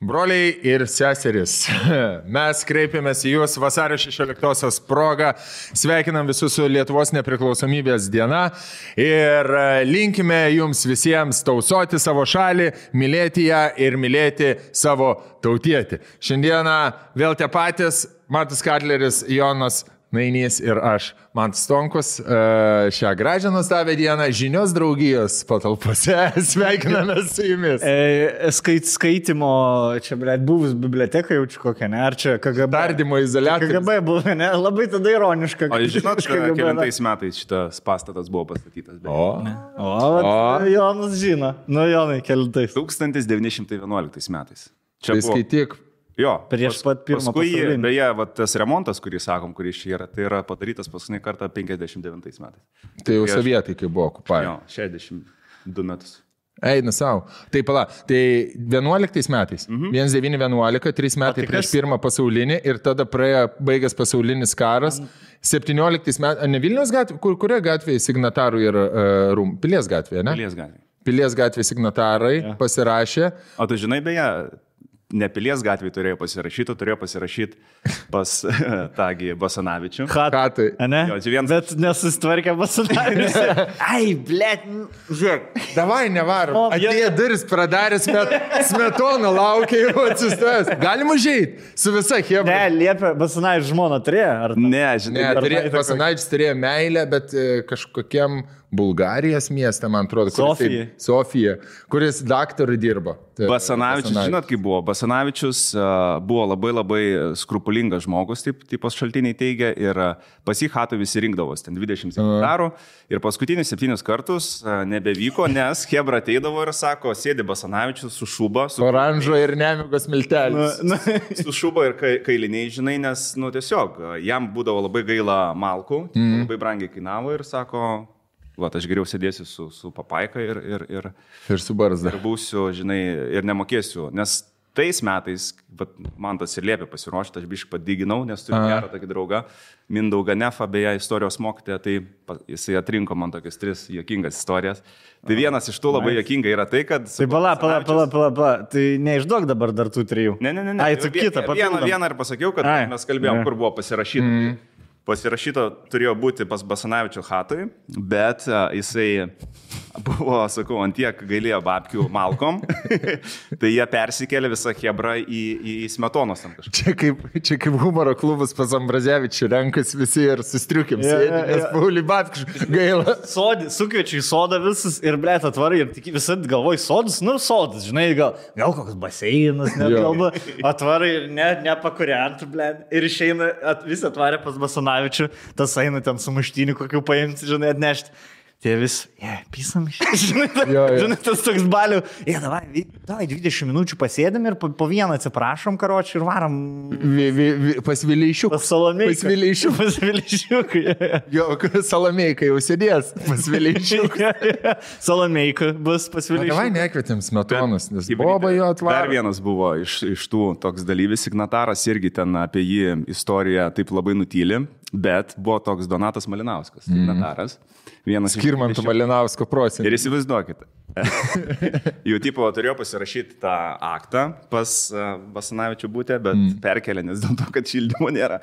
Broliai ir seserys, mes kreipiamės į jūs vasario 16-osios progą, sveikinam visus su Lietuvos nepriklausomybės diena ir linkime jums visiems tausoti savo šalį, mylėti ją ir mylėti savo tautietį. Šiandieną vėl tie patys, Matas Katleris, Jonas Nainys ir aš, Mantas Stonkus, šią gražią nuostabią dieną žinios draugijos patalpose. Sveikiname su jumis. Skaitimo, čia, blėt, buvus biblioteka jaučiu kokią, ne? Ar čia KGB? Tardymo izoliatorius. KGB buvo, ne? Labai tada ironiška. O žinot, kelintais metais šitas pastatas buvo pastatytas. Jonas žino. Nu, Jonai, kelintais. 1911 metais. Čia tai skaityk. Jo, prieš pat pirmą pasaulinį. Beje, tas remontas, kurį sakom, kuris čia yra, tai yra padarytas paskutinį kartą 59 metais. Tai jau sovietai, kai buvo okupavę. Jo, 62 metus. Eina savo. Tai pala, tai 11 metais, 1911, 3 metai prieš pirmą pasaulinį ir tada baigęs pasaulinis karas, 17 metais, ne Vilniaus gatvė, kurioje gatvėje signatarų yra Pilies gatvėje, ne? Pilies gatvėje. Pilies gatvėje signatarai pasirašė. O tu žinai, beje, ne Pilies gatvėje turėjo pasirašyti pas tągi Basanavičių. Hatai. Ne? Jo, bet nesusitvarkė Basanavičius. Ai, blėt, žiūrėk. Davai, nevarom. Atėjo duris pradarė, Smetona laukia jau atsistojęs. Galim užeit su visa chebra. Ne, liepia, Basanavičius žmona turėjo? Ne, žinai. Basanavičius turėjo meilę, bet kažkokiam Bulgarijos mieste, man atrodo, Sofija, kuris daktarui dirbo. Basanavičius, žinot, kaip buvo? Basanavičius buvo labai skrupulingas žmogus, taip pas šaltiniai teigia, ir pas jį hatų visi rinkdavos, ten 20 hektarų, ir paskutinius 7 kartus nebevyko, nes chebra ateidavo ir sako, sėdi Basanavičius su šuba. Oranžo ir nemigos miltelis. Su šuba ir kailiniai, žinai, nes, tiesiog, jam būdavo labai gaila malkų, labai brangiai kainavo ir sako, aš geriau sėdėsiu su papaika ir su barzda. Ir būsiu, žinai, ir nemokėsiu, nes tais metais, man tas ir liepė pasiruošti, aš biškai padiginau, nes turiu gerą tokį draugą, Mindaugą Nefą, beje, istorijos mokytoją, tai jisai atrinko man tokias 3 juokingas istorijas. Tai vienas iš tų labai juokinga yra tai, kad... Tai pala, tai neišduok dabar dar tų 3. Ne. Ai, tu kitą papildom. Vieną ir pasakiau, kad mes kalbėjom, kur buvo pasirašyta. Pasirašyto turėjo būti pas Basanavičio hatui, bet jisai buvo, sakau, antiek gailėjo babkių malkom, tai jie persikėlė visą chebrą į Smetonos tam kažką. Čia kaip humoro klubas pas Ambrazevičių renkas visi ir sustriukim sėdi, nes Paulį babkių gaila. Sukviečiu į sodą visus ir, blėt, atvarai ir tik visą galvoj sodus, sodas, žinai, gal koks baseinas, net galva, atvarai ir nepakuriantų, blėt, ir išeina, visi atvarė pas Basanavičių. Tas eina ten su muštyniu kokiu paimti, žinai, atnešti. Tai vis, pisam iš. Žinai, tas toks balių. Davai 20 minučių pasėdėm ir po vieną atsiprašom, karočiui, ir varom. Pas Vileišiuk. Pas Salomeiką. Pas Vileišiuk. Jo, Salomeiką jau sėdės. Pas Vileišiuk. Salomeiką bus pas Vileišiuk. Davai nekvietėm Smetonas, nes Boba jo atvarė. Dar vienas buvo iš tų toks dalyvis, signataras irgi ten apie jį istoriją taip labai nutyli, bet buvo toks Donatas Malinauskas, signataras. Skirmanto Malinausko prosenelio. Ir įsivaizduokite. Jau tipo turėjo pasirašyti tą aktą pas Basanavičių būtę, bet perkelė, nes dėl to, kad šildymo nėra.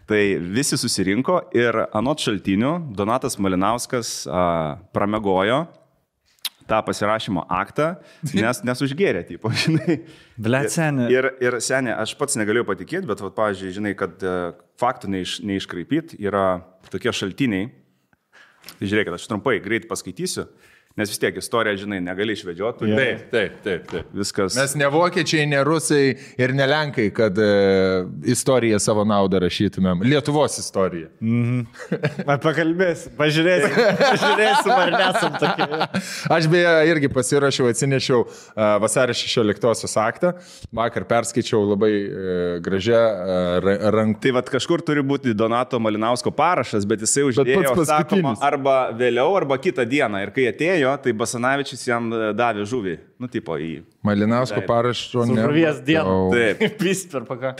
Tai visi susirinko ir anot šaltinių Donatas Malinauskas pramegojo tą pasirašymo aktą, nes užgėrė, tipo, žinai. Blet, senė. Ir senė, aš pats negalėjau patikėti, bet, pavyzdžiui, žinai, kad faktų neiškraipyt yra tokie šaltiniai. Tai žiūrėkit, aš trumpai greit paskaitysiu, nes vis tiek istoriją, žinai, negali išvedžioti. Taip. Viskas. Mes ne vokiečiai, ne rusai ir ne lenkai, kad istoriją savo naudą rašytumėm. Lietuvos istoriją. Pakalbėsim, pažiūrėsim, ar nesam tokie. Aš beje irgi pasirašiau, atsinešiau vasario 16-osios aktą. Vakar perskaičiau labai gražią ranką. Tai kažkur turi būti Donato Malinausko parašas, bet jisai uždėjo, sakoma, arba vėliau, arba kitą dieną. Ir kai atėjo, tai Basanavičius jam davė žuvį. Tipo į... Malinausko parašo ne. Žuvies dieną. Taip.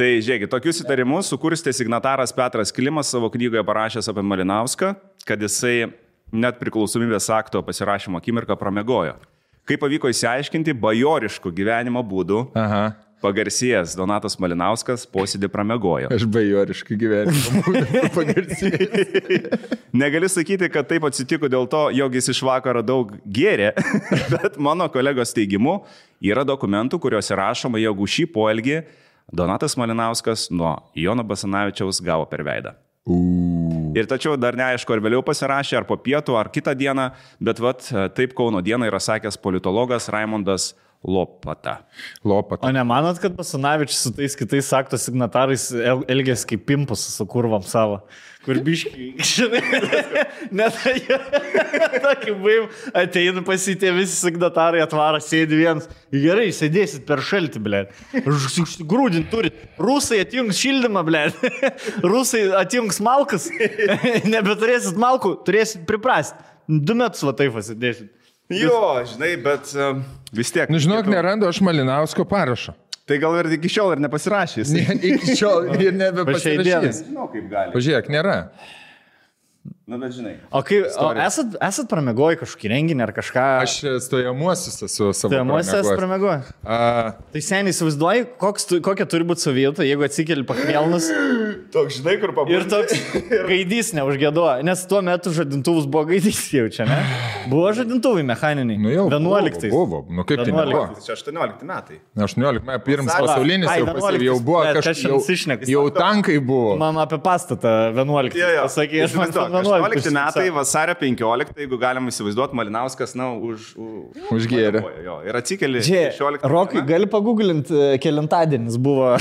Tai žiūrėkit, tokius įtarimus sukurstė signataras Petras Klimas savo knygoje parašęs apie Malinauską, kad jisai net priklausomybės akto pasirašymo akimirką pramegojo. Kaip pavyko įsiaiškinti, bajoriškų gyvenimo būdų pagarsėjęs Donatas Malinauskas posėdį pramiegojo. Aš bajoriškai gyvenimą pagarsėjęs. Negali sakyti, kad taip atsitiko dėl to, jog jis iš vakaro daug gėrė, bet mano kolegos teigimu yra dokumentų, kuriuose rašoma, jog už šį poelgį Donatas Malinauskas nuo Jono Basanavičiaus gavo per veidą. Ir tačiau dar neaišku, ar vėliau pasirašė, ar po pietų, ar kitą dieną, bet taip Kauno dieną yra sakęs politologas Raimondas Lopata. O nemanot, kad Basanavičius su tais kitais akto signatarais elgėsi kaip pimpus su kurvam savo? Kur biškai, žinai, net tokį baim, ateina pasitė visi signatarai, atvaro, sėdi vienas. Gerai, sėdėsit per šaltį, blė. Grūdin turit. Rusai atjungs šildymą, blė. Rusai atjungs malkas. Nebeturėsit malkų, turėsit priprasti. 2 metus va taip pasidėsit. Jo, žinai, bet vis tiek. Nu, žinok, nerandu aš Malinausko parašo. Tai gal ir iki šiol ir nepasirašys. Iki šiol ir nebepasirašys. Žinau, kaip gali. Pažiūrėk, nėra. Na, bet žinai. O esat pramiegoję kažkokį renginį ar kažką? Aš stojamuosius esu savo. Stojamuosius esat pramiegoję? Tai seniai įsivaizduoji, kokia turi būti savijauta, jeigu atsikeli pakvėlnus. Toks, žinai, kur pabūti. Ir toks gaidys neužgėduoja, nes tuo metu žadintuvus buvo gaidys jaučia, ne? Buvo žadintuvai mechaniniai. Nu jau, 11. Buvo. Nu kaip tai nebuvo? Čia 18 metai. 18 metai, pirmas pasaulinis jau buvo kažkas. Jau tankai buvo. Man apie pastatą 11. Pasakė, aš man 11 metai, vasario 15, jeigu galim įsivaizduoti, Malinauskas, na, užgėrė. Ir atsikeli 16. Rokai, gali paguglinti, kelintadienis buvo.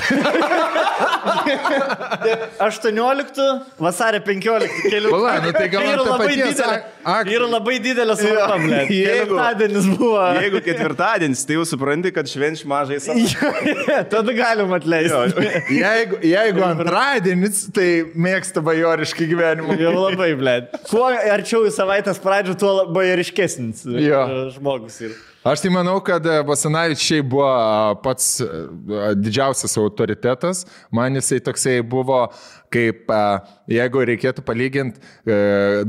18, vasario 15. Pala, nu tai gal ant to paties aktų. Yra labai didelė svarba, blė. Kelintadienis buvo. Jeigu ketvirtadienis, tai jau supranti, kad švenč mažai savo. Tada galim atleisti. Jeigu antradienis, tai mėgsta bajoriškai gyvenimą. Jau labai, blė. Kuo arčiau į savaitės pradžių, tuo bajoriškesnis žmogus yra. Aš tai manau, kad Basanavičiai buvo pats didžiausias autoritetas. Man jisai toksai buvo, kaip jeigu reikėtų palyginti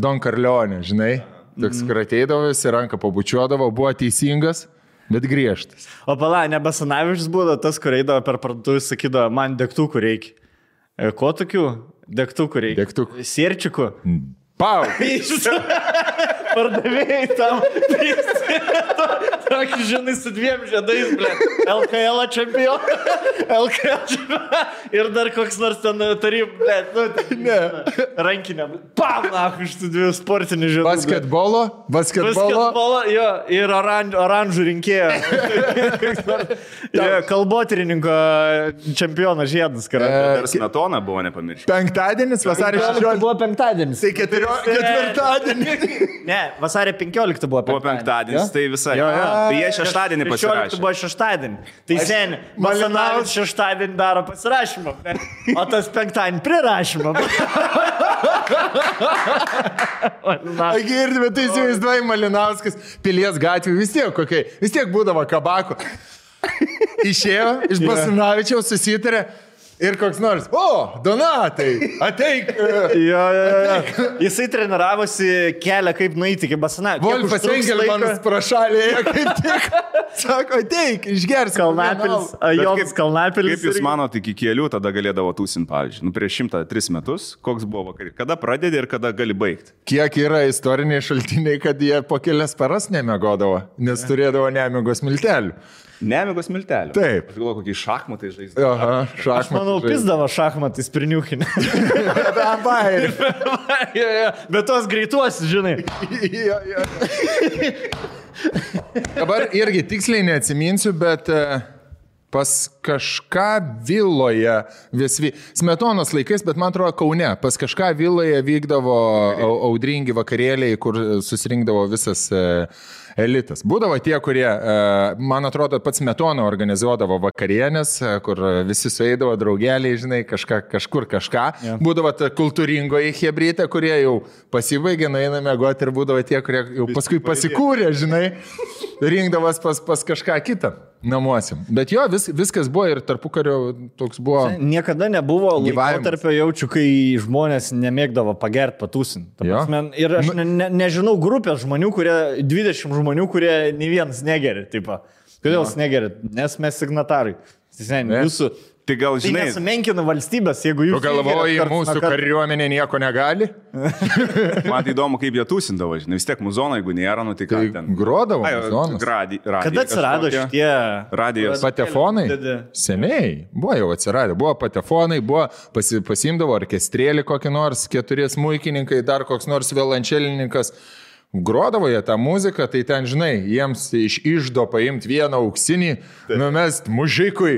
Don Corleone, žinai. Toks, kur ateidavo, jis ranką pabučiuodavo, buvo teisingas, bet griežtas. O pala, ne Basanavičius buvo tas, kur eidavo per parduotuvę, sakydavo, man degtukų reikia. Ko tokių? Degtukų reikia. Degtukų. Sierčikų. Pau! Pardavėjai tam. Tokį, žinai, su 2 žiedais, blė. LKL čempioną. LKL čempioną. Ir dar koks nors ten tarym, blė. Ne. Rankinė, blė. Pam, iš tų 2 sportinių žiedų. Basketbolo, jo. Ir oranžų rinkėjo. Kalbotyrininko čempiono žiedas. Ir Smetona buvo, nepamiršti. Penktadienis, vasario 16. Buvo penktadienis. Tai ketvirtadienis. Ne, vasario 15 buvo penktadienis. Buvo penktadienis, tai visai. Tai jie šeštadienį pasirašė. 16 buvo šeštadienį. Tai seniai, Malinauskas šeštadienį daro pasirašymą. O tas penktadienį prirašymą. Girdime, tai įsivaizduoji Malinauskas Pilies gatvė, vis tiek būdavo kabako. Išėjo iš Basanavičiaus, susitarė. Ir koks nors, Donatai, ateik. Jo. Jisai treniravosi kelią, kaip nueiti iki Basanavičiaus. Wolfas Engelmanas prašalėje, kaip tik. Sako, ateik, išgers. Kalnapilis, Jonas Kalnapilis. Kaip jūs manote, iki kelių tada galėdavo tūsin, pavyzdžiui, prieš 103 metus, koks buvo vakarį? Kada pradedi ir kada gali baigti? Kiek yra istoriniai šaltiniai, kad jie po kelias paras nemiegodavo, nes turėdavo nemigos miltelių. Nemigos miltelių. Taip. Aš galvoju, kokie šachmatai žaisdavo. Aha, šachmatai. Aš manau, pizdavo šachmatais priniukinę. Bet tos greituosius, žinai. Dabar irgi tiksliai neatsiminsiu, bet pas kažką viloje Smetonos laikais, bet man atrodo Kaune, pas kažką viloje vykdavo audringi vakarėliai, kur susirinkdavo visas elitas. Būdavo tie, kurie, man atrodo, pats Smetona organizuodavo vakarienės, kur visi sueidavo draugeliai, žinai, kažkur kažką. Ja. Būdavo ta kultūringoji hebrytė, kurie jau pasibaigė, nueina mėgoti ir būdavo tie, kurie jau paskui pasikūrė, žinai, rinkdavas pas kažką kitą namuose. Bet jo, viskas buvo ir tarpukario toks buvo. Niekada nebuvo laikotarpio jaučiu, kai žmonės nemėgdavo pagerti patūsinti. Ir aš nežinau grupės žmonių, 20 žmonių, kurie nei vienas negeri. Tipo. Kodėl jūs negerit? Nes mes signatarai. Jūsų... Tai gal, Tai žinai, nesumenkina valstybės, jeigu jūs... Tu galvoji, mūsų kariuomenė nieko negali? man tai įdomu, kaip jie tūsindavo, žinai, vis tiek muzono, jeigu nėra, nu tai ką ten. Grodavo muzonas. Kada atsirado šitie... Radijos. Patefonai? Seniai. Buvo jau atsiradę. Buvo patefonai, buvo pasimdavo orkestrėlį kokį nors, 4 smuikininkai, dar koks nors violončelininkas. Grodavo jie tą muziką, tai ten, žinai, jiems iš išdo paimti vieną auksinį, numest mužikui,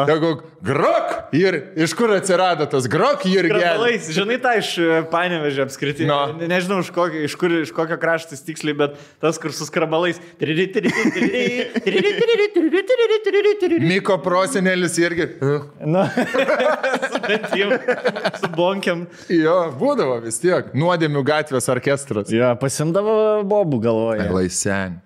tegu grok ir iš kur atsirado tas grok ir gerai. Žinai, tą iš Panevėžio apskritai. No. Nežinau, iš kokio kraštas tiksliai, bet tas, kur su skrabalais. Miko prosenelis irgi. Na, su bonkiam. Jo, būdavo vis tiek. Nuodėmių gatvės orkestras. Jo, pasimdavo bobų galvoje. Laisen.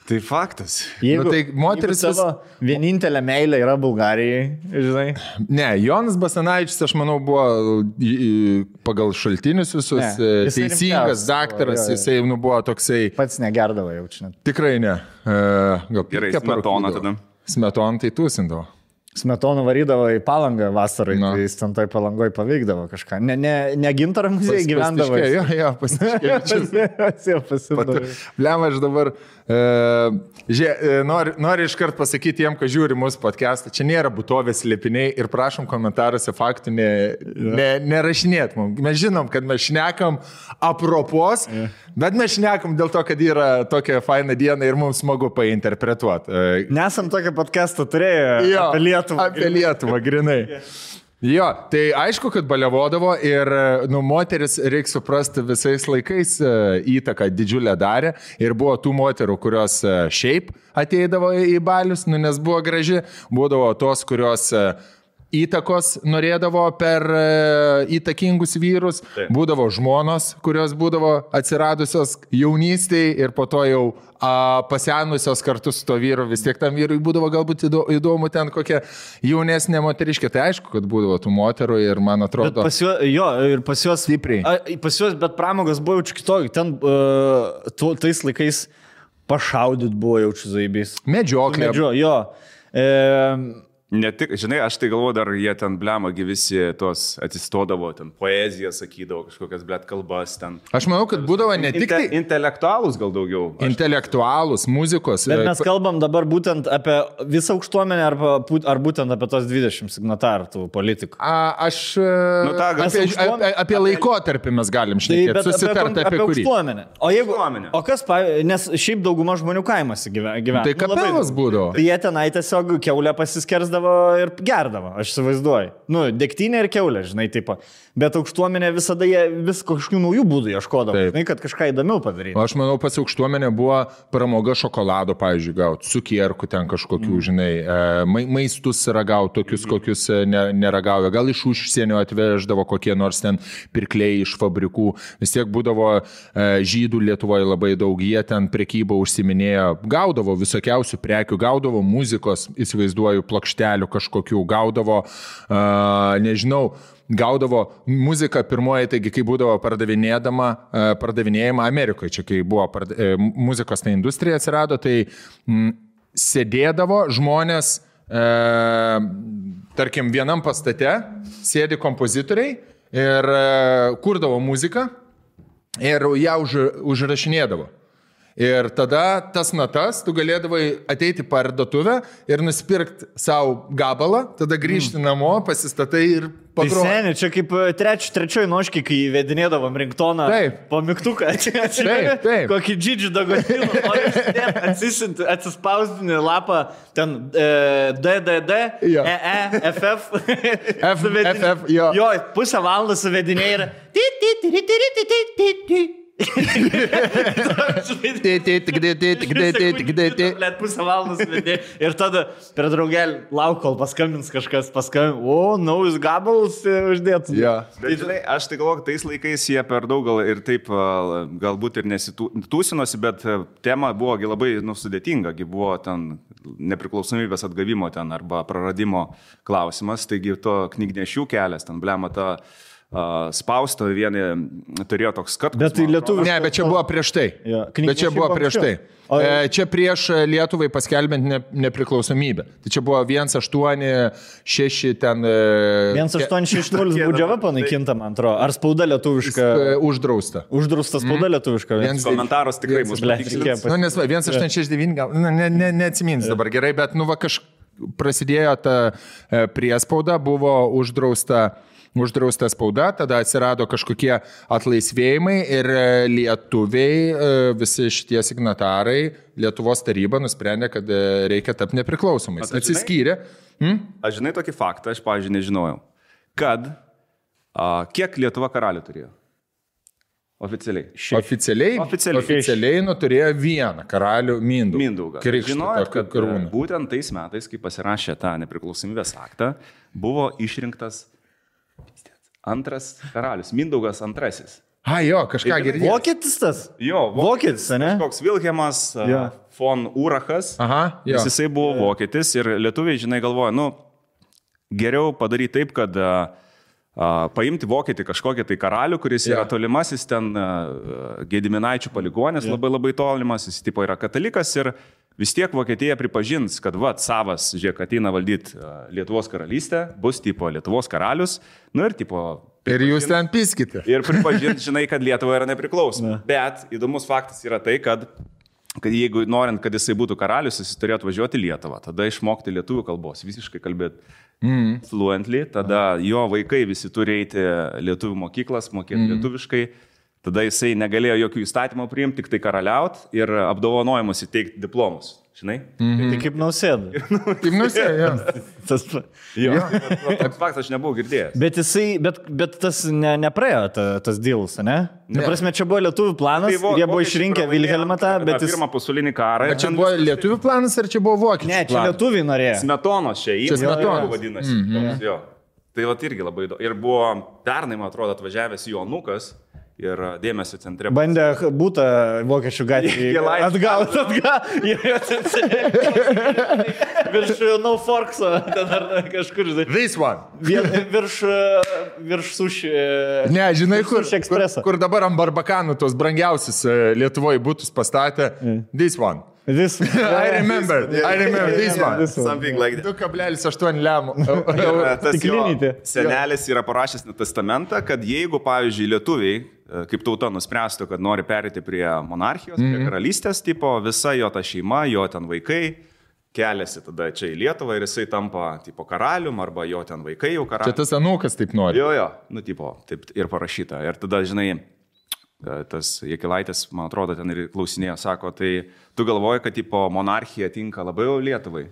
Tai faktas. Jeigu, tai moteris savo vienintelė meilė yra Bulgarijai, žinai. Ne, Jonas Basanavičius, aš manau, buvo pagal šaltinius visus teisingas daktaras, jisai buvo toksai... Pats negerdavo jaučiu. Tikrai ne. Gal gerai, Smetona tada. Smetona tai tūsindavo. Smetonų varydavo į Palangą vasarai, tai jis ten toj Palangoj paveikdavo kažką. Ne Gintaro muziejai gyvendavo. Jo, pasitikėjau. Blem, aš dabar noriu iškart pasakyti tiem, kas žiūri mūsų podcastą, čia nėra būtovės slėpiniai ir prašom komentaruose faktų nerašinėt mums. Mes žinom, kad mes šnekam apropos, bet mes šnekam dėl to, kad yra tokia faina diena ir mums smagu painterpretuoti. Nesam tokio podcast'o turėję apie Lietuvą. Apie Lietuvą, grinai. Jo, tai aišku, kad baliavodavo ir moteris, reikia suprasti, visais laikais įtaką didžiulę darė ir buvo tų moterų, kurios šiaip ateidavo į balius, nes buvo graži, būdavo tos, kurios įtakos norėdavo per įtakingus vyrus, būdavo žmonos, kurios būdavo atsiradusios jaunystėje ir po to jau pasenusios kartu su to vyru, vis tiek tam vyrui būdavo galbūt įdomu ten kokia jaunesnė moteriškė, tai aišku, kad būdavo tų moterų ir man atrodo... Pas juos stipriai. Pas juos, bet pramogos buvo jaučiu kitokį, ten tais laikais pašaudyt buvo jaučiu zaibys. Medžioklė. Jo. Ne tik, žinai, aš tai galvoju, dar jie ten blemagi visi tos atsistodavo, ten poeziją sakydavo, kažkokias blėt kalbas ten. Aš manau, kad būdavo ne tik tai... Intelektualus gal daugiau. Intelektualus, muzikos. Bet mes kalbam dabar būtent apie visą aukštuomenę ar būtent apie tos 20 signatarų tų politikų. Apie laikotarpį mes galim šnekėti, susitarti apie kurį. Aukštuomenę. O kas, nes šiaip dauguma žmonių kaimuose gyvena. Tai kapelas būdavo. Tai jie tenai tiesiog kiaulę pasiskersdavo ir gerdavo, aš įsivaizduoju. Degtinė ir kiaulė, žinai, taip. Bet aukštuomenė visada jie vis kažkokių naujų būdų ieškodavo, žinai, kad kažką įdomiau padaryti. Aš manau, pas aukštuomenė buvo pramoga šokolado, pavyzdžiui, gauti, cukierkų ten kažkokių, žinai, maistus ragauti, tokius, kokius neragauja. Gal iš užsienio atveždavo kokie nors ten pirkliai iš fabrikų. Vis tiek būdavo žydų Lietuvoje labai daug, jie ten prekybą užsiminėjo, gaudavo visokiausių prekių, gaudavo muzikos, įsivaizduoju, plokštelių kažkokių, gaudavo, nežinau, gaudavo muziką pirmoji, taigi kai būdavo pardavinėjama Amerikoje, čia kai buvo muzikos ta industrija atsirado, tai sėdėdavo žmonės, tarkim, vienam pastate, sėdi kompozitoriai ir kurdavo muziką ir ją užrašinėdavo. Ir tada tas natas tu galėdavai ateiti parduotuvę ir nusipirkti savo gabalą, tada grįžti namo, pasistatai ir pagroti. Tai seniai, čia kaip trečioj noškai, kai vedinėdavom ringtoną po mygtuką. Taip. Kokį džidžių dagotinų, atsispausdini lapą, ten DDD, FF, jo, pusę valandą suvedinė ir pusę valandos vedė ir tada per draugelį lauk, kol paskambins kažkas, naujus gabalus uždėtų. Bet žinai, aš tai galvoju, tais laikais jie per daug gal ir taip galbūt ir nesitūsinosi, bet tema buvo labai sudėtinga, buvo ten nepriklausomybės atgavimo ten arba praradimo klausimas, taigi to knygnešių kelias, ten blema ta spausto vieni turėjo toks skatkus. Bet tai lietuvių. Ne, bet čia buvo prieš tai. Jo, Bet čia buvo prieš tai. Čia prieš Lietuvai paskelbent nepriklausomybę. Tai čia buvo 186 ten... 1860 būdžiava panaikinta, man atrodo. Ar spauda lietuviška? Uždrausta. Uždrausta spauda lietuviška. Komentaras tikrai mus patikslins. Nu, nes 169 gal, neatsimins dabar gerai, bet nu va prasidėjo ta priespauda, buvo uždrausta spauda, tada atsirado kažkokie atlaisvėjimai ir lietuviai, visi šitie signatarai, Lietuvos taryba nusprendė, kad reikia tapti nepriklausomais. Atsiskyrė. Aš žinai tokį faktą, aš, pavyzdžiui, nežinojau, kad kiek Lietuva karalių turėjo? Oficialiai. Oficialiai turėjo vieną karalių Mindaugą. Žinojot, kad būtent tais metais, kai pasirašė tą nepriklausomybės aktą, buvo išrinktas antras karalius, Mindaugas antrasis. Jo, kažką girdėjau. Vokietis tas? Jo, Vokietis, ne? Koks Vilhelmas von Urachas. Jo. Jisai buvo vokietis ir lietuviai, žinai, galvoja, nu, geriau padaryti taip, kad paimti vokietį kažkokį tai karalių, kuris yra tolimasis ten Gediminaičių paligonės, labai tolimas, jis tipo yra katalikas ir vis tiek Vokietija pripažins, kad savas, žiūrėk, ateina valdyti Lietuvos karalystę, bus tipo Lietuvos karalius, nu ir tipo... Ir jūs ten piskite. Ir pripažins, žinai, kad Lietuva yra nepriklausoma. Bet įdomus faktas yra tai, kad jeigu norint, kad jisai būtų karalius, jis turėjo atvažiuoti į Lietuvą, tada išmokti lietuvių kalbos, visiškai kalbėti fluently, tada jo vaikai visi turi eiti lietuvių mokyklas, mokėti lietuviškai, tada jisai negalėjo jokių įstatymų priimti, tik tai karaliaut ir apdovanojimus įteikti diplomus. Žinai? Tai kaip Nausėda. Kaip Nausėda, jo. Toks faktas aš nebuvau girdėjęs. Bet tas nepraėjo tas dealas, ne? Prasme, čia buvo lietuvių planas, jie buvo išrinkę Vilhelmą tą, bet pirmą pasaulinį karą. Ar čia buvo lietuvių planas, ar čia buvo vokiečių planas? Ne, čia lietuviai norėjo. Smetonos čia Smetonos vadinasi. Tai va irgi labai įdomu. Ir buvo pernai, man atrodo, atvažiavęs jo anūkas. Ir dėmesio centre. Bandė būtą vokiečių gatvį atgauti. Virš No Forkso, ten ar kažkur. This one. Virš suši. Ne, žinai, kur dabar ant barbakanų tos brangiausius Lietuvoje būtus pastatė. This one. I remember this one. Something like that. 2,8 lemų. Tas jo senelis yra parašęs testamentą, kad jeigu, pavyzdžiui, lietuviai kaip tauta nuspręstų, kad nori perėti prie monarchijos, prie karalystės, tipo, visa jo ta šeima, jo ten vaikai keliasi tada čia į Lietuvą ir jisai tampa tipo karalium arba jo ten vaikai jau karalium. Čia tas anūkas taip nori. Jo, nu tipo, taip ir parašyta. Ir tada, žinai, tas Jakilaitis, man atrodo, ten ir klausinėjo, sako, tai tu galvoji, kad tipo monarchija tinka labai jau Lietuvai?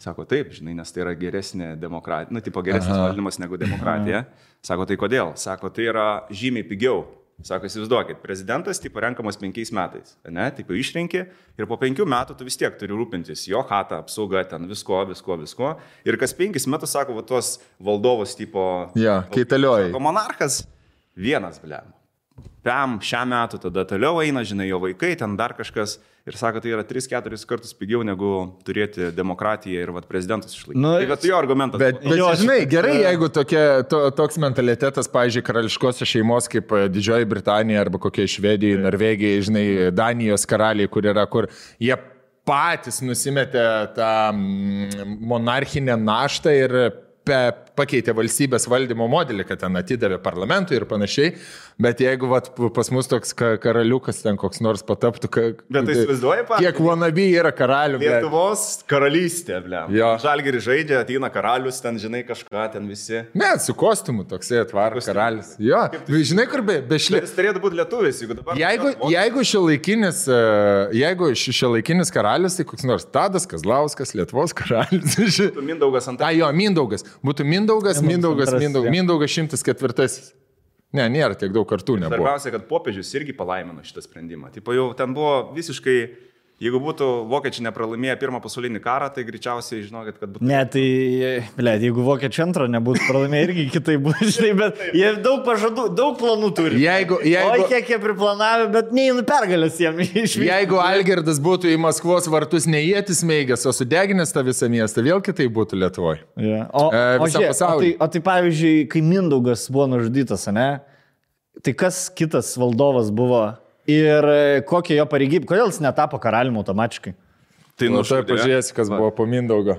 Sako, taip, žinai, nes tai yra geresnė demokratija, nu, tipo, geresnis valdymas negu demokratija. Sako, tai kodėl? Sako, tai yra žymiai pigiau. Sako, įsivaizduokit, prezidentas tipo renkamas 5 metais, ne, tipo išrenki ir po 5 metų tu vis tiek turi rūpintis jo chatą, apsauga, ten visko. Ir kas 5 metus, sako, va, tuos valdovus tipo... Kaitalioji. Sako, monarchas vienas, blem. Šią metų tada toliau eina, žinai, jo vaikai, ten dar kažkas. Ir sako, tai yra 3-4 kartus pigiau negu turėti demokratiją ir prezidentus išlaikyti. Nu, tai bet jo argumentas. Bet žinai, gerai, jeigu toks mentalitetas, pavyzdžiui, karališkosios šeimos kaip Didžioji Britanija arba kokia Švedija, Norvegija, žinai, Danijos karaliai, kur jie patys nusimetė tą monarchinę naštą ir pakeitė valstybės valdymo modelį, kad ten atidavė parlamentui ir panašiai, bet jeigu pas mus toks karaliukas ten koks nors pataptų, bet tai įsivaizduoja, kiek wannabe yra karalių. Lietuvos karalystė, blem. Žalgirį žaidžia, ateina karalius, ten žinai kažką, ten visi. Ne, su kostiumu toksai atvaro karalius. Jo, žinai, kur bešlė. Jis turėtų būti lietuvis, jeigu dabar... Jeigu šiuolaikinis karalius, tai koks nors Tadas Kazlauskas, Lietuvos karalius. Mindaugas antrasis. Jo, Mindaugas. Būtų Mindaugas 104. Ne, nėra tiek daug kartų nebuvo. Svarbiausia, kad popiežius irgi palaimino šitą sprendimą. Tipo, jau ten buvo visiškai Jeigu būtų vokiečiai nepralaimėję pirmą pasaulinį karą, tai greičiausiai žinokit, kad būtų... Ne, tai, jeigu vokiečiai antrą nebūtų pralaimėję, irgi kitai būtų, žinai, bet jie daug pažadų, daug planų turi. Oi, kiek jie priplanavę, bet neįnu pergalės jiem išvykti. Jeigu Algirdas būtų į Maskvos vartus ne ietis meigęs, o sudeginęs tą visą miestą, vėl kitai būtų Lietuvoje. Yeah. O tai pavyzdžiui, kai Mindaugas buvo nužudytas, ne? Tai kas kitas valdovas buvo? Ir kokia jo pareigybė, kodėl jis netapo karaliumi automatiškai? Tai pažiūrėsi, kas buvo po Mindaugo.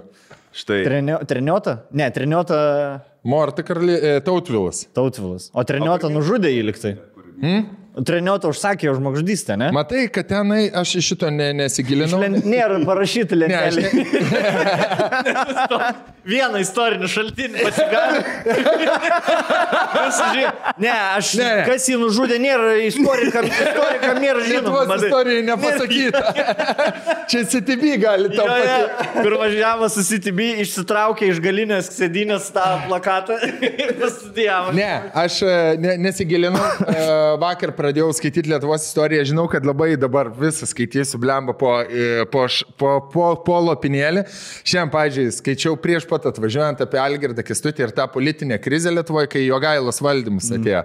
Štai. Treniota? Ne, treniota... Morta Tautvilas. Tautvilas. O treniota nužudė jį liktai. Treniota užsakė žmogžudystę, ne? Matai, kad tenai aš iš šito nesigilinau. Nėra parašyti lentelė. Vieną istorinį šaltinį pasigali. Kas jį nužudė, nėra istorikam nėra žinoma. Lietuvos istorijai nepasakyta. Čia CTB gali tau patį. Kur važiavo su CTB, išsitraukė iš galinės sėdynės tą plakatą ir pastudijavo. Ne, aš nesigilinau. Vakar pradėjau skaityti Lietuvos istoriją, žinau, kad labai dabar visą skaitysiu blemba po lopinėlį. Šiandien, pavyzdžiui, skaičiau prieš pat atvažiuojant apie Algirdą Kęstutį ir tą politinę krizę Lietuvoje, kai Jogailos valdymus atėjo.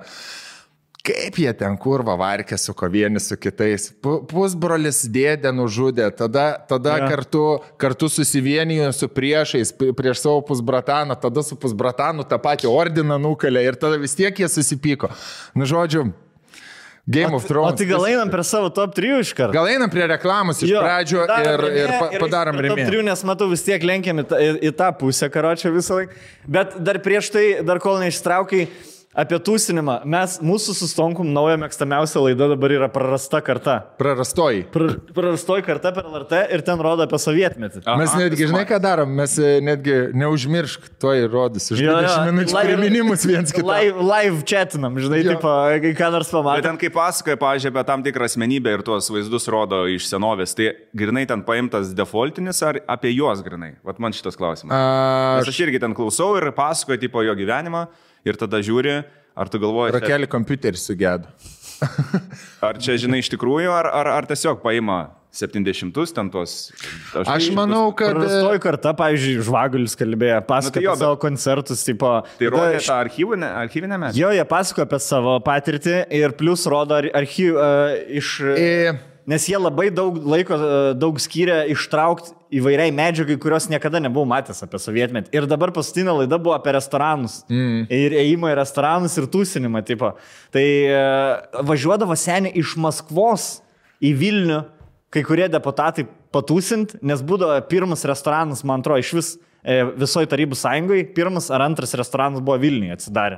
Kaip jie ten kurva varkė su vieni su kitais. Pusbrolis dėdė nužudė, tada kartu susivienijo su priešais, prieš savo pusbrataną, tada su pusbratanu tą patį ordiną nukalė ir tada vis tiek jie susipyko. Nu, žodžiu, Game of Thrones. O tai gal einam prie savo top 3 iš karto? Gal einam prie reklamos iš pradžio ir padarom rėmė. Top 3, nes matau vis tiek lenkiam į tą pusę, karočią visą laiką. Bet dar prieš tai, dar kol neištraukai, apie tūsinimą. Mūsų su Stonkum nauja mėgstamiausia laida dabar yra Prarasta karta. Prarastoji. Prarastoji karta per LRT ir ten rodo apie sovietmetį. Mes netgi, žinai ką darom, mes netgi neužmiršk, to įrodys. Už 20 minučių priminimus viens kitą. Live chatinam, žinai, tipo, ką nors pamatė. Bet ten kaip pasakoja, pavyzdžiui, apie tam tikrą asmenybę ir tuos vaizdus rodo iš senovės, tai grinai ten paimtas defaultinis ar apie juos grinai? Vat man šitas klausimas. Nes aš irgi ten klausau ir pasakoju tipo jo gyvenimą. Ir tada žiūri, ar tu galvoji... Rakelį kompiuterį sugedo. Ar čia, žinai, iš tikrųjų, ar tiesiog paima 70-us ten tos... Aš manau, kad... Prarastoji karta, pavyzdžiui, Žvagulis kalbėjo, pasakojo apie savo koncertus, tipo... Tai rodė tą archyvinę medžiagą? Jo, jie pasakojo apie savo patirtį ir plus rodo iš... Nes jie labai daug laiko, daug skyrė ištraukti įvairiai medžiagai, kurios niekada nebuvau matęs apie sovietmetį. Ir dabar paskutinė laida buvo apie restoranus. Ir ėjimą į restoranus ir tūsinimą, tipo. Tai važiuodavo seniai iš Maskvos į Vilnių, kai kurie deputatai patūsint, nes būdavo pirmas restoranas, man atrodo, iš visoje Tarybų sąjungoje, pirmas ar antras restoranas buvo Vilniuje atsidarę.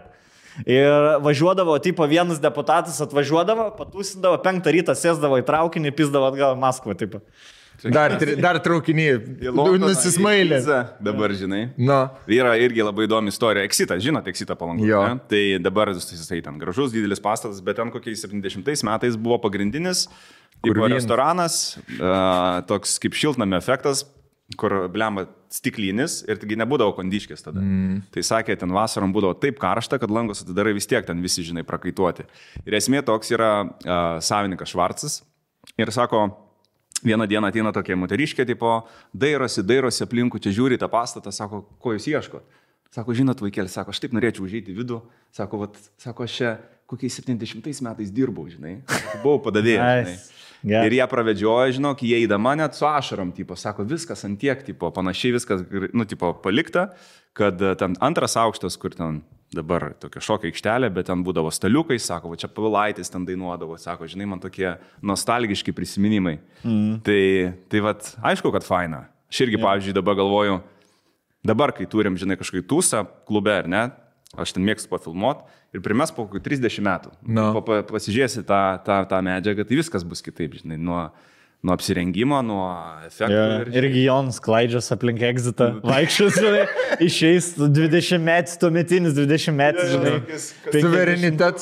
Ir važiuodavo, tipo, vienas deputatas atvažiuodavo, patūsindavo, 5 rytą sėsdavo į traukinį, pizdavo atgal į Maskvą, tipo. Dar traukinį nusismailė. Dabar, žinai. No. Yra irgi labai įdomi istorija. Exitas, žinote, Exitą Palangą. Tai dabar jisai ten gražus, didelis pastatas, bet ten kokiais 70 metais buvo pagrindinis restoranas, toks kaip šiltnamio efektas, kur blemba stiklinis ir taigi nebūdavo kondiškės tada. Tai sakė, ten vasarom būdavo taip karšta, kad langus atidarai vis tiek ten visi, žinai, prakaituoti. Ir esmė toks yra savininkas Švarcas ir sako, vieną dieną ateina tokia moteriškė, tipo, dairosi aplinkų, čia žiūri tą pastatą, sako, ko jūs ieškot? Sako, žinot, vaikėlis, sako, aš taip norėčiau užeiti į vidų, sako, aš čia kokiais 70 metais dirbau, žinai, buvau padavėjęs, žinai. Ir jie pravedžiojo, žinok, jie įdama net su ašarom, tipo, sako, viskas antiek, tipo, panašiai viskas, nu, tipo, palikta, kad ten antras aukštas, kur ten dabar tokia šokio aikštelė, bet ten būdavo staliukai, sako, va čia Pavilaitis ten dainuodavo, sako, žinai, man tokie nostalgiški prisiminimai. Tai vat, aišku, kad faina. Aš irgi, pavyzdžiui, dabar galvoju, dabar, kai turim, žinai, kažkokį tūsą klube, ar ne, aš ten mėgstu pafilmuot ir primes po 30 metų. Pasižiūrėsi tą medžiagą, tai viskas bus kitaip, žinai, nuo apsirengimo, nuo efektų. Irgi Jonas klaidžias aplink Exitą, vaikščios, žinai, išeis 20 metų, tuometinis 20 metų, žinai. Suverenitas.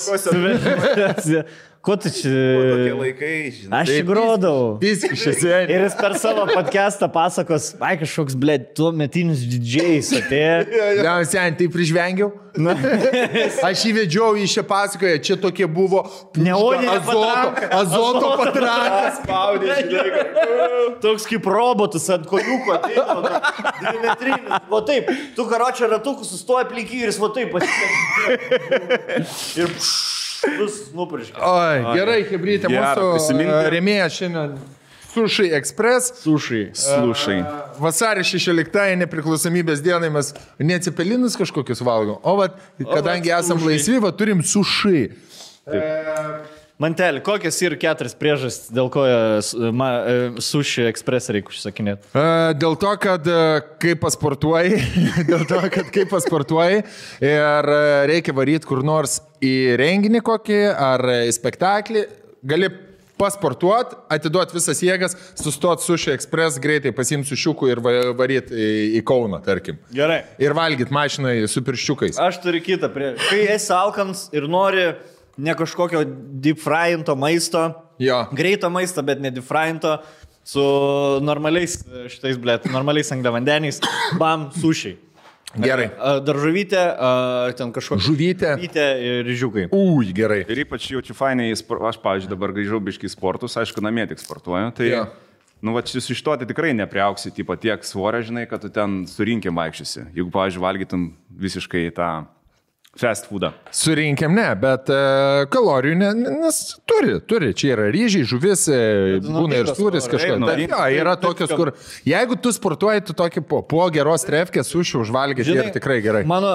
Ko tu čia? Tokie laikai, žinai. Aš čia grodau. Viskai šiandien. Ir jis per savo podcastą pasakos, ai kažkoks, blėt, tuo metinius didžiais atėjo. Ja, sen, tai prižvengiau. Aš įvedžiau į šią pasakoją, čia tokie buvo Neoninė azoto patrankas. Spaudė, žinai. Toks kaip robotas ant kojūko ateina, 2 metrinis. Va taip, tu karočią ratukus sustoja aplink jį ir jis va taip pasitė. Ir vis nupurškia. Oi, gerai, hebrytė, Gera, mūsų prisiminti. rėmėja šiandien Sushi Express. Slušai. Vasario 16 nepriklausomybės dienai mes neatsipelinus kažkokius valgom, o vat, kadangi esam laisvi, va, turim sushi. Mantelį, kokios yra 4 priežastys, dėl ko Sushi Express reikia užsakinėti? Dėl to, kad kai pasportuoji, ir reikia varyti kur nors į renginį kokį ar į spektaklį, gali pasportuot, atiduot visas jėgas, sustot Sushi Express, greitai pasiimti sušiukų ir varyt į Kauną, tarkim. Gerai. Ir valgyt mašinai su pirščiukais. Aš turiu kitą priežastį. Kai esi alkans ir nori ne kažkokio deep fryinto maisto, Jo. greito maisto, bet ne deep fryinto, su normaliais šitais, blėt, normaliais angliavandeniais, bam, sušiai. Gerai. Daržovytė, ten kažkokia Žuvytė. žuvytė ir ryžiukai. Ui, gerai. Ir ypač jaučiu fainai, aš, pavyzdžiui, dabar grįžau biškai į sportus, aišku, namie tik sportuoju. Tai, Jo. nu, va, iš to tai tikrai nepriauksi, tipo, tiek svorio, žinai, kad tu ten surinkim vaikščiasi. Jeigu, pavyzdžiui, valgytum visiškai tą fast foodą. Surinkiam ne, bet kalorijų nes turi. Čia yra ryžiai, žuvis, būna ir sūris kažkas. naudingas. Jo, yra tokios, kur jeigu tu sportuoji, tu tokį po geros trefkės suši užvalgyti ir tikrai gerai. Mano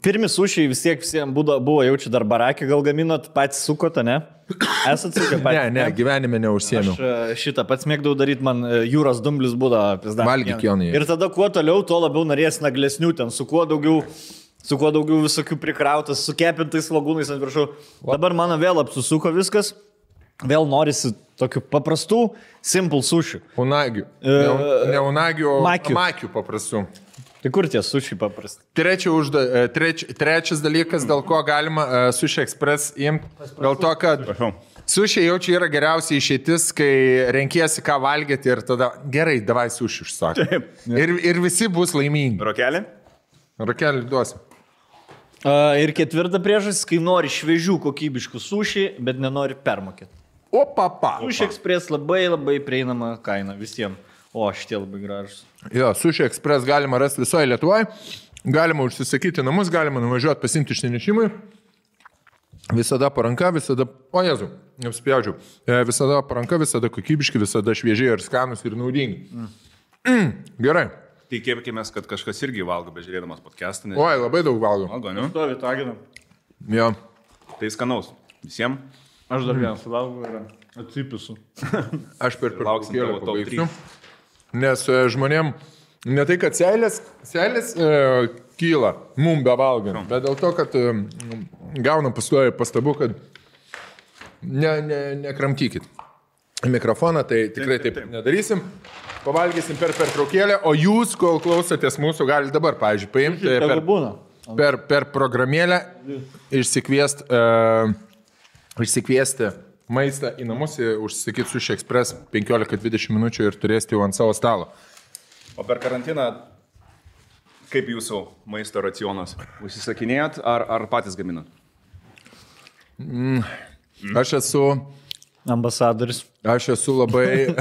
pirmi sušiai vis tiek visiems buvo jaučiu dar barakį, gal gaminot patys sukote, ne? Esat sukę patys? Ne, gyvenime neužsiemiau. Aš šitą pats mėgdavau daryti, man jūros dumblis būdavo pizda. Valgyk, Jonai. Ir tada kuo toliau, tuo labiau norės naglesnių, ten su kuo daugiau visokių prikrautas, su kepintais svagūnais ant viršų. Dabar mano vėl apsisuko viskas, vėl norisi tokių paprastų, simple sušių. Unagių. Ne unagių, o Makių. makių paprastų. Tai kur tie sušiai paprasti? Trečias dalykas, dėl ko galima Sushi Express imti, dėl to, kad sushi jau čia yra geriausia išeitis, kai renkiesi ką valgyti ir tada gerai, davai sushi užsakyti. Ir visi bus laimingi. Rokelį? Rakelį duosi. Ir ketvirta priežastis, kai nori šviežių kokybiškų sušiai, bet nenori permokėti. O, papa. Sushi Express labai prieinama kaina visiems. O, šitie labai gražus. Jo, Sushi Express galima rasti visoje Lietuvoje, galima užsisakyti namus, galima nuvažiuoti pasimti išnešimui. Visada paranka, visada, o Jezu, neapspjaudžiau, visada paranka, visada kokybiški, visada šviežiai ir skanus ir naudingi. Gerai. Tikėkime, kad kažkas irgi valgo, bežiūrėdamas podcastą. Nes... Oi, labai daug valgo. Valgo, ne? Stovi taginam. Jo. Tai skanaus. Visiems. Aš dar vieną suvalgau ir atsipisu. Aš per Lauksim pertraukėlę tavo top pabaigsiu. Nes žmonėm ne tai, kad seilės kyla mum bevalgant, bet dėl to, kad gaunam pastoja pastabų, kad nekramtykit mikrofoną, tai tikrai taip nedarysim. Pavalgysim per pertraukėlę, o jūs, kol klausotės mūsų, galite dabar, pavyzdžiui, paimti per programėlę išsikviesti maistą į namus, užsisakyti Sushi Express 15-20 minučių ir turėsite jau ant savo stalo. O per karantiną, kaip jūsų maisto racionas? Užsisakinėjot ar patys gaminat? Aš esu ambasadoris. Aš esu labai...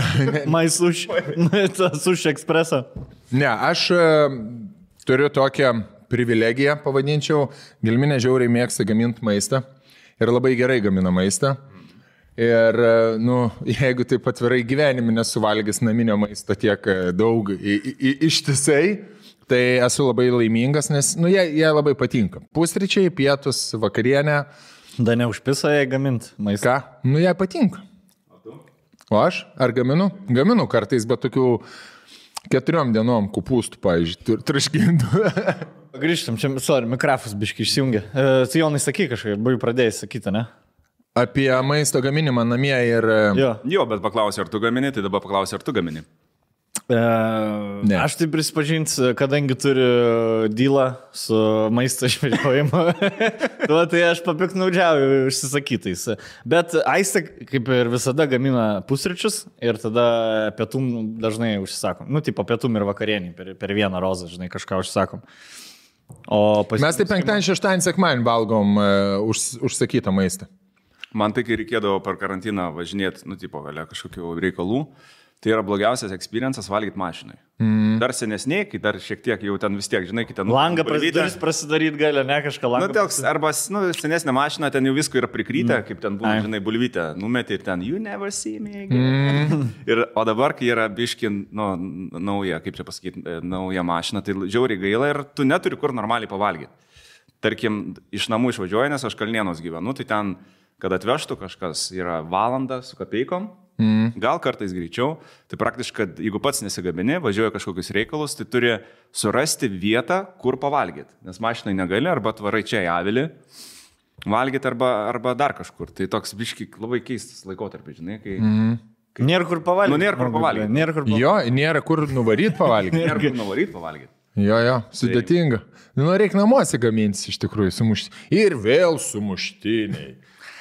Sushi Expressą. Ne, aš turiu tokią privilegiją, pavadinčiau. Gelminė žiauriai mėgsta gaminti maistą ir labai gerai gamina maistą. Ir, jeigu taip atvirai gyvenime nesuvalgęs naminio maisto tiek daug ištisai, tai esu labai laimingas, nes, jie labai patinka. Pusryčiai, pietus, vakarienė. Da neužpisa jai gaminti maistą. Ką? Jai patinka. O aš? Ar gaminu? Gaminu kartais, bet tokių 4 dienom kupūstų, pavyzdžiui, traškintų. Grįžtam, čia, mikrofas biškai išsijungia. Jonai, sakai kažkaip, buvai pradėjęs sakyti, ne? Apie maisto gaminimą namie ir... Jo, bet paklausiu, ar tu gamini, tai dabar paklausiu, ar tu gamini. Ne. Aš tai prisipažinsiu, kadangi turiu dylą su maisto išvedžiojimu, tai aš papiknaudžiauju užsisakytais. Bet Aistė, kaip ir visada, gamina pusryčius ir tada pietum dažnai užsisakom. Tipo pietum ir vakarienį per vieną rozą, žinai, kažką užsakom. Mes tai penktadienį, šeštadienį, sekmadienį valgom užsakytą maistą. Man tai, kai reikėdavo per karantiną važinėti, galia kažkokių reikalų, tai yra blogiausias experiences valgyti mašinai. Dar senesniai, kai dar šiek tiek jau ten vis tiek, žinai, kai ten... Langą prasidaryti gali, ne kažką langą. Arba senesnė mašina, ten jau visko yra prikryta, kaip ten būna, žinai, bulvytę, numeti ir ten, you never see me again. O dabar, kai yra biški, nauja, kaip čia pasakyti, nauja mašina, tai žiauriai gaila ir tu neturi kur normaliai pavalgyti. Tarkim, iš namų išvažiuoju, nes aš Kalnienos gyvenu, tai ten, kad atvežtų kažkas, yra valanda su kapeikom, gal kartais greičiau, tai praktiškai, jeigu pats nesigabini, važiuoja kažkokius reikalus, tai turi surasti vietą, kur pavalgyti, nes mašinai negali, arba tvarai čia į avilį valgyti, arba dar kažkur. Tai toks biški labai keistas laikotarpis, žinai, kai... Nėra kur pavalgyti. Nėra kur pavalgyti. Jo, nėra kur nuvaryti pavalgyti. Nėra kur nuvaryti pavalgyti. Jo, sudėtinga. Reikia namuose gamintis iš tikrųjų sumuštiniai. Ir vėl sumuštiniai.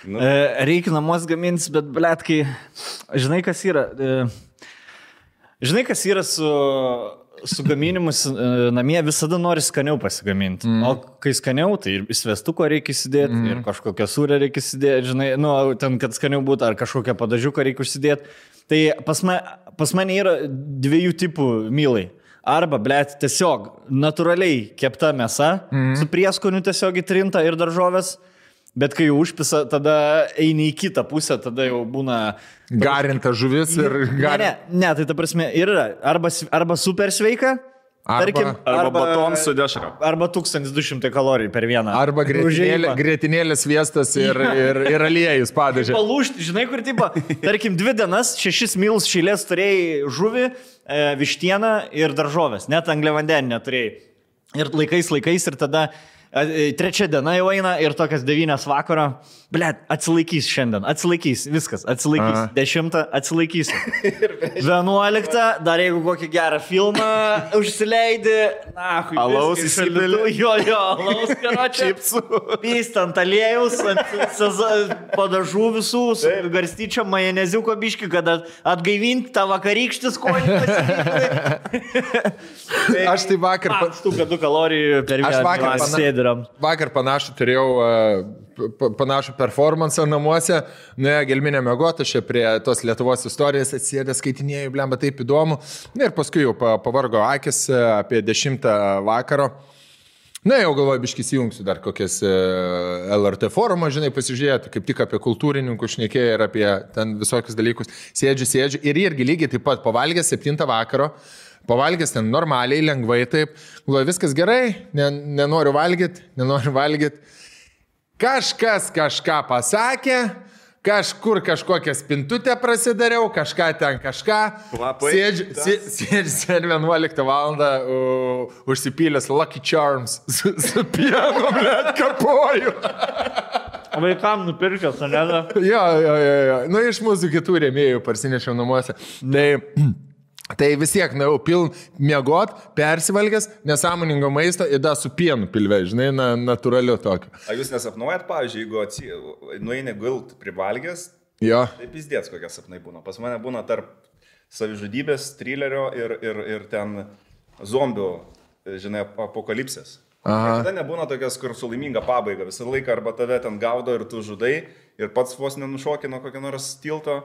Reikia namuos gamintis, bet, blet, kai... Žinai, kas yra su gaminimus namie, visada nori skaniau pasigaminti. O kai skaniau, tai ir svestuko reikia įsidėti, ir kažkokią sūrę reikia įsidėti, žinai, ten, kad skaniau būtų, ar kažkokią padažiuką reikia užsidėti. Tai pas mane yra dviejų tipų mylai. Arba, blet, tiesiog natūraliai kepta mėsa, su prieskoniu tiesiog įtrinta ir daržovės. Bet kai jau užpisa, tada eini į kitą pusę, tada jau būna... Garinta žuvis ir... Ne, tai ta prasme yra arba super sveika, tarkim, arba batonas su dešra. Arba 1200 kalorijų per vieną. Arba grietinėlės sviestas ir aliejus padažė. Palūšti, žinai, kur tipo, tarkim, 2 dienas, 6 milus šilės turėjai žuvį, vištieną ir daržovės, net angliavandenį neturėjai. Ir laikais ir tada... 3 diena jau eina ir tokias 9 vakaro, blet, atsilaikys šiandien, viskas, atsilaikys, 10 atsilaikys, 11, dar jeigu kokį gerą filmą užsileidi, alaus įsipili, alaus karočią, pystant aliejus, padažų visų, garstyčio, majoneziuko biškį, kad atgaivinti tą vakarykštį skonį pasirinkti. Aš tai vakar... Štuka 2 kalorijų per vieną sėdį. Vakar panašų turėjau panašų performansą namuose, gelminę mėgotą, aš prie tos Lietuvos istorijos atsėdė, skaitinėjau, blemba, taip įdomu. Ir paskui jau pavargo akis apie 10 vakaro. Jau galvoju, biškis įjungsiu dar kokias LRT forumą, žinai, pasižiūrėti, kaip tik apie kultūrininkų šnekėjo ir apie ten visokius dalykus. Sėdžiu ir irgi lygiai taip pat pavalgęs 7 vakaro. Pavalgęs ten normaliai, lengvai taip, galvoju, viskas gerai, nenoriu valgyti. Kažkas kažką pasakė, kažkur kažkokią spintutę prasidariau, kažką. Sėdžiu 11 valandą užsipylęs Lucky Charms su pienu, blet, kapoju. Vaikam nupirkęs, ne? Jo. Iš mūsų kitų rėmėjų parsinešiau namuose. Tai vis tiek, miegot, persivalgęs, nesąmoningo maisto ir da su pienu pilve, žinai, natūraliu tokiu. A jūs nesapnuojat, pavyzdžiui, jeigu nueini gult privalgęs, tai pizdėts kokie sapnai būna. Pas mane būna tarp savižudybės, trilerio ir ten zombių, žinai, apokalipsės. Tada nebūna tokios, kur su laiminga pabaiga. Visą laiką arba tave ten gaudo ir tu žudai ir pats vos nenušokino kokio nors tilto.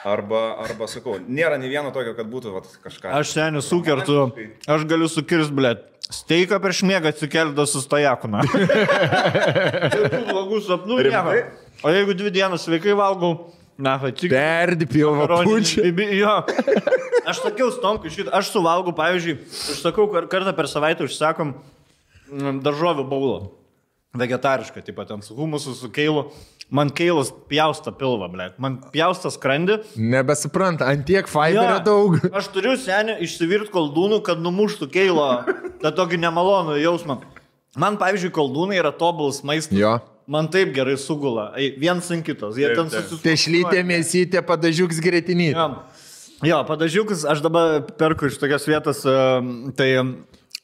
Arba, sakau, nėra nei vieno tokio, kad būtų kažką. Aš seniai sukertu, aš galiu sukirst, blet, steiką prieš miegą atsikeldą su stojakuna. Jokių blogų sapnų nieko. O jeigu 2 dienas sveikai valgau, perdi pilvą pučią. Jo. Aš sakiau Stomkui šitą, aš suvalgau, pavyzdžiui, užsakau kartą per savaitę užsakom daržovių baulą. Vegetarišką, taip pat ten su humusu, su keilu. Man keilas pjausta pilvą, blėt. Man pjausta skrandį. Nebesupranta, antiek fiberio daug. Aš turiu senį išsivirt koldūnų, kad numuštų keilo tą tokį nemalonų jausmą. Man, pavyzdžiui, koldūnai yra tobulas maistas. Jo. Man taip gerai sugula. Vienas ant kitos. Jie ten susisukuoja. Tešlytė, mėsytė, padažiuks gretinį. Jo, padažiukus aš dabar perku iš tokios vietos, tai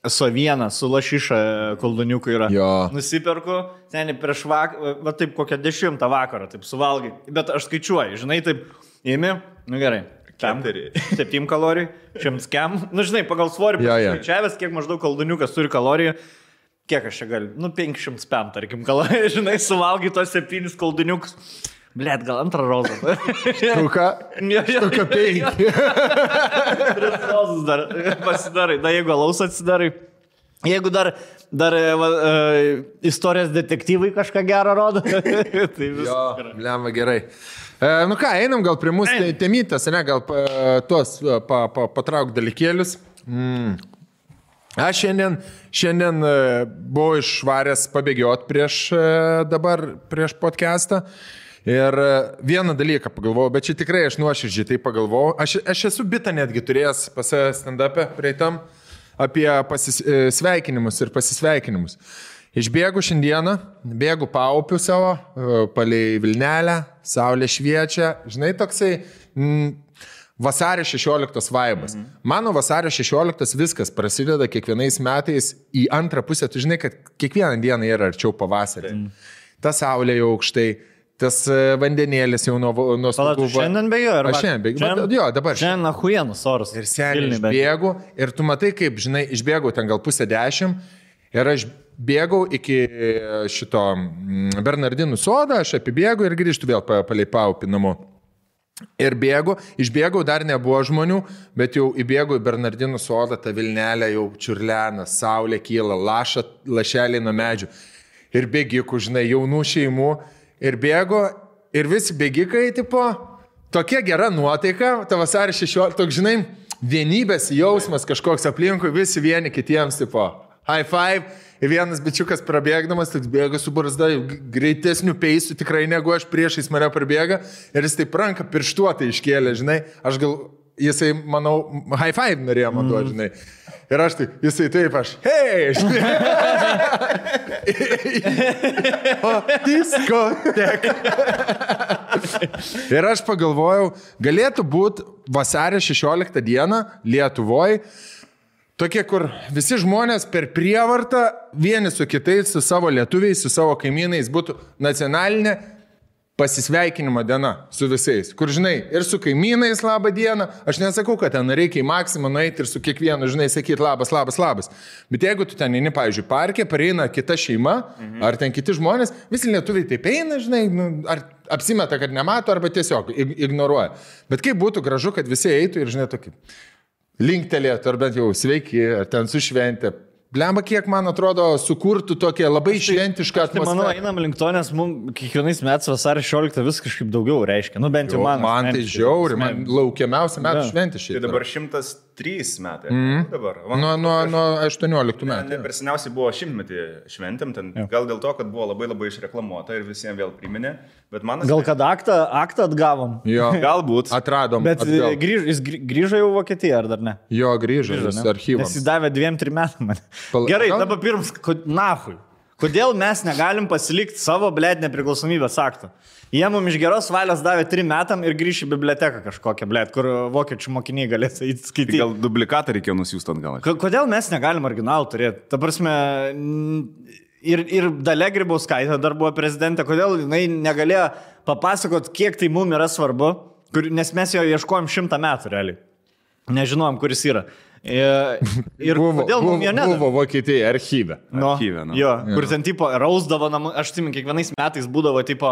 Sovieną su lašiša kolduniuku yra. Jo. Nusiperku, seniai prieš vakarą, va taip kokią 10 vakarą, taip suvalgai. Bet aš skaičiuoju, žinai, taip, imi, nu gerai. 7 kalorijų, 100 kem. Nu, žinai, pagal svorį skaičiavęs, kiek maždaug kolduniukas turi kalorijų. Kiek aš čia galiu? Nu, 500 pem, tarkim, kalorijų, žinai, suvalgai tos 7 kolduniukus. Blet, gal antrą rozą. Štuka 5. 3 rozus dar pasidarai. Na, jeigu alaus atsidarai. Jeigu dar istorijos detektyvai kažką gerą rodo. Tai viskas. Blemba, gerai. Nu ką, einam gal prie mūsų temytas, ne, gal tuos patrauk dalykėlius. Aš šiandien buvau išvaręs pabėgiot prieš podcastą. Ir vieną dalyką pagalvojau, bet čia tikrai aš nuoširdžiai tai pagalvojau. Aš esu bitą netgi turėjęs pas stand-up'e prieitam apie sveikinimus ir pasisveikinimus. Išbėgu šiandieną, bėgu paupiu savo, palei Vilnelę, saulė šviečia. Žinai, toksai vasario 16 vaibas. Mano vasario 16 viskas prasideda kiekvienais metais į antrą pusę. Tu žinai, kad kiekvieną dieną yra arčiau pavasarį. Ta saulė jau aukštai. Tas vandenėlis jau nuo stogų. Šiandien bėgiu? Aš šiandien bėgiu. Jo, dabar. Šiandien ahuienos oras. Ir seniai išbėgu. Ir tu matai, kaip, žinai, išbėgau ten gal 9:30. Ir aš bėgau iki šito Bernardinų sodą, aš apibėgu ir grįžtu vėl palei paupį namo. Ir išbėgau, dar nebuvo žmonių, bet jau įbėgau į Bernardinų sodą, ta Vilnelė jau čiurlena, saulė kyla, lašeliai nuo medžių. Ir bėgikų, žinai, jaunų šeimų. Ir bėgo, ir visi bėgikai, tipo, tokia gera nuotaika, ta vasario 16, toks, žinai, vienybės jausmas kažkoks aplinkui, visi vieni kitiems, tipo, high five, ir vienas bičiukas prabėgdamas, toks bėga su barzda, greitesnių peisų tikrai negu aš, priešais mane prabėga, ir jis taip ranką pirštuotai iškėlė, žinai, aš gal, jisai, manau, high five norėjo man duoti, žinai. Ir aš tai, jisai taip, aš, hei, žinai. O, diskotek. Ir aš pagalvojau, galėtų būti vasario 16 dieną Lietuvoje, tokie, kur visi žmonės per prievartą vieni su kitais, su savo lietuviais, su savo kaimynais būtų nacionalinė pasisveikinimo diena su visais, kur, žinai, ir su kaimynais labą dieną, aš nesakau, kad ten reikia į maksimą nueiti ir su kiekvienu, žinai, sakyti labas. Bet jeigu tu ten eini, pavyzdžiui, parke, pareina kita šeima, ar ten kiti žmonės, visi lietuviai taip eina, žinai, ar apsimeta, kad nemato, arba tiesiog ignoruoja. Bet kaip būtų gražu, kad visi eitų ir, žinai, tokį linktelėtų, ar bent jau sveiki, ar ten su šventė. Blemba, kiek, man atrodo, sukurtų tokią labai šventišką atmosferą. Manau, einam link to, nes mums kiekvienais metais vasario 16 vis kažkaip daugiau reiškia. Nu, bent jau man tai žiauri, man laukiamiausia metų šventė šitą. Tai dabar 103 metai. Dabar. Nuo 18 metų. Per seniausiai buvo 100-metį šventėm, ten gal dėl to, kad buvo labai išreklamuota ir visiems vėl priminė. Gal kad aktą atgavom? Jo. Galbūt. Atradom. Bet jis grįžo jau Vokietiją, ar dar ne? Jo, grįžo archyvams. Nes jis davė 2-3 metų man. Gerai, dabar pirms, nahui. Kodėl mes negalim pasilikti savo, blėd, nepriklausomybės aktą? Jie mums iš geros valios davė 3 metam ir grįš į biblioteką kažkokią, blėd, kur vokiečių mokiniai galės įskaityti. Gal duplikatą reikėjo nusiųsti atgal? Kodėl mes negalim originalų turėti? Ta prasme, ir Dalia Grybauskaitė dar buvo prezidentė, kodėl jinai negalėjo papasakot, kiek tai mums yra svarbu, nes mes jo ieškojom 100 metų realiai. Nežinojom, kuris yra. Ir kodėl mums jo nedavė? Buvo Vokietija archyve. Jo, kur ten tipo rausdavo namų, aš atsimenu, kiekvienais metais būdavo tipo,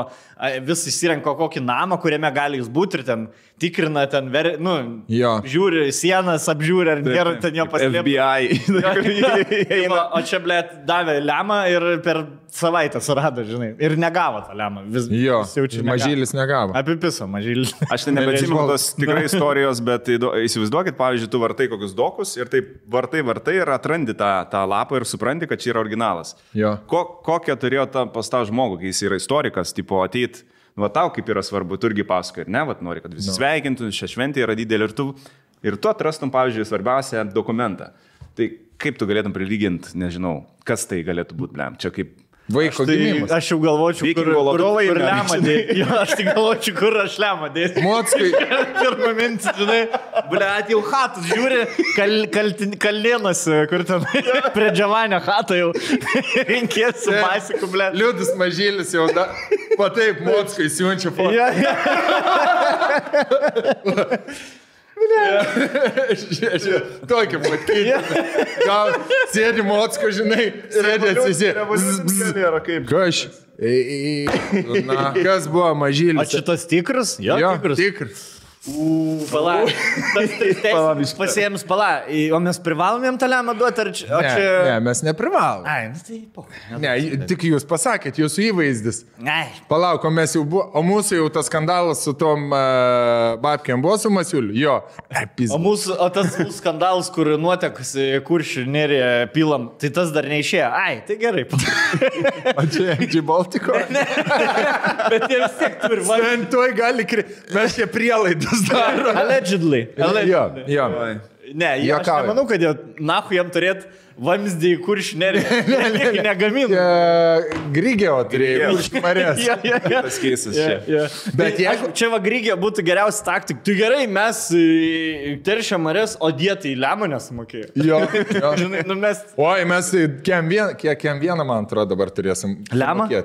vis įsirenko kokį namą, kuriame gali jis būti ir ten tikrina, ten, žiūri sienas, apžiūri, ar nėra ten jo paslėpti. FBI. O čia, blėt, davė lemą ir per savaitę surado, žinai, ir negavo tą lemą. Mažylis negavo. Apipiso mažylis. Aš ten nebeatsimenu tos tikrai istorijos, bet įsivaizduokit, pavyzdžiui, tu vartai kokius dokus ir taip vartai ir atrandi tą lapą ir supranti, kad čia yra originalas. Kokią turėjo pas tą žmogų, kai jis yra istorikas, tipo ateit, va tau kaip yra svarbu, tu irgi pasakoji, ir ne, va nori, kad visi sveikintų, šią šventę yra didelė ir tu atrastum, pavyzdžiui, svarbiausią dokumentą. Tai kaip tu galėtum prilyginti, nežinau, kas tai galėtų būti, blem, čia kaip... Vaiko gimimas. Aš jau galvočiau, kur lemą dėti. Jo, aš tik galvočiau, kur aš lemą dėti. Mockai. Pirmą mintį, žinai, blėt, jau hatus žiūri, kalnienas, kur ten prie Džavanio hatą jau rinkės su pasiku, blėt. Liudis mažylis jau, va taip, Mockai siunčia fotą. Tokį matyti. Gal sėdi Mocko, žinai, sėdi atsisėdi. Kaž. Na, kas buvo mažylis? O šitas tikras? Jo, tikras. Pala. Pasiems pala. O mes privalomėm tą lemą duoti, ar čia... Ne, mes neprivalom. Ai, tai po. Ne, tik jūs pasakėt, jūsų įvaizdis. Ai. Palauk, o mes jau buvo, o mūsų jau tas skandalas su tom babkiam buvo su Masiuliu? Jo. O tas skandalas, kur nuotekas Kuršių nerėje pilam, tai tas dar neišėjo. Ai, tai gerai. O čia MG Baltico? Ne. Bet jie vis tiek turi man. Tuoj gali mes čia prielaidas daro. Allegedly. Jo. Ne, aš nemanau, kad jie nahu jam turėt vamzdį į Kuršių nerėje. Negaminu. Grigio turėjo Kuršių marės. Tas keisas čia. Bet jeigu čia va Grigio būtų geriausia taktika, tai gerai, mes teršia marės, o dietai lemą nesumokėjo. Jo. Žinai, mes... Oi, mes kiek vieną, man atrodo, dabar turėsim. Lemą? Jo,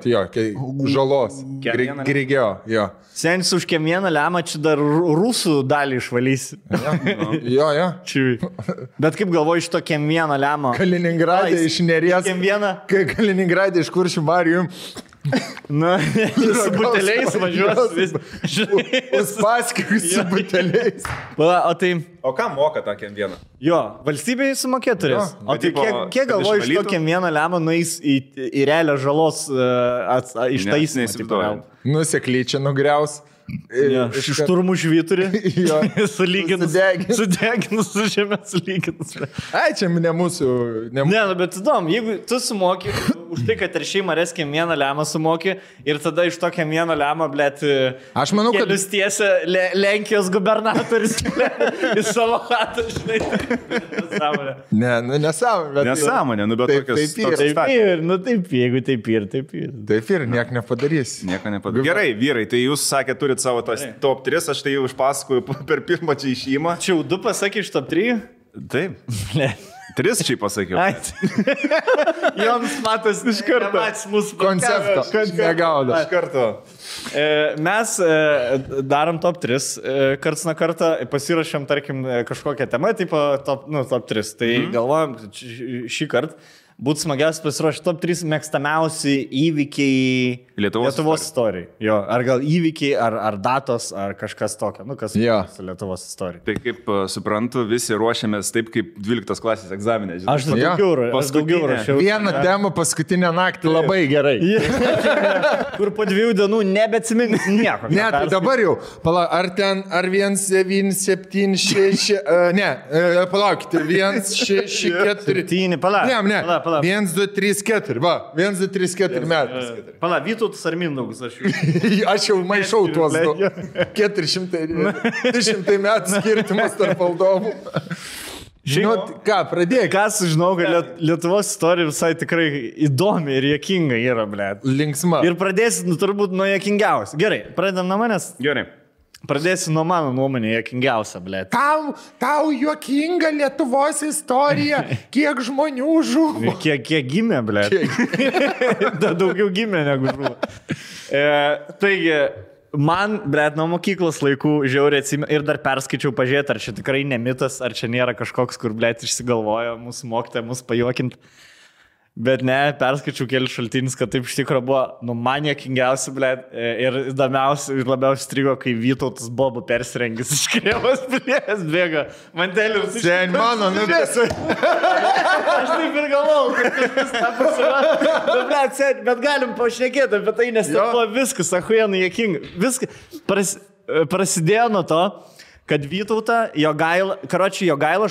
žalos. Grigio, jo. Senis už kiemieną lemą čia dar rusų dalį išvalysi. Jo. Bet kaip galvoju iš to kiemieną lemą? Kaliningrade iš Neries. Kaliningrade iš Kuršių marių. Na, su buteliais važiuos vis. Uspaskiuk su buteliais. O ką moka tą kiemvieną? Jo, valstybei sumokėt turės. O tai kiek galvoju iš to kiemvieną lemą nueis į realią žalos ištaisymą? Nusekliai čia nugriaus. Šturmų žvyturį. Sudeginus su žemė sulyginus. Ai, čia ne mūsų. Ne, bet įdomu, jeigu tu sumoki už tai, kad teršiai marės kiemieną lemą sumoki ir tada iš to kiemieną lemą, blėt, aš manau, kad kelius tiesia Lenkijos gubernatorius į savo hatą, žinai. Nesąmonė, bet tokios. Taip, jeigu taip ir. Taip ir, nieko nepadarys. Gerai, vyrai, tai jūs sakėte, turit savo tas top 3, aš tai jau išpasakoju per pirmą čia išėjimą. Čia jau 2 pasakė iš top 3? Taip. 3 čia pasakiau. Joms matas iš karto. Koncepto. Negaudo. Iš karto. Mes darom top 3. Karts nuo kartą pasirašėm, tarkim, kažkokią temą, tipo top 3. Tai galvojam, šį kartą būtų smagiausia pasiruošti top 3 mėgstamiausi įvykiai Lietuvos istorijai. Jo, ar gal įvykiai, ar datos, ar kažkas tokio. Nu, kas su Lietuvos istorija. Tai kaip suprantu, visi ruošiamės taip, kaip 12 klasės egzaminė. Aš daugiau rašiau. Vieną temą paskutinę naktį labai gerai. Kur po 2 dienų nebeatsimins nieko. Ne, tai dabar jau. Ar 176... Ne, palaukite. 164... 7, palauk. Ne. 1, 2, 3, 4. Va, 1, 2, 3, 4 metais. Pala, Vytautas ar Mindaugas? Aš jau maišau tuos 200 metų skirtumas tarp valdovų. Žinot, ką, pradėk. Ką sužinau, kad Lietuvos istorija visai tikrai įdomi ir juokinga yra, blėt. Linksma. Ir pradėsi, turbūt, nuo juokingiausių. Gerai, pradedam nuo manęs? Gerai. Pradėsiu nuo mano nuomonė juokingiausia, blėt. Tau juokinga Lietuvos istorija, kiek žmonių žuvo. Kiek gimė, blėt. Daugiau gimė negu žuvo. Taigi, man, blėt, nuo mokyklos laikų žiauriai atsimenu ir dar perskaičiau pažiūrėti, ar čia tikrai ne mitas, ar čia nėra kažkoks, kur, blėt, išsigalvojo mūsų mokytoja mus pajuokinti. Bet ne, perskaičiau kelius šaltinius, kad taip iš tikrųjų buvo, man juokingiausia, blėt, ir įdomiausia ir labiausiai strigo, kai Vytautas Bobu persirengęs iš Krėvos plės bėga. Mantelius. Sen mano, nuvėsiu. Aš taip ir galvau, kad kažkas tą pasirodė. Blėt, bet galim pašnekėti apie tai, nes tai buvo viskas, achujenai juokinga. Viskas prasidėjo nuo to, kad Vytautą Jogaila 82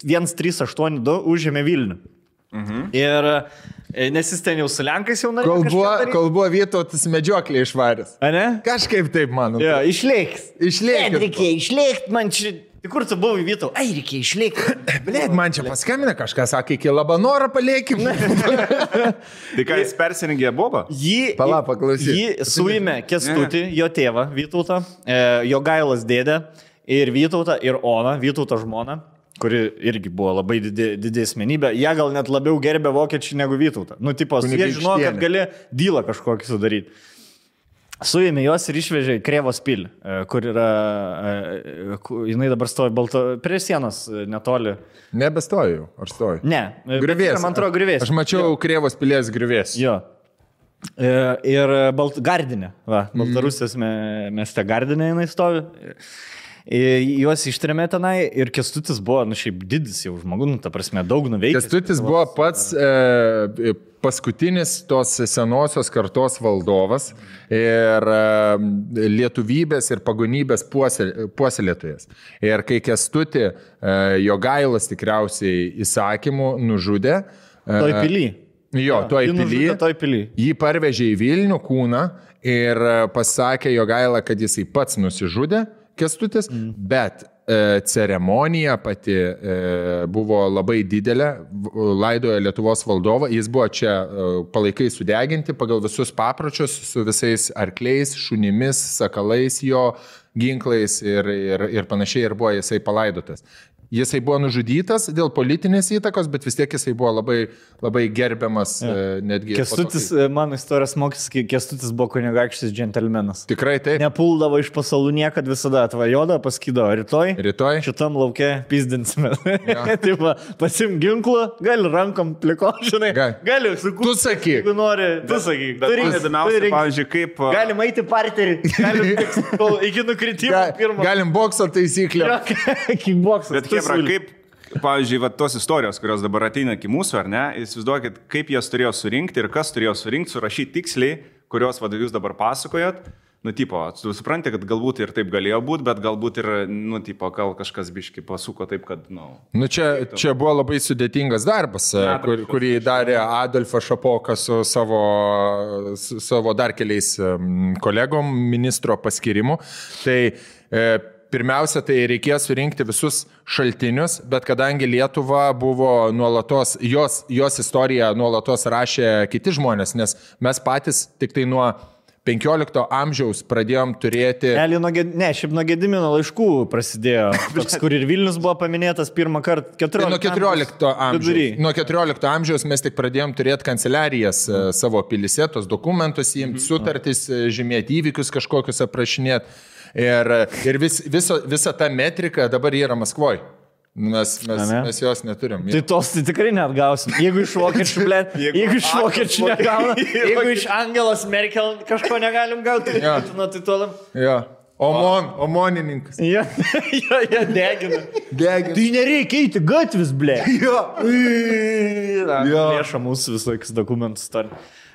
1382 užėmė Vilnių. Ir nes jis ten jau su Lenkais jau norėjo. Kol buvo Vytautas medžioklė išvaręs. A ne? Kažkaip taip, mano. Jo, išlėks. Išlėkt, man čia Tai kur tu buvai, Vytau? Ai, reikia išlikti. Blėt, man čia paskambina kažkas, sakė, iki Labanorą paliekim. Tai ką jis persirengė bobą? Pala, paklausyk. Jį suėmė Kęstutį, jo tėvą Vytautą, jo Gailas dėdę ir Vytautą ir Oną, Vytauto žmoną, kuri irgi buvo labai didė asmenybė. Jie gal net labiau gerbė vokiečiai negu Vytautą. Nu, tipos, jie žino, kad gali dylą kažkokį sudaryti. Suėmė juos ir išvežė į Krėvos pilį, kur yra, jinai dabar stovi prie sienos netoli. Nebestoju, ar stoju? Ne, griuvės. Man atrodo, griuvės. Aš mačiau Krėvos pilies griuvės. Jo. Ir Gardinė, Baltarusijos mieste Gardinė jinai stovi. Juos ištrėmė tenai ir Kęstutis buvo, šiaip didis jau žmogus, ta prasme, daug nuveikęs. Kęstutis buvo pats paskutinis tos senosios kartos valdovas ir lietuvybės ir pagonybės puoselėtojas. Ir kai Kęstutį Jogailas tikriausiai įsakymų nužudė. Toj pily. Jo, toj pily. Jį parvežė į Vilnių kūną ir pasakė Jogaila, kad jisai pats nusižudė. Kęstutis, bet ceremonija pati buvo labai didelė, laidojo Lietuvos valdovą, jis buvo čia palaikai sudeginti pagal visus papročius su visais arkliais, šunimis, sakalais jo, ginklais ir panašiai ir buvo jisai palaidotas. Jisai buvo nužudytas dėl politinės įtakos, bet vis tiek jisai buvo labai, labai gerbiamas netgi. Kęstutis, mano istorijos mokys, Kęstutis buvo kunigaikštis džentelmenas. Tikrai taip. Nepuldavo iš pasalų niekad, visada atvajoda, paskydavo rytoj. Šitam lauke pizdinsime. Taip, pasim ginklą, gali rankom pliko, žinai. Gali sukurti. Tu sakyk. Jeigu nori, tu sakyk. Bet įdomiausia, pavyzdžiui, kaip... Galim eiti parterį, iki nukritimo pirmo. Galim bokso taisyklę. Kickboksas. Kaip, pavyzdžiui, tos istorijos, kurios dabar ateina iki mūsų, ar ne, įsivaizduokit, kaip jas turėjo surinkti ir kas turėjo surinkti, surašyti tiksliai, kurios jūs dabar pasakojat. Nu, tipo, tu supranti, kad galbūt ir taip galėjo būti, bet galbūt ir, nu, tipo, gal kažkas biški pasuko taip, kad, Nu, čia buvo labai sudėtingas darbas, kurį darė Adolfas Šapokas su savo dar keliais kolegom ministro paskirimu. Tai pirmiausia, tai reikėjo surinkti visus šaltinius, bet kadangi Lietuva buvo nuolatos, jos istoriją nuolatos rašė kiti žmonės, nes mes patys tik tai nuo 15 amžiaus pradėjom turėti... Šiaip nuo Gedimino laiškų prasidėjo, toks, kur ir Vilnius buvo paminėtas pirmą kartą 14 amžiaus. Nuo 14 amžiaus mes tik pradėjom turėti kanceliarijas savo pilyse, tos dokumentus, jiems sutartis, žymėti įvykius kažkokius aprašinėti. Ir visa ta metrika dabar yra Maskvoje. Mes jos neturim. Tai tos tai tikrai net gausim. Jeigu iš vokiečių, jeigu iš vokiečių negauna, jeigu iš Angelos Merkel kažko negalim gauti, tai tolam. Jo. Omonininkas. Jo, degina. Tai nereikia eiti gatvis, ble. Jo. Lėša mūsų visokius dokumentus turi.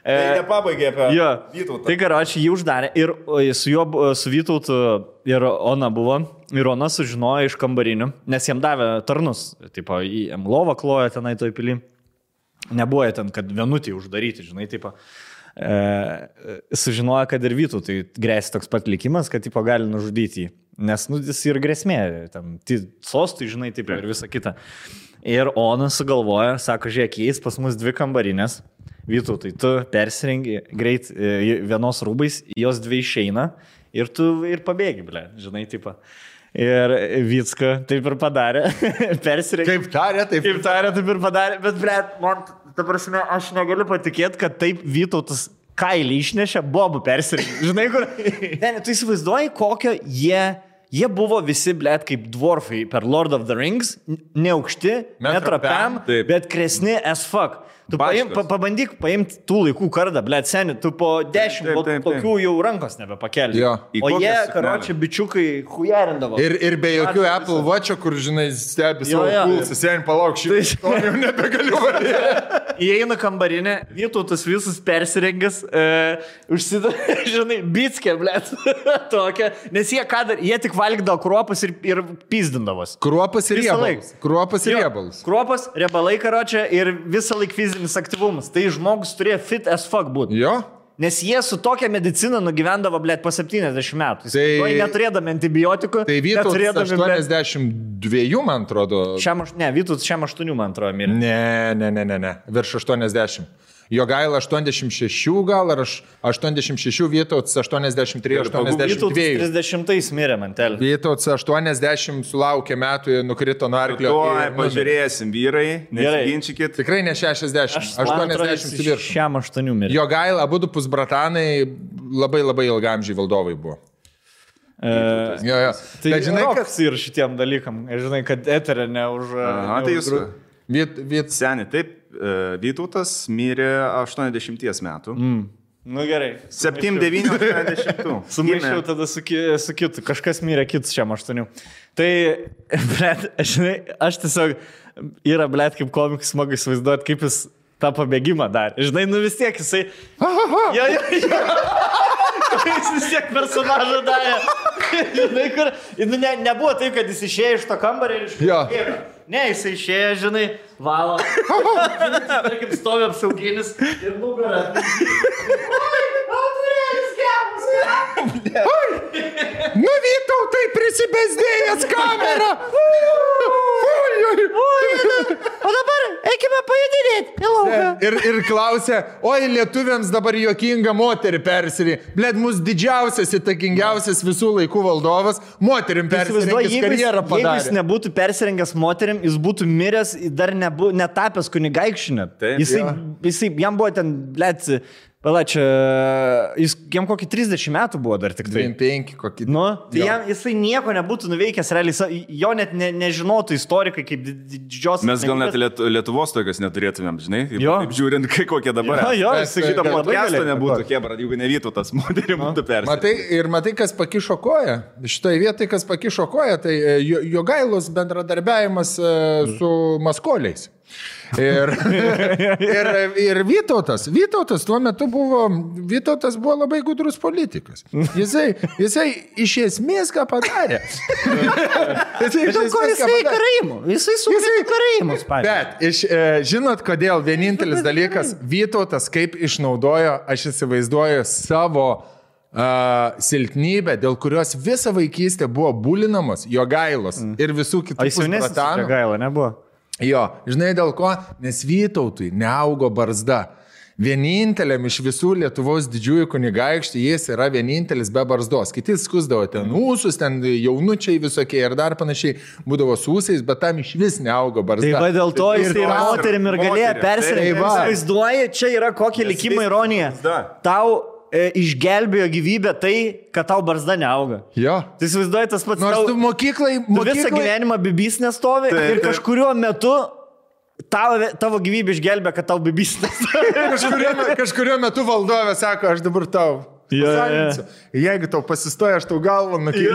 Tai nepabaigė apie Vytautą. Tai karočiui jį uždarė ir su Vytautu ir Ona buvo. Ir Ona sužinojo iš kambarinių, nes jam davė tarnus. Tipo, jam lovą klojo tenai toj pily. Nebuvo ten, kad vienutį uždaryti, žinai, tipo. Sužinojo, kad ir Vytautui grėsia toks pat likimas, kad tipo gali nužudyti jį. Nes jis ir grėsmė, tam sostui, žinai, tipo, ir visa kita. Ir Ona sugalvoja, sako, žiūrėk, jais pas mus 2 kambarinės. Vytautai, tu persirengi greit vienos rūbais, jos 2 išeina ir tu ir pabėgi, ble, žinai, tipo. Ir Vycka taip ir padarė, persirengė. Kaip tarė, taip ir padarė, bet, ble, man, ta prasme, aš negaliu patikėti, kad taip Vytautas kailį išnešė, bobų persirengė. Žinai, kur? Ne, tu įsivaizduoji, kokio jie buvo visi, blėt, kaip dwarfai per Lord of the Rings, neaukšti, netrapiam, bet kresni as fuck. Tu pabandyk paimti tų laikų kardą, blėt, seni, tu po 10 tokių jau rankos nebepakeli. O jie, karočią, bičiukai hujarindavo. Ir be jokių Apple Watch'o, kur, žinai, stebi savo pulsą, seni, palauk, šitą jau nebegaliu varyti. Įeina kambarinė, Vytautas visus persirengęs, užsidavė, žinai, bitskė, blėt, tokia, nes jie tik valgydavo kruopas ir pizdindavos. Kruopas ir riebalus. Kruopas, riebalai, karočią, ir visą laik fizinis aktyvumas. Tai žmogus turėjo fit as fuck būti. Jo. Nes jie su tokia medicina nugyvendavo, blėt, po 70 metų. Tai neturėdami antibiotikų. Tai Vytautas 82, man atrodo. Vytautas 8, man atrodo, mirė. Ne. Virš 80. Jogaila 86 gal, ar 86, Vytautas 83, 82. Vytautas 30 mirė, mantel. Vytautas 80 sulaukė metų, nukrito nuo arklio. Pažiūrėsim, vyrai, nesiginčykit. Tikrai ne 60, 80 virš. 8 mirė. Jogaila, abudu pusbratanai, labai ilgamžiai valdovai buvo. Tai žinai, kas ir šitiem dalykam. Žinai, kad eterė ne už... Tai jūs... Seni, taip. Vytautas mirė 80 metų. Nu gerai. 7-9, 80. Sumaišiau tada su kitu. Kažkas mirė kitus 8. Tai, blet, žinai, aš tiesiog yra, blet, kaip komikas smagu įsivaizduoti, kaip jis tą pabėgimą darė. Žinai, nu vis tiek jisai... Jo. Jis vis tiek personažą darė. Žinai, kur... Nebuvo taip, kad jis išėjo iš to kambarį ir išėjo. Ne, jis išėjo, žinai, valo. Tarkim, stovi apsauginis ir nugarą. Nu, Vytautai, prisibesdėjęs kamerą. O dabar eikime pajudinėti. Ir klausė, oi, lietuviams dabar juokinga moterį persirį. Bled, mūsų didžiausias, įtakingiausias visų laikų valdovas, moterim persirengęs karjerą padarė. Jeigu jis nebūtų persirengęs moterim, jis būtų miręs, dar netapęs kunigaikščiu. Jisai, jam buvo ten, bled, pala, čia, jam kokį 30 metų buvo dar tik tai. 25 kokį. Nu, tai jisai nieko nebūtų nuveikęs, realiai, jo net nežinotų istorikai kaip didžios... Mes gal net Lietuvos tokios neturėtumėm, žinai, taip žiūrint, kokie dabar. Jo, šitą podcastą nebūtų Kebra, jeigu ne Vytautas moterį būtų persirengęs. Matai, kas pakišo koją? Šitoje vietoje, kas pakišo koją, tai Jogailos bendradarbiavimas su maskoliais. Ir Vytautas tuo metu buvo labai gudrus politikas. Jisai iš esmės ką padarė. Jisai sugrįžo karaimus. Bet, žinot, kodėl vienintelis dalykas, Vytautas kaip išnaudojo, aš įsivaizduoju, savo silpnybę, dėl kurios visą vaikystę buvo bulinamos Jogailos ir visų kitų pusbratanų. Jogaila nebuvo. Jo, žinai dėl ko? Nes Vytautui neaugo barzda. Vieninteliam iš visų Lietuvos didžiųjų kunigaikščių jis yra vienintelis be barzdos. Kiti skusdavo ten ūsus, ten jaunučiai visokie ir dar panašiai būdavo su ūsais, bet tam iš vis neaugo barzda. Tai va dėl to jis ir moterim ir galėjo persirengti. Vaizduoji, čia yra kokia likimo ironija. Tau išgelbėjo gyvybę tai, kad tau barzda neauga. Jo. Tai įsivaizduoji tas pats. Nors tu mokyklai... Visą gyvenimą bibys nestovi ir kažkuriuo metu tavo gyvybė išgelbė, kad tau bibys nestovi. Kažkuriuo metu valdovė sako, aš dabar tau... Jeigu tau pasistoja, aš tau galvą nukiu.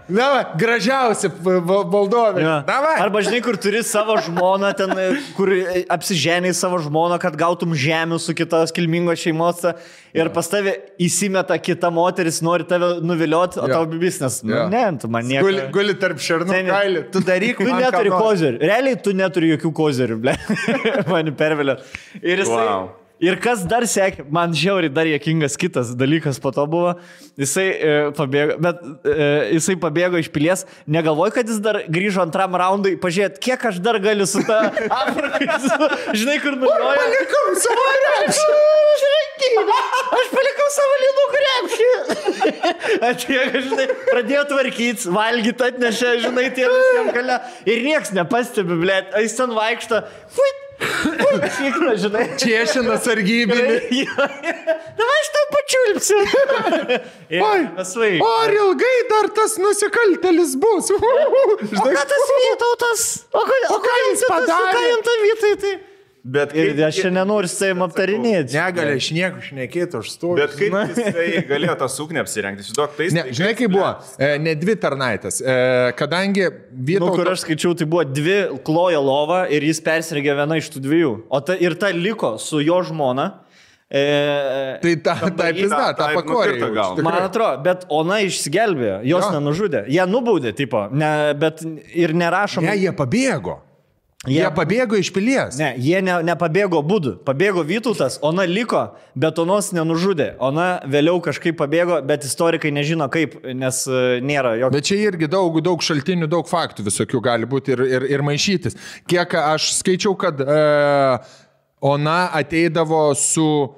Davai, gražiausia valdovė. Arba žinai, kur turi savo žmoną, ten, kur apsiženiai savo žmoną, kad gautum žemių su kitos kilmingos šeimos ir pas tave įsimeta kita moteris, nori tave nuvilioti, o tau bibis, nes, ne, tu man nieko. Guli tarp šernų kailį, tu daryk, tu neturi kozerių. Realiai tu neturi jokių kozerių, ble. Mani pervelė. Ir jisai... Ir kas dar sekė, man žiauriai dar juokingas kitas dalykas po to buvo, jisai pabėgo iš pilies, negalvoju, kad jis dar grįžo antram raundui, pažiūrėt, kiek aš dar galiu su ta Afrika, žinai, kur nuviliojo. Aš palikau savo krepšį. Aš palikau savo lynų krepšį. Atėjo, žinai, pradėjo tvarkytis, valgyti atnešė, žinai, tie visiems gale. Ir nieks nepastebi, blėt, jis ten vaikšto, Šikna, žinai. Čiešina sargybinį. Davai, aš tau pačiulpsiu. Ar ilgai dar tas nusikaltelis bus? O ką tas Vytautas? O ką jis padarė? Ką jam tą Vytai tai? Ir aš čia nenoriu su savim aptarinėti. Negali iš nieko šnekėti, aš stoviu. Bet kaip jisai galėjo tą suknę apsirengti? Žinai, kaip buvo? Ne dvi tarnaitės. Kadangi Vytautas... Kur aš skaičiau, tai buvo 2 klojo lova ir jis persirengė viena iš tų 2. Ir ta liko su jo žmona. Tai ta pakorė. Man atrodo, bet ona išsigelbėjo, jos nenužudė. Jie nubaudė, tipo, bet ir nerašom. Ne, jie pabėgo. Jie pabėgo iš pilies. Ne, jie nepabėgo būdų. Pabėgo Vytautas, Ona liko, bet Onos nenužudė. Ona vėliau kažkaip pabėgo, bet istorikai nežino kaip, nes nėra jokio. Bet čia irgi daug šaltinių, daug faktų visokių gali būti ir maišytis. Kiek aš skaičiau, kad Ona ateidavo su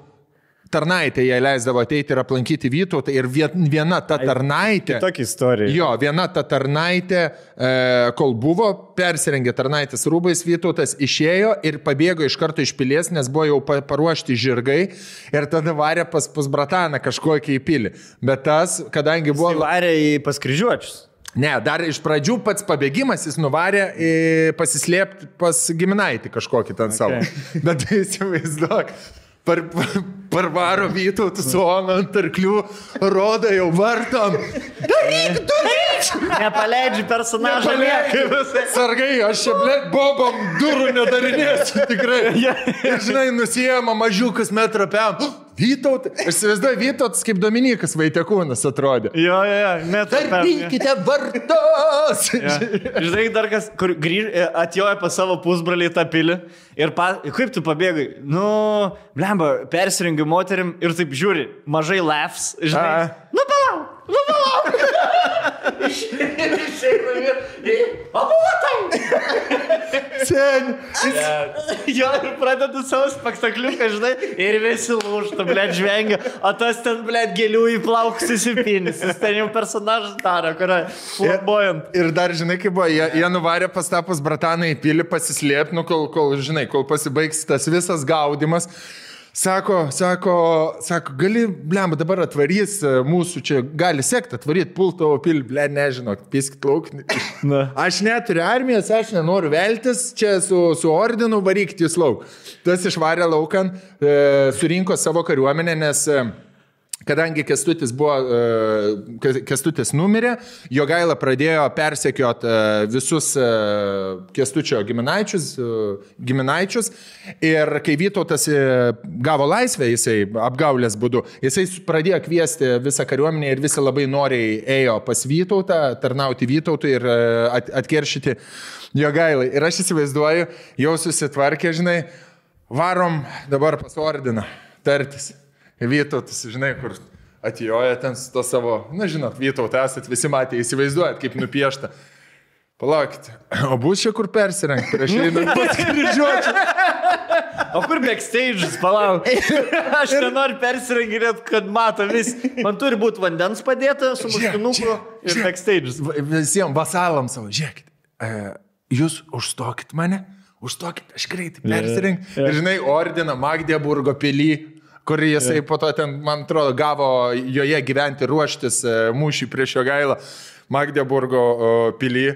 tarnaitė, jai leisdavo ateiti ir aplankyti Vytautą ir viena ta tarnaitė. Tokia istorija. Jo, viena ta tarnaitė, kol buvo, persirengė tarnaitės rūbais, Vytautas išėjo ir pabėgo iš karto iš pilies, nes buvo jau paruošti žirgai ir tada varė pas brataną kažkokį į pilį. Bet tas, kadangi buvo... Jis varė pas kryžiuočius. Ne, dar iš pradžių pats pabėgimas jis nuvarė pasislėpti pas giminaitį kažkokį ten savo. Bet įsivaizduok. Parvaro Vytautų su Ona ant arklių, rodo jau vartom. Daryk! Nepaleidži personažą. Sargai, aš čia, bobom durų nedarinėsiu tikrai. Ir žinai, nusijama mažiukas metrą pėm. Vytautas, aš įsivaizduoju, Vytautas kaip Dominikas Vaitekūnas atrodė. Jo, metrą pėm. Darykite vartos! Žinai, dar kas, kur atjoja pas savo pusbralį tą pilį ir kaip tu pabėgai? Nu, blemba, persirengiu moterim ir taip žiūri, mažai laughs, žinai. Nu, palauk! Išeina ir... O, buvo tai! Sen! Jo, ir pradeda savo spektakliuką, žinai, ir visi lūžta, blėt, žvengia, o tas ten, blėt, gėlių į plaukus įsipinis, jis ten jau personažas daro, kurio flamboyant. Ir dar, žinai, kaip buvo, jie nuvarė pas tapus brataną į pilį pasislėpti, nu, kol pasibaigs tas visas gaudimas. Sako, gali, blemba, dabar atvarys mūsų čia, gali sekti, atvaryti pultovo pilį, ble, nežinau, piskit lauk. Aš neturiu armijos, aš nenoriu veltis, čia su ordinu varykti jūs lauk. Tas išvarė laukan, surinko savo kariuomenę, nes... Kadangi Kęstutis numirė, Jogaila pradėjo persekiot visus Kęstučio giminaičius ir kai Vytautas gavo laisvę, jisai apgaulės būdu, jisai pradėjo kviesti visą kariuomenę ir visi labai noriai ėjo pas Vytautą, tarnauti Vytautui ir atkeršyti Jogailai. Ir aš įsivaizduoju, jau susitvarkė, žinai, varom dabar pas ordiną tartis. Vytautas, žinai, kur atjoja ten su to savo, na žinot, Vytautą esat visi matė, įsivaizduojat, kaip nupiešta. Palaukite, o bus čia kur persirengti prieš einant pas kryžiuočius? O kur backstage'as, palauk? Aš nenoriu persirenginėti, kad mato vis. Man turi būti vandens padėta su muškinuku ir backstage'as. Visiems vasalams savo, žiūrėkit, jūs užstokit mane, aš greitai persirengti. Ir žinai, ordiną Magdeburgo pilį, kur jisai po to ten, man atrodo, gavo joje gyventi, ruoštis mūšį prieš Jogailą Magdeburgo pilį.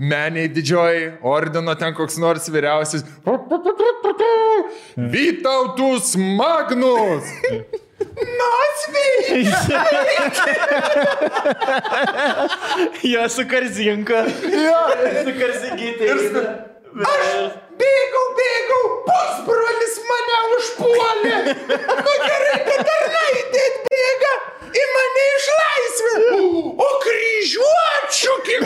Meniai didžioji, ordino ten koks nors vyriausias. Vytautus Magnus! Nasvy! Jo, su Karzinka. Su Karzingytė. Aš bėgau, pusbrolis mane užpuolė. Nu gerai, kad tarnaitė atbėga į mane išlaisvė. O kryžiuočių, kiek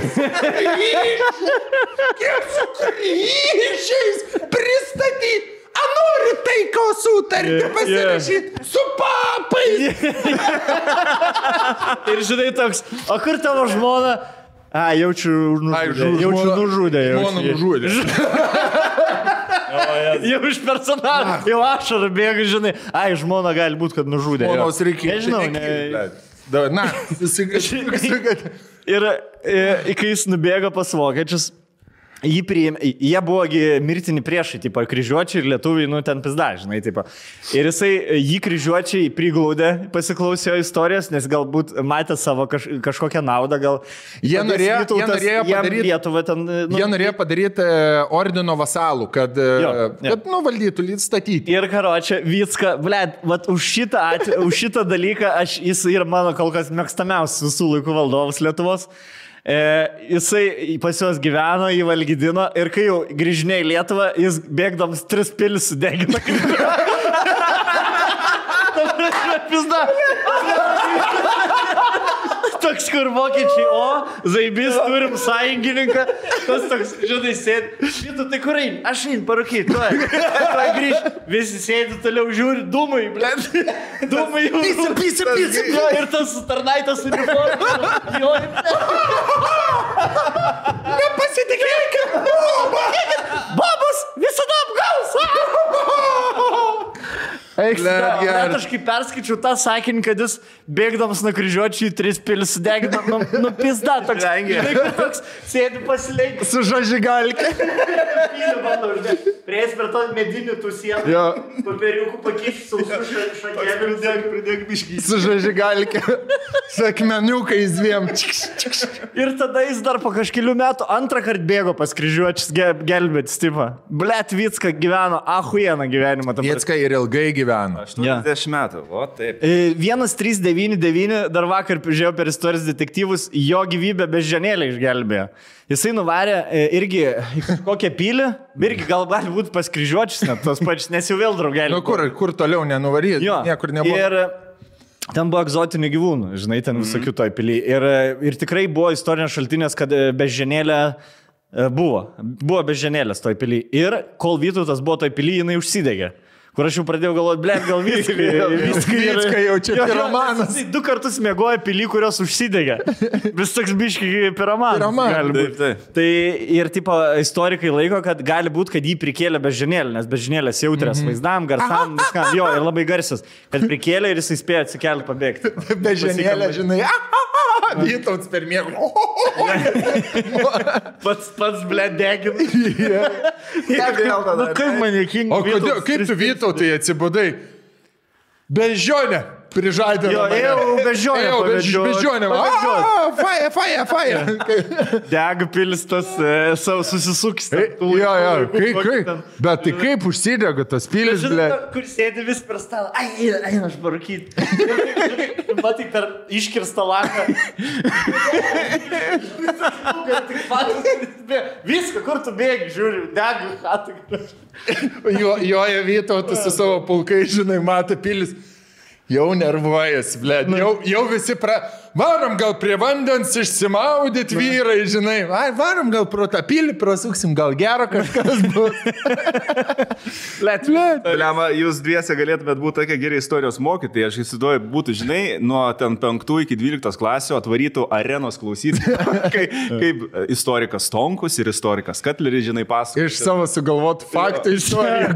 su kryžiais pristatyti. A nori taiko sutartį pasirašyti su papais. Ir žinai toks, o kur tavo žmona? Jaučiu nužudė. Žmona nužudė. Jau iš personažą, jau ašarą bėga, žinai. Žmona gali būti, kad nužudė. Žmonos reikia. Nežinau, Na, ir kai jis nubėgo pas vokiečius, jie buvogi mirtini priešai, tipo, kryžiuočiai ir lietuviai, nu, ten pizda, žinai, tipo. Ir jį kryžiuočiai priglaudė, pasiklausė istorijos, nes galbūt matė savo kažkokią naudą, gal... Jie norėjo padaryti ordino vasalų, kad valdytų, statyti. Ir karočią, Vycka, blėt, už šitą dalyką jis yra mano kol kas mėgstamiausias visų laikų valdovas Lietuvos. Jisai pas juos gyveno, jį valgydino ir kai jau grįžinė į Lietuvą, jis bėgdams 3 pilis sudegino. Toks, kur vokiečiai, zaibis, turim sąjungininką. Tas toks, žinai, sėdi. Šitų, tai kur eini? Aš einu parūkyti, tuoj grįžti. Visi sėdi toliau, žiūri, dūmai, blėt. Dūmai jau. Pisa. Ir tas tarnaitas uniforma. Nepasitikėk. Babas visada apgaus. Net aš kaip perskaičiau tą sakinį, kad jis bėgdamas nuo kryžiuočių į 3 pilis sudegina, pizda toks. Toks sėdi pasileikti. Su žažigalke. Prieis per to medinių tų sienų. Papiriukų pakišti sausų šakėlių. Pridėk biškį. Su žažigalke. Su akmeniukais 2. Ir tada jis dar po kažkelių metų antrą kartą bėgo pas kryžiuočius gelbėti stipą. Blet, Vicka gyveno, ahuieną gyvenimą. Vicka ir ilgai gyveno. 80 metų, o taip. 1399, dar vakar žiūrėjau per istorijos detektyvus, jo gyvybę beždžionėlę išgelbėjo. Jisai nuvarė irgi kokią pilį, irgi gal gali būti pas kryžiuočius net tos pačius, nes jau vėl draugelį. Kur toliau nenuvaryti, niekur nebuvo. Ir ten buvo egzotinių gyvūnų, žinai, ten visokių toj pily. Ir tikrai buvo istorinės šaltinės, kad beždžionėlė buvo beždžionėlės toj pily. Ir kol Vytautas buvo toj pily, jinai užsidegė. Kur aš jau pradėjau galvoti, blėt, gal Vicka jau čia piromanas. 2 kartus mėgoja pilį, kurios užsidegė. Vis toks biškai piromanas. Tai ir tipo istorikai laiko, kad gali būti, kad jį prikėlė beždžionėlę, nes beždžionėlės jautrias vaizdam, garsam, viskam. Jo, ir labai garsias. Kad prikėlė ir jisai spėjo atsikelti pabėgti. Beždžionėlė, žinai, Vytautas per miegą. Pats blėt degina. Kaip man juokinga. O kaip tu Vytautai atsibudai? Beždžionė prižadė. Ėjau beždžionė. Faja. Dega pilis tas susisuks. Bet tai kaip užsidega tas pilis, ble? Kur sėdi vis per stalą. Eina aš parūkyti. Matai per iškirstą langą. Viską, kur tu bėgi, žiūri, dega chatą. Joja Vytautas su savo pulkai, žinai, mato pilis. Jau nervuojas, blėd. Jau visi varom gal prie vandens išsimaudyt vyrai, žinai. Varom gal pro tą pilį, prasuksim, gal gero kažkas bus. Blėd. Lema, jūs dviese galėtumėt būti tokie geri istorijos mokytojai. Aš įsivaizduoju, būtų, žinai, nuo ten 5 iki 12 klasių atvarytų arenos klausyti, kaip istorikas Tonkus ir istorikas Katleris, žinai, pasakoja. Iš savo sugalvotų faktų istoriją.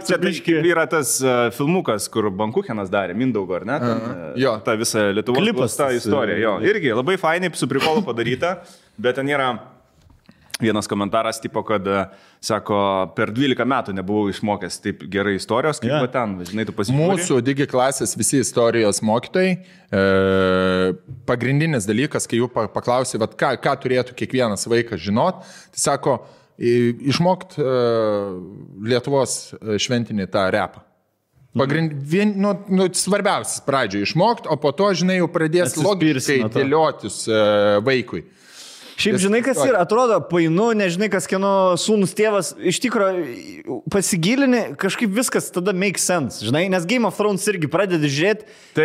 Čia yra tas filmukas, kur Bankuchenas darė, Mindaugo, ar ne? Jo. Ta visa Lietuvos ta istorija. Jo. Irgi labai fainai su prikolu padaryta, bet ten yra vienas komentaras, tipo, kad, sako, per 12 metų nebuvau išmokęs taip gerai istorijos, kaip ten, žinai, tu pasižiūrėjai. Mūsų digi klasės visi istorijos mokytojai, pagrindinis dalykas, kai jų paklausė, ką turėtų kiekvienas vaikas žinot, tai sako, išmokt Lietuvos šventinį tą repą. Svarbiausias pradžioje išmokti, o po to, žinai, jau pradės logiškai dėliotis vaikui. Šiaip, žinai, kas yra, atrodo, painu, nežinai, kas kieno sūnus tėvas, iš tikrųjų pasigilini, kažkaip viskas tada make sense, žinai, nes Game of Thrones irgi pradedi žiūrėti,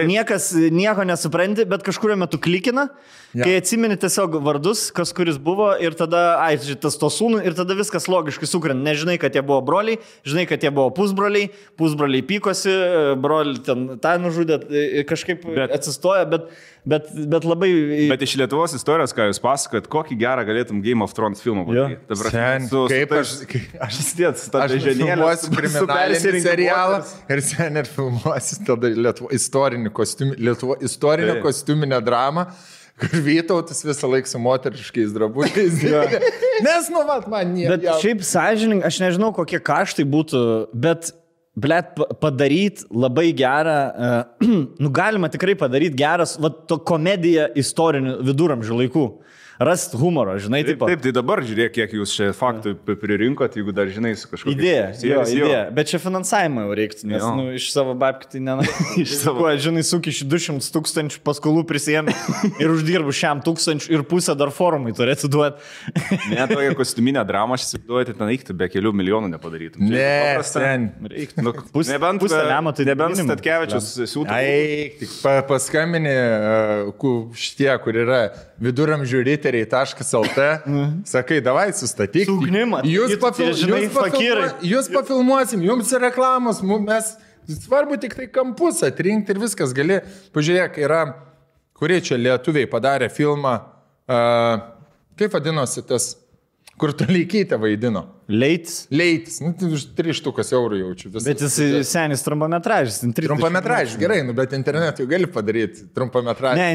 niekas nieko nesupranti, bet kažkurio metu klikina, kai atsimeni tiesiog vardus, kas kuris buvo ir tada, tas to sūnų ir tada viskas logiškai sukrenta, nežinai, kad jie buvo broliai, žinai, kad jie buvo pusbroliai pykosi, broliai ten tą nužudė, kažkaip atsistoja, bet labai... Bet iš Lietuvos istorijos, ką jūs pasakojat, kokį gerą galėtum Game of Thrones filmą padaryti. Aš sėdėt su tą beždžionėlę, filmuosiu kriminalinį serialą ir sen ir filmuosiu tada istorinio kostiuminę dramą, kur Vytautas visą laiką su moteriškais drabužiais. Nes, man nieko. Bet šiaip sąžininkai, aš nežinau, kokie kaštai būtų, bet padaryti labai gerą, galima tikrai padaryti geras, to komediją istorinių viduramžių laikų. rasti humoro, žinai, Taip, tai dabar žiūrėk, kiek jūs čia faktų pririnkot, jeigu dar žinai su kažkokia idėja. Bet čia finansavimą jau reiktų, nes iš savo babkių tai iš savo, žinai, sukiši 200 000 paskolų prisėmė ir uždirbu 100 000 ir pusę dar forumai turėtų duoti. Ne, tokia kostiuminė drama, aš įsivaizduoju, ten eikti be kelių milijonų nepadarytum. Ne, ten. Nebent Statkevičius siūtų. Tik paskambinė šitie, kur yra viduramžių-riteriai.lt, sakai, davai sustatyk. Jūs pafilmuosim, jums reklamos, mes svarbu tik tai kampus atrinkti ir viskas gali. Pažiūrėk, yra, kurie čia lietuviai padarė filmą, kaip vadinosi tas, kur Toleikytė vaidino. Leitis. Nu, už 3 eurų jaučiu. Bet jis senis trumpametražis. Trumpametražis, gerai, bet internetui gali padaryti trumpametražį. Ne,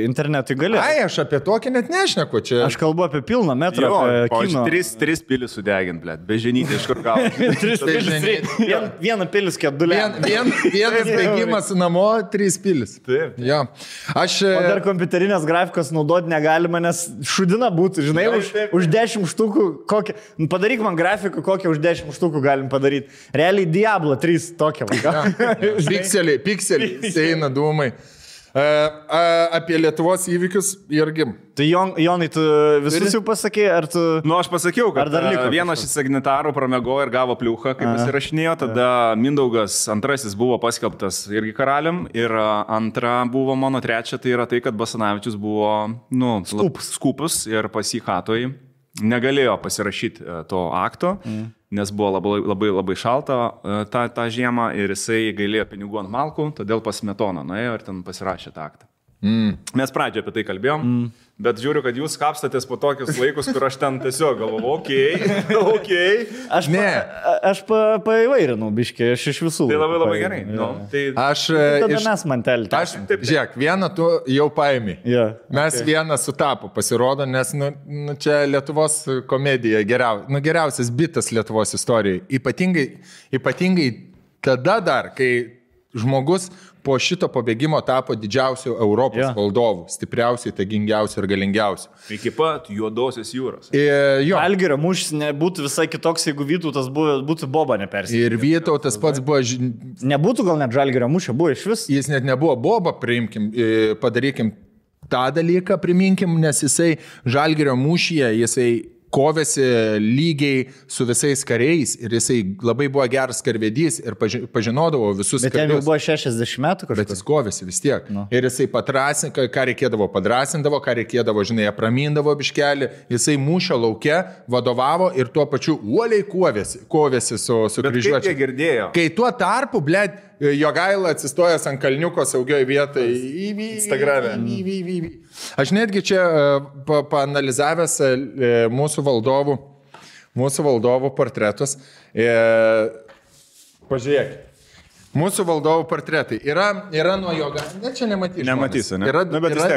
internetui gali. Ai, aš apie tokį net nešneku čia. Aš kalbu apie pilną metrą. O 3 pilis sudegint, blėt, beženyti iš kur gauti. Vieną pilis, kedulė. Vienas bėgimas namo, 3 pilis. Taip. Jo. O dar kompiuterinės grafikos naudoti negalima, nes šudina būtų, žinai, už 10 štukų kokią... Padaryk man grafiką, kokią už 10 štukų galim padaryti. Realiai Diablo 3 tokia. Pikseliai, eina dūmai. Apie Lietuvos įvykius irgi. Tai Jonai, tu visus jau pasakė, ar tu... Nu, aš pasakiau, kad vienas iš signatarų pramego ir gavo pliuchą, kaip jis įrašinėjo, tada Mindaugas antrasis buvo paskelbtas irgi karalium ir antra buvo mano trečia, tai yra tai, kad Basanavičius buvo, skupus ir pas jį hatoj. Negalėjo pasirašyti to akto, nes buvo labai šalta tą žiemą ir jisai gailėjo pinigų ant malkų, todėl pas Smetoną nuėjo ir ten pasirašė tą aktą. Mes pradžioje apie tai kalbėjom, bet žiūriu, kad jūs kapstatės po tokius laikus, kur aš ten tiesiog galvoju, okei. Aš paįvairinau biškį, aš iš visų. Tai labai gerai. Tada mes mantelį. Žiūrėk, vieną tu jau paimi. Mes vieną sutapo pasirodo, nes čia Lietuvos komedija geriausias bitas Lietuvos istorijai. Ypatingai tada dar, kai žmogus po šito pabėgimo tapo didžiausių Europos valdovų, stipriausiai, tagingiausių ir galingiausių. Iki pat Juodosios jūros. Žalgirio mūšis nebūtų visai kitoks, jeigu Vytautas būtų Boba nepersikėlęs. Ir Vytautas pats buvo... Nebūtų gal net Žalgirio mūšio, buvo iš vis. Jis net nebuvo Boba, padarykim tą dalyką, priminkim, nes jisai Žalgirio mūšyje, jisai kovėsi lygiai su visais kariais ir jisai labai buvo geras karvedys ir pažinodavo visus karius. Bet jam jau buvo 60 metų kažkas. Bet jis kovėsi vis tiek. Ir jisai padrasindavo, ką reikėdavo padrasindavo, ką reikėdavo, žinai, apramindavo biškelį. Jisai mūšio lauke vadovavo ir tuo pačiu uoliai kovėsi su kryžiuočiais. Bet kaip jie girdėjo? Kai tuo tarpu, blėt, Jogaila atsistojęs ant kalniuko saugioj vietai. Instagrame. Aš netgi čia paanalizavęs mūsų valdovų portretus. Pažiūrėk. Mūsų valdovų portretai yra nuo Jogailos. Ne, čia nematysiu. Ne? Yra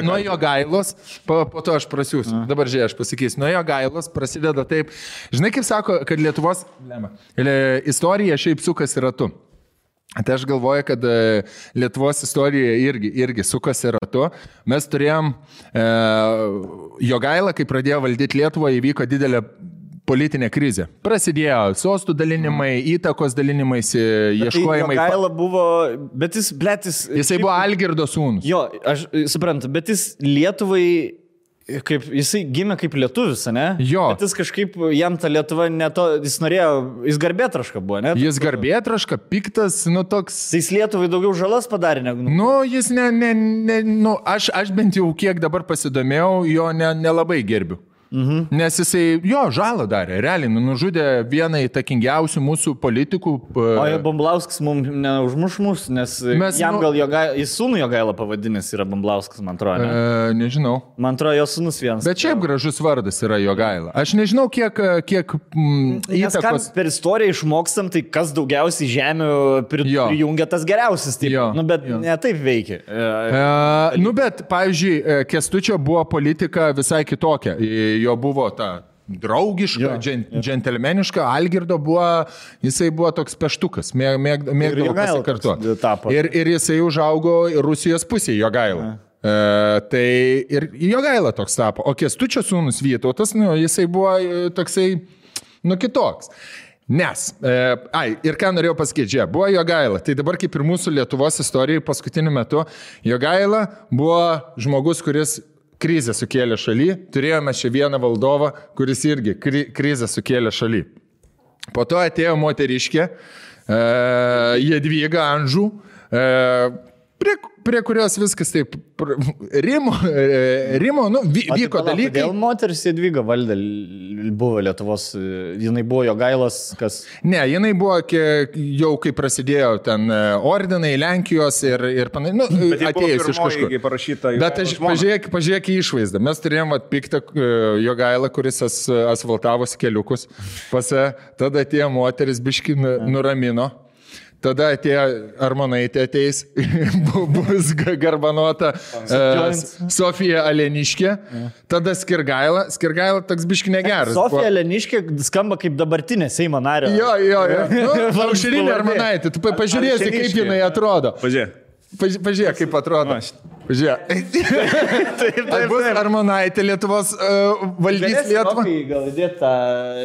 nuo Jogailos, po to aš prasiūsiu. Dabar žiūrėk, aš pasakysiu. Nuo Jogailos prasideda taip. Žinai, kaip sako, kad Lietuvos istorija šiaip sukasi ratu. Tai aš galvoju, kad Lietuvos istorija irgi sukasi ratu. Mes turėjom Jogailą, kai pradėjo valdyti Lietuvą, įvyko didelė politinė krizė. Prasidėjo sostų dalinimai, įtakos dalinimaisi, ieškojimai. Jogaila buvo, bet jisai buvo Algirdo sūnus. Jo, aš suprantu, bet jis Lietuvai... Jisai gimė kaip lietuvis, ne? Jo. Bet jis kažkaip, jam ta Lietuva jis norėjo, jis garbėtraška buvo, ne? Jis garbėtraška, piktas, toks... Jis Lietuvai daugiau žalas padarė negu... Jis aš bent jau kiek dabar pasidomėjau, jo nelabai gerbiu. Nes jisai, žalą darė, realiai, nužudė vieną įtakingiausių mūsų politikų. O Bumblauskas mums neužmuš mus, nes jam gal jis sūnų Jogailą pavadinęs yra Bumblauskas, man atrodo. Ne? Nežinau. Man atrodo, jo sūnus vienas. Bet šiaip gražus vardas yra Jogaila. Aš nežinau, kiek įtakos... Per istoriją išmokstam, tai kas daugiausiai žemių prijungia tas geriausias. Bet ne taip veikia. Bet, pavyzdžiui, Kęstučio buvo politika visai kitokia. Jo buvo ta draugiška, džentelmeniška, Algirdo jisai buvo toks peštukas, mėgdavo pasikartuoti. Ir jisai užaugo Rusijos pusėje, Jogaila. Tai ir Jogaila toks tapo. O Kęstučio sūnus Vytautas, jisai buvo toksai, kitoks. Nes, ir ką norėjau pasakyti, buvo Jogaila. Tai dabar kaip ir mūsų Lietuvos istorijai paskutiniu metu, Jogaila buvo žmogus, kuris krizę sukėlė šaly. Turėjome čia vieną valdovą, kuris irgi krizę sukėlė šaly. Po to atėjo moteriškė, Jadvyga Anžų, prie kurios viskas taip rimo, vyko dalykai. Kodėl moteris Jadvyga valdė buvo Lietuvos, jinai buvo Jogailos, kas? Ne, jinai buvo jau kai prasidėjo ten ordinai Lenkijos ir atėjus iš kažkur. Bet pažiūrėk į išvaizdą. Mes turėjom piktą Jogailą, kuris asfaltavosi keliukus. Tada atėjo moteris biški nuramino. Tada atėjo Armonaitė ateis, bus garbanota Sofija Aleniškė, tada Skirgaila toks biški negeras. Sofija Aleniškė skamba kaip dabartinė Seimo narė. Jo. Aušrinė Armonaitė, tu pažiūrėsi, kaip jinai atrodo. Pažiūrėk, kaip atrodo. Pažiūrėk. Bus Armonaitė Lietuvos valdys Lietuvą. Gal įdėt tą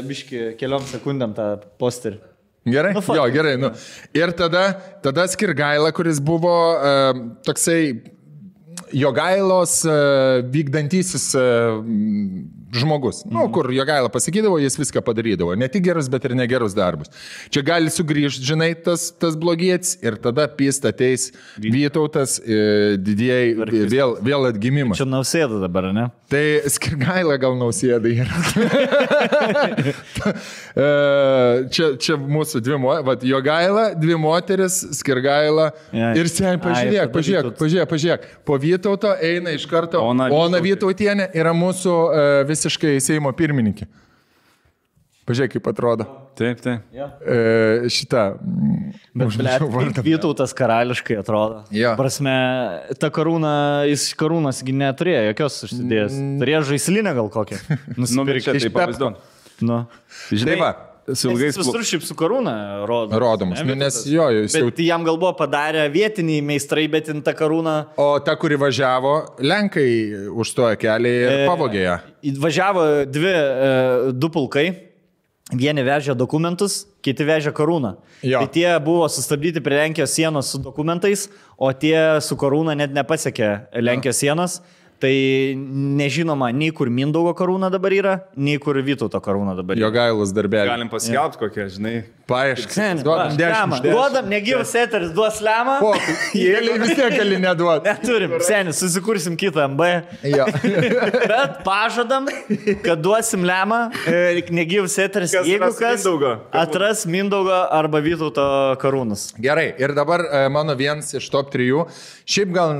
biški keliom sekundėm tą posterį. Gerai? Gerai. Ir tada Skirgaila, kuris buvo toksai Jogailos vykdantysis žmogus. Kur Jogaila pasakydavo, jis viską padarydavo. Ne tik gerus, bet ir negerus darbus. Čia gali sugrįžti, žinai, tas blogietis ir tada pist ateis Vytautas, didieji vėl atgimimas. Čia Nausėda dabar, ne? Tai Skirgaila gal Nausėda yra. Čia mūsų Jogaila, dvi moteris, Skirgaila ir pažiūrėk. Po Vytauto eina iš karto Ona Vytautienė, yra mūsų visiškai Seimo pirmininkė. Pažiūrėk, kaip atrodo. Taip. Šitą. Bet Vytautas karališkai atrodo. Prasme, ta karūna, jis karūnas neturėjo jokios užsidėjęs. Turėjo žaislinę gal kokią. Nusipirkti taip pavaizduon. Žinai, Visur šiaip su karūna rodomas. Nes bet jam gal buvo padarę vietiniai meistrai, bet in ta karūna. O ta, kuri važiavo, Lenkai užstojo kelią ir pavogė ją. Važiavo du pulkai. Vieni vežė dokumentus, kiti vežė karūną. Tai tie buvo sustabdyti prie Lenkijos sienos su dokumentais, o tie su karūna net nepasiekė Lenkijos sienos. Tai nežinoma, nei kur Mindaugo karūna dabar yra, nei kur Vytauto karūna dabar yra. Jogailos darbelį. Galim paskelbti kokią, žinai. Paaiškink. Duodam, negyvus eteris, duos lemą. Jėliai vis tiek gali neduoti. Neturim, senis, susikursim kitą MB. Bet pažadam, kad duosim lemą, negyvus eteris, jeigu kas atras Mindaugo arba Vytauto karūnas. Gerai, ir dabar mano vienas iš top 3. Šiaip gal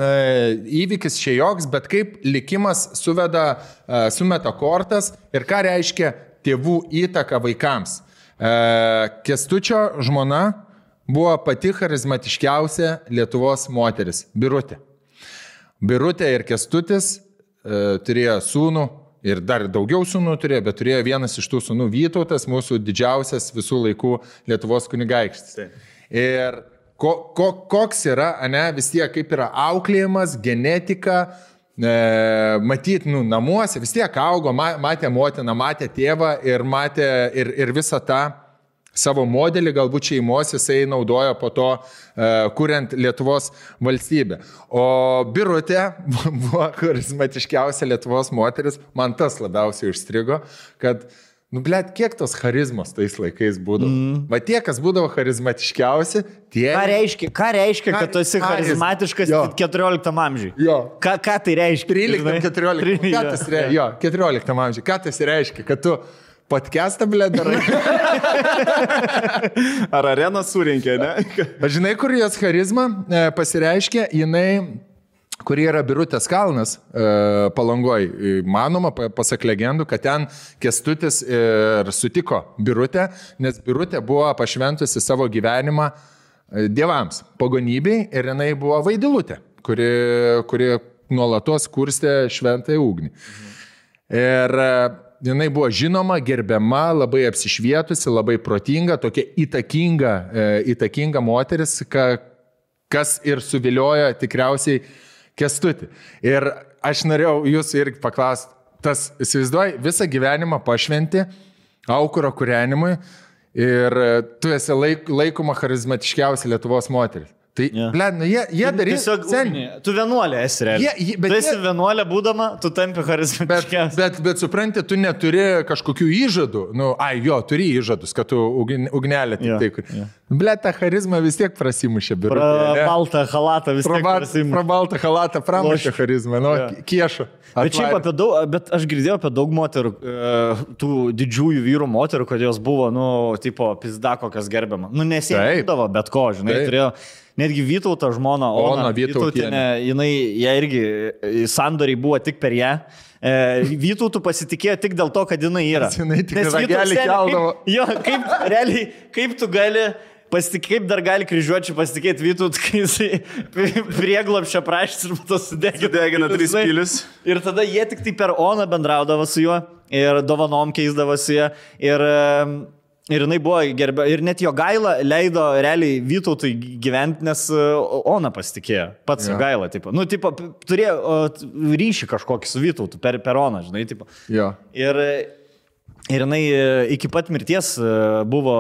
įvykis čia joks, bet kaip likimas sumeta kortas ir ką reiškia tėvų įtaka vaikams. Kęstučio žmona buvo pati charizmatiškiausia Lietuvos moteris – Birutė. Birutė ir Kęstutis turėjo sūnų ir dar daugiau sūnų turėjo, bet turėjo vienas iš tų sūnų Vytautas, mūsų didžiausias visų laikų Lietuvos kunigaikštis. Ir koks yra, vis tiek kaip yra auklėjimas, genetika, matyti namuose, vis tiek augo, matė motiną, matė tėvą ir matė ir visą tą savo modelį, galbūt šeimos jisai naudojo po to, kuriant Lietuvos valstybę. O Birutė buvo charizmatiškiausia Lietuvos moteris, man tas labiausiai užstrigo, kad kiek tos charizmos tais laikais būdavo. Va tie, kas būdavo charizmatiškiausi, tie... Ką reiškia, kad tu esi charizmatiškas 14 amžiui? Ką tai reiškia? 13-14. 14 amžiui. Ką tai reiškia? Kad tu podcastą, darai? Ar areną surinkė, ne? Žinai, kur jos charizma pasireiškia, jinai... Kurie yra Birutės kalnas Palangoj. Manoma, pasak legendų, kad ten Kęstutis ir sutiko Birutę, nes Birutė buvo pašventusi savo gyvenimą dievams, pagonybei, ir jinai buvo Vaidilutė, kuri nuolatos kurstė šventąją ugnį. Ir jinai buvo žinoma, gerbiama, labai apsišvietusi, labai protinga, tokia įtakinga moteris, kas ir suviliojo tikriausiai Kęstutį. Ir aš norėjau jūsų irgi paklausti, tas, įsivaizduoji, visą gyvenimą pašventi aukuro kūrenimui ir tu esi laikoma charizmatiškiausia Lietuvos moteris. Tai, bled, jie darys... Tu vienuolė esi realiai. Tu esi vienuolė būdama, tu tampi charizmatiškiausia. Bet supranti, tu neturi kažkokių įžadų. Turi įžadus, kad tu ugnelė tik tai. Bled, ta charizma vis tiek prasimušė. Baltą halatą vis tiek prasimušė. Baltą halatą pramušė charizmą. Kiešo. Bet aš girdėjau apie daug moterų, tų didžiųjų vyrų moterų, kad jos buvo, tipo, pizda kokias gerbiama. Nesiekdavo bet ko, žinai, turėjo. Netgi Vytauto žmona, Ona Vytautinė, jie irgi sandoriai buvo tik per ją. Vytautų pasitikėjo tik dėl to, kad jinai yra. Nes ragelį keldavo. Kaip tu gali... Kaip dar gali kryžiuočiai pasitikėti Vytautų, kai jisai prieglobščio prašys ir tas sudegina 3 pilius. Ir tada jie tik tai per Oną bendraudavo su juo ir dovanom keisdavo su juo. Ir jinai buvo gerbė, ir net jo gaila leido realiai Vytautui gyventi, nes Ona pasitikėjo, pats jo gaila, tipo. Turėjo ryšį kažkokį su Vytautu per Oną, žinai, tipo. Jo. Ir jinai iki pat mirties buvo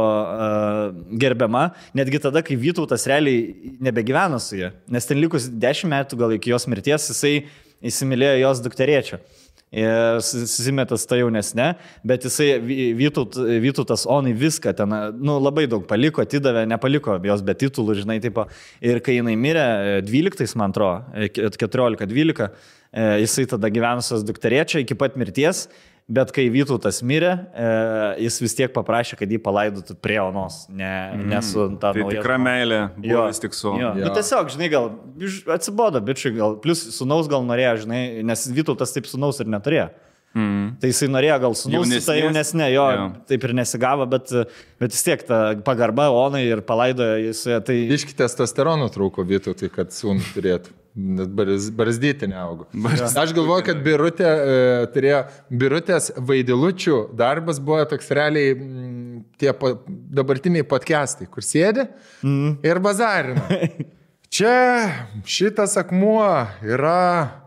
gerbiama, netgi tada, kai Vytautas realiai nebegyveno su ja, nes ten likus 10 metų gal iki jos mirties jisai įsimylėjo jos dukterėčią. Ir susimetas ta jaunesnė, bet jisai Vytautas Onai viską ten, labai daug paliko, atidavė, nepaliko jos be titulų, žinai, tipo. Ir kai jinai mirė 12, man atrodo, 14-12, jisai tada gyvenusios dukterėčia iki pat mirties, bet kai Vytautas mirė, jis vis tiek paprašė, kad jį palaidotų prie Onos, ne su ta nauja. Tai tikra meilė buvo vis tik su. Nu tiesiog, žinai, gal atsibodo, bičiui, gal, plus sunaus gal norėjo, žinai, nes Vytautas taip sunaus ir neturėjo. Tai jisai norėjo gal sunaus su ta jaunesnė, taip ir nesigavo, bet vis tiek ta pagarba Onai ir palaidojo jis. Tai... Iški testosterono trūko Vytautui, kad sūnų turėtų. Barzdyti neaugo. Aš galvoju, kad Birutės Vaidilučių darbas buvo toks realiai tie dabartiniai podcastai, kur sėdi ir bazarina. Čia šitas akmuo yra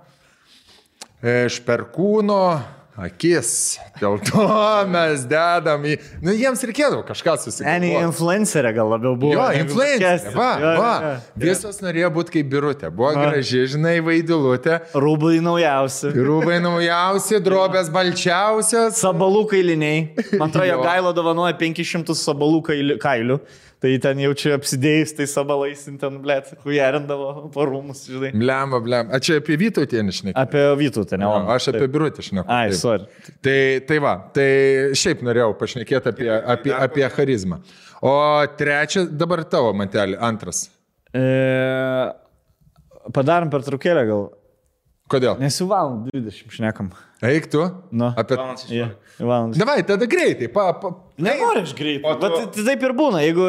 iš Perkūno akis. Dėl to mes dedam į... jiems reikėdavo kažką susigalvoti. Influencerė gal labiau buvo. Jo, influencerė. Va. Visos norėjo būti kaip Birutė. Buvo graži, žinai, Vaidilutė. Rūbai naujausi, drobės balčiausios. Sabalų kailiniai. Man atrodo, jo gailo dovanoja 500 sabalų kailių. Tai ten jaučiu apsidėjus, tai sabalais ten, blėt, hujerindavo po rūmus, žinai. Blemba. A čia apie Vytautį nešnekėjau? Apie Vytautį, ne? Aš apie Birutį šnekėjau. Ai, sorry. Tai šiaip norėjau pašnekėti apie charizmą. O trečia, dabar tavo, Mantelį, antras. Padarom pertraukėlę gal. Kodėl? Nes jau valandą 20 šnekam. Eik tu? Apie... Davai, tada greitai. Nenori aš greitai, bet taip ir būna. Jeigu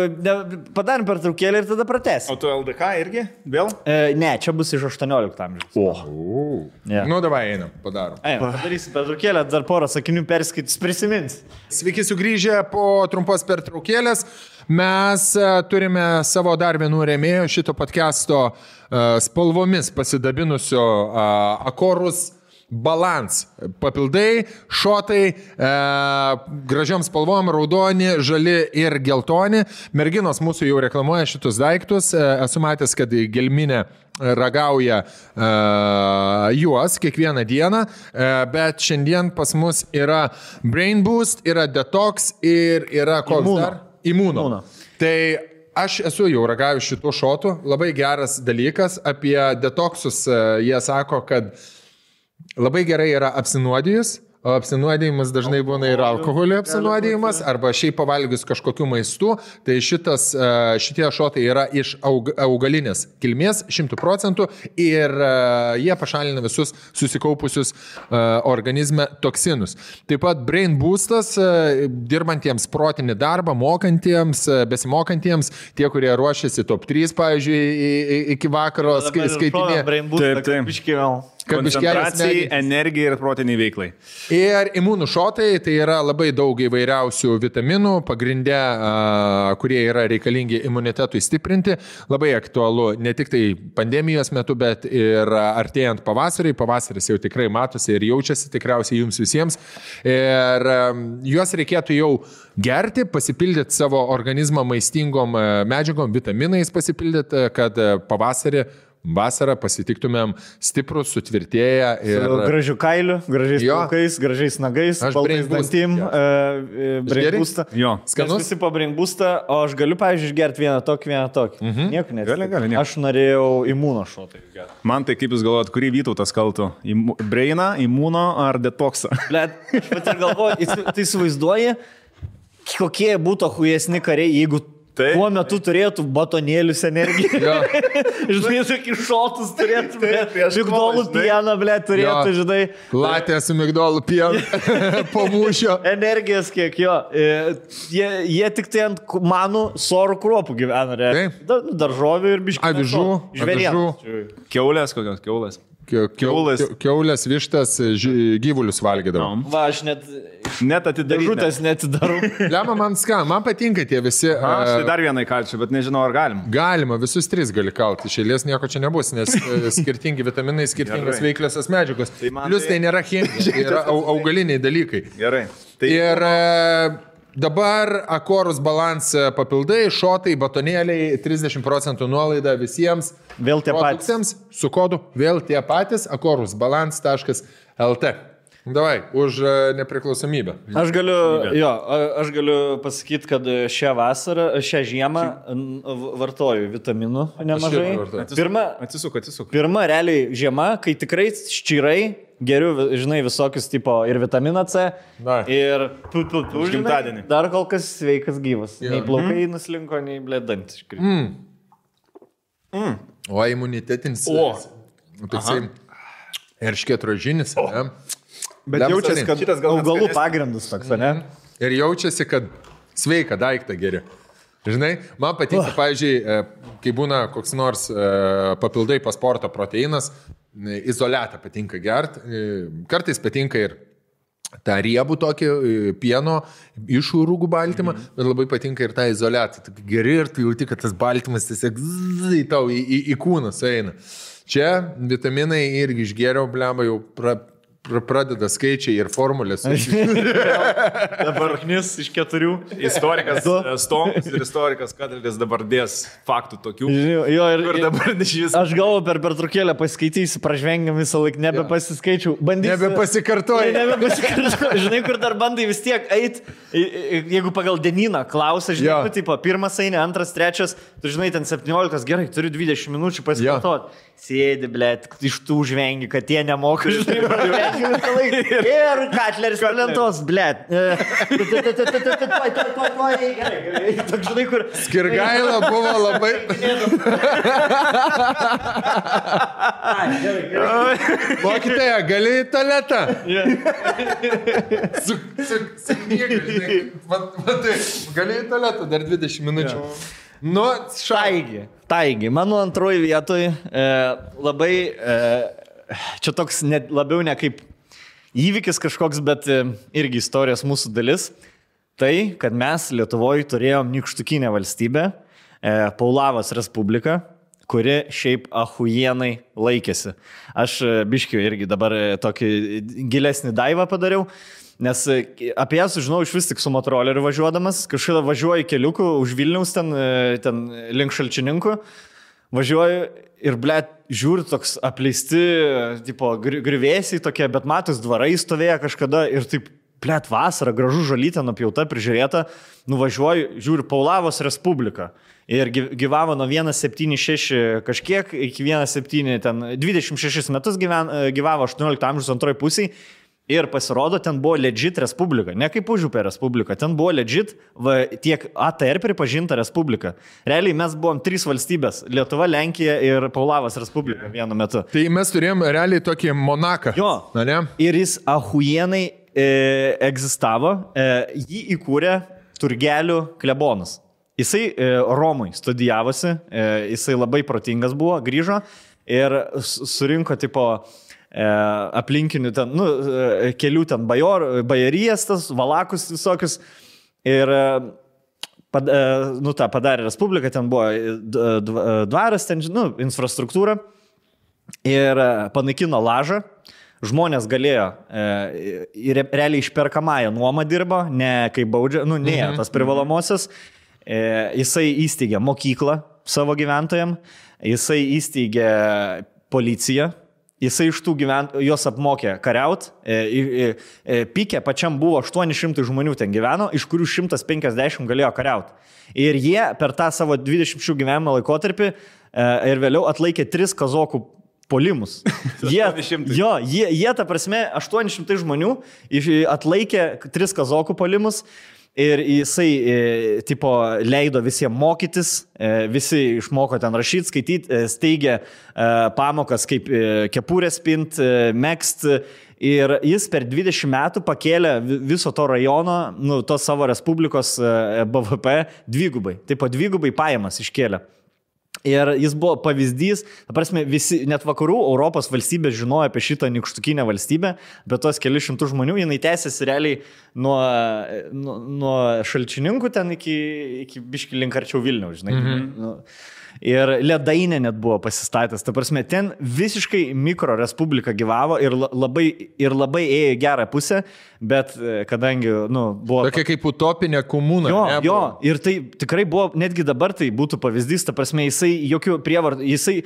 padarom pertraukėlę ir tada pratęsim. O tu LDK irgi? Vėl? Ne, čia bus iš 18 amžiaus. Davai, einam, padarom. Padarysim pertraukėlę, dar porą sakinių perskaitys, prisimins. Sveiki sugrįžę po trumpos pertraukėlės. Mes turime savo dar vienų rėmėjų šito podcast'o spalvomis pasidabinusio Akorus Balance. Papildai, šotai, gražiom spalvom, raudoni, žali ir geltoni. Merginos mūsų jau reklamuoja šitus daiktus. Esu matęs, kad gelminė ragauja juos kiekvieną dieną, bet šiandien pas mus yra Brain Boost, yra Detox ir yra koks dar? Imuno. Tai aš esu jau ragavęs šitų šotų, labai geras dalykas. Apie detoxus jie sako, kad labai gerai yra apsinuodijus, o apsinuodijimas dažnai būna ir alkoholio apsinuodijimas, arba šiaip pavalgius kažkokiu maistu. Tai šitie šotai yra iš augalinės kilmės 100% ir jie pašalina visus susikaupusius organizme toksinus. Taip pat Brain Boostas dirbantiems protinį darbą, mokantiems, besimokantiems, tie, kurie ruošiasi top 3, pavyzdžiui, iki vakaro skaitinė. Brain Boostą, kaip iškivel. Koncentracijai, energijai ir protiniai veiklai. Ir imunų šotai, tai yra labai daug įvairiausių vitaminų, pagrindė, kurie yra reikalingi imunitetui stiprinti. Labai aktualu ne tik tai pandemijos metu, bet ir artėjant pavasariui. Pavasaris jau tikrai matosi ir jaučiasi tikriausiai jums visiems. Ir juos reikėtų jau gerti, pasipildyti savo organizmą maistingom medžiagom, vitaminais pasipildyti, kad vasarą pasitiktumėm stiprus, sutvirtėję ir... Su gražiu kailiu, gražiais plaukais, gražiais nagais, baltais dantim, brainboostą. Jo. Skanus. Visi po brainboostą, o aš galiu, pavyzdžiui, išgerti vieną tokį. Nieko net. Gali. Aš norėjau imuno šotą išgerti. Man tai kaip jūs galvojat, kurį Vytautas kaltų? Brainą, imuno ar detoksą? Blet, aš pat ir galvoju, tai įsivaizduoji, kokie būtų hujesni kariai, jeigu tuo metu turėtų batonėlius energiją. Žinai, tokį šotus turėtų, migdolų pieną, turėtų, žinai. Latė su migdolų pienu po mūšio. Energijos kiek jo. Jie tik tai ant manų sorų kruopų gyvena. Daržovių ir biškių. Avižų. Kiaulės kokios, kiaulės. Kiaulės, vištas, gyvulius valgydavo. Va, aš net atidarytas netidarau. Lemma, man patinka tie visi. Aš tai dar vieną įkalčiu, bet nežinau, ar galim. Galima, visus 3 gali kalti. Iš eilės nieko čia nebus, nes skirtingi vitaminai, skirtingos veikliosios medžiagos. Plius tai nėra chemija, tai yra augaliniai dalykai. Gerai. Ir dabar Akorus Balance papildai, šotai, batonėliai, 30% nuolaida visiems. Vėl tie patys. Su kodu vėl tie patys, akorusbalance.lt. Davai, už nepriklausomybę. Aš galiu pasakyti, kad šią žiemą vartoju vitaminų nemažai. Atsisuk. Pirma, realiai žiema, kai tikrai ščirai geriu, žinai, visokius tipo ir vitaminą C. Ir gimtadienį. Dar kol kas sveikas gyvas. Nei plaukai nuslinko, nei blėdant. O imunitetinis. Toksai erškėtrožinis. Bet jaučiasi, kad šitas augalų pagrindus toks, ne? Ir jaučiasi, kad sveiką daiktą geri. Žinai, man patinka, pavyzdžiui, kai būna koks nors papildai po sporto proteinas, izoliatą patinka gert, kartais patinka ir tą riebų tokį pieno iš rūgų baltymą, bet labai patinka ir tą izoliatą. Geri ir tu jauti, kad tas baltymas tiesiog tau į kūną sueina. Čia vitaminai irgi išgėriau, blemba, jau pradeda skaičiai ir formulės. Dabar knis iš 4. Istorikas Stonkus ir istorikas Kadrelis dabar dės faktų tokių. Ir dabar aš galvoju, per pertraukėlę paskaitysiu, pražvengiam visą laiką, nebepasiskaičiau. Nebepasikartoju. Žinai, kur dar bandai vis tiek eit, jeigu pagal dienyną klausia, žinai, tipo, pirmas eini, antras, trečias, tu žinai, ten 17, gerai, turiu 20 minučių pasikartoti. Sėdi, blėt, iš tų žvengi, kad jie nemoka, žinai, pražvengi visą laiką. Ir Katleris palentos, blėt. Žinai, kur... Skirgaila buvo labai... Mokytoja, gali į tualetą? Su knyga, žinai. Gali į tualetą dar 20 minučių. Nu, Taigi, mano antroji vietoj labai, čia toks labiau ne kaip įvykis kažkoks, bet irgi istorijos mūsų dalis. Tai, kad mes Lietuvoje turėjom nykštukinę valstybę, Paulavos Respubliką, kuri šiaip ahujienai laikėsi. Aš biškiu irgi dabar tokį gilesnį daivą padariau. Nes apie ją sužinau iš vis tik su motoroleriu važiuodamas, kažkada važiuoju keliuku už Vilniaus ten link Šalčininkų, važiuoju ir, blėt, žiūriu toks apleisti, tipo, grįvėsiai tokie, bet matos dvarai stovėjo kažkada ir taip, blėt, vasara, gražu žolytė, nupjauta, prižiūrėta, nuvažiuoju, žiūriu Paulavos Respubliką. Ir gyvavo nuo 176 kažkiek iki 17, ten 26 metus gyvavo 18 amžiaus antroji pusiai. Ir pasirodo, ten buvo legit respublika, ne kaip Užupė respublika, ten buvo legit tiek ATR pripažinta respublika. Realiai mes buvom 3 valstybės - Lietuva, Lenkija ir Paulavos Respublika vienu metu. Tai mes turėjom realiai tokį Monaką. Jo, ne? Ir jis ahujienai egzistavo, jį įkūrė Turgelių klebonas. Jisai Romui studijavosi, jisai labai protingas buvo, grįžo ir surinko tipo aplinkinių ten, kelių ten bajorijas, tas valakus visokius. Ir padarė Respublika, ten buvo dvaras, ten, infrastruktūra. Ir panaikino lažą. Žmonės galėjo, realiai išperkamąją nuomą dirbo, ne kaip baudžia, tas privalomosios. Jisai įsteigė mokyklą savo gyventojams, jisai įsteigė policiją, jisai iš tų juos apmokė kariaut, Pike pačiam buvo 800 žmonių ten gyveno, iš kurių 150 galėjo kariaut. Ir jie per tą savo 20 gyvenimo laikotarpį ir vėliau atlaikė 3 kazokų polimus. Jie, ta prasme, 800 žmonių atlaikė 3 kazokų polimus ir jisai, leido visiems mokytis, visi išmoko ten rašyti, skaityti, steigė pamokas kaip kepurės pint, megzt. Ir jis per 20 metų pakėlė viso to rajono, tos savo Respublikos BVP dvigubai. Dvigubai pajamas iškėlė. Ir jis buvo pavyzdys, prasme, visi, net vakarų Europos valstybės žinojo apie šitą nykštukinę valstybę, bet tos keli šimtų žmonių, jinai tęsiasi realiai nuo Šalčininkų ten iki biškį link arčiau Vilniaus, žinai. Ir Ledainė net buvo pasistatęs. Ta prasme, ten visiškai mikro respublika gyvavo ir labai ėjo į gerą pusę, bet kadangi, buvo... Tokia kaip utopinė komuna. Jo, ir tai tikrai buvo, netgi dabar tai būtų pavyzdys, ta prasme, jisai jokių prievartų, jisai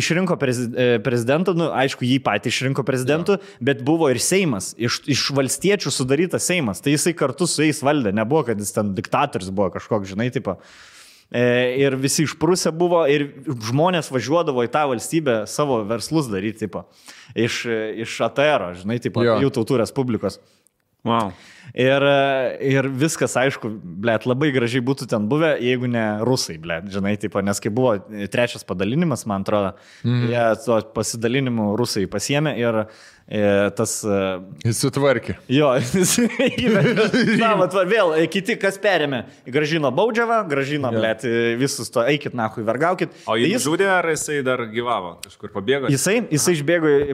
išrinko prezidentą, aišku, jį patį išrinko prezidentu, bet buvo ir Seimas, iš valstiečių sudarytas Seimas, tai jisai kartu su jais valdė, nebuvo, kad jis ten diktatorius buvo kažkoks, žinai, tipo. Ir visi išprusę buvo ir žmonės važiuodavo į tą valstybę savo verslus daryti, tipo, iš ATR, žinai, tipo, jų tautų respublikos. Wow. Ir viskas, aišku, blėt, labai gražiai būtų ten buvę, jeigu ne rusai, blėt, žinai, tipo, nes kai buvo 3 padalinimas, man atrodo, jie to pasidalinimu rusai pasiėmė ir tas... Jis sutvarkė. Jo, jis įvedė. Vėl, kiti, kas perėmė, gražino Baudžiavą, gražino, blėt, visus to, eikit, nahui, vergaukit. O jis žudė, ar jisai dar gyvavo, kažkur pabėgo? Jisai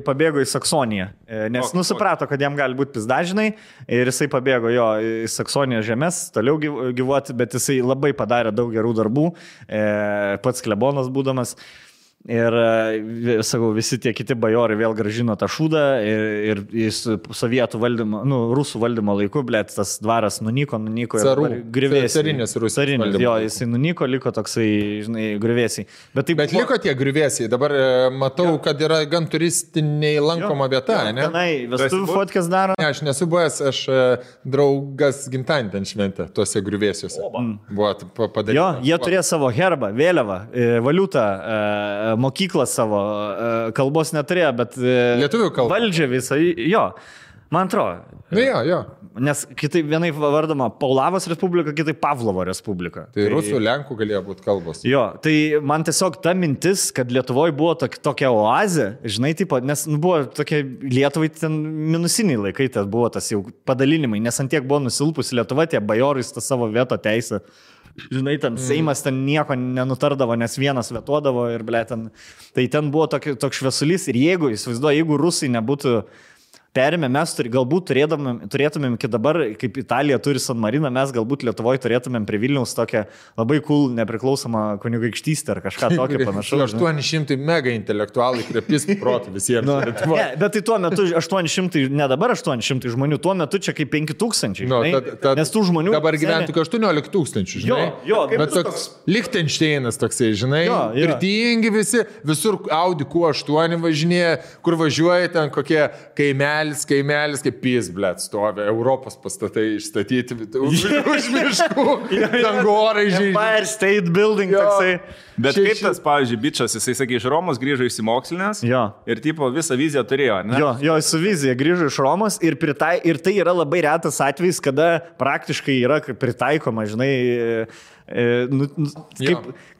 pabėgo į Saksoniją, nes suprato, kad jam gali būti pizdažinai ir jisai pabėgo į Saksonijos žemės, toliau gyvuoti, bet jisai labai padarė daug gerų darbų, pats klebonas būdamas. Ir, sakau, visi tie kiti bajorai vėl gražino tą šūdą ir sovietų valdymo, rusų valdymo laiku, blėt, tas dvaras nunyko ir grįvėsiai. Carinės Rusijos valdymo. Jo, jisai nunyko, liko toksai, žinai, grįvėsiai. Bet liko tie grįvėsiai, dabar matau, kad yra gan turistiniai lankoma vieta, ne? Tenai, vestuvių fotkės daro. Ne, aš nesu buvęs, aš draugas gimtadienį ten šventė, tuose grįvėsiuose. Buvo padaryti. Jo, jie turėjo savo herbą, vėliavą, valiutą, mokyklą savo, kalbos neturėjo, bet lietuvių kalba. Valdžia visą, jo, man atrodo. Jo. Nes kitaip vienai vardoma Paulavos Respublika, kitaip Pavlovo Respublika. Tai rusų, lenkų galėjo būti kalbos. Jo, tai man tiesiog ta mintis, kad Lietuvoje buvo tokia oazė, žinai, tipo, nes buvo tokie Lietuvai ten minusiniai laikai, tas buvo tas jau padalinimai, nes antiek buvo nusilpusi Lietuva, tie bajorai tą savo veto teisę. Žinai, ten Seimas ten nieko nenutardavo, nes vienas vetuodavo ir, ble, tai ten buvo toks šviesulys ir jeigu rusai nebūtų perėmė, mes galbūt turėtumėm iki dabar, kaip Italija turi San Mariną, mes galbūt Lietuvoje turėtumėm prie Vilniaus tokią labai cool nepriklausomą kunigaikštystę ar kažką tokio panašaus. 800 mega intelektualai krepis protų visiems. Ne, bet tai tuo metu 800, ne dabar 800 žmonių, tuo metu čia kaip 5000, nes tų žmonių... Dabar gyventų 18 000, žinai. Jo, bet toks Lichtensteinas toksai, žinai, turtingi visi, visur Audi Q8 važinėja, kur važiuoja ten kokie kaimelis, kaip pys, blėt, stovi, Europos pastatai išstatyti, už miškų, dangorai žydžiai. Empire State Building toksai. Bet kaip tas, pavyzdžiui, bičas, jisai, sakė, iš Romos grįžo išsimokslinęs ir tipo visą viziją turėjo, ne? Jo, su vizija grįžo iš Romos ir tai yra labai retas atvejis, kada praktiškai yra pritaikoma, žinai,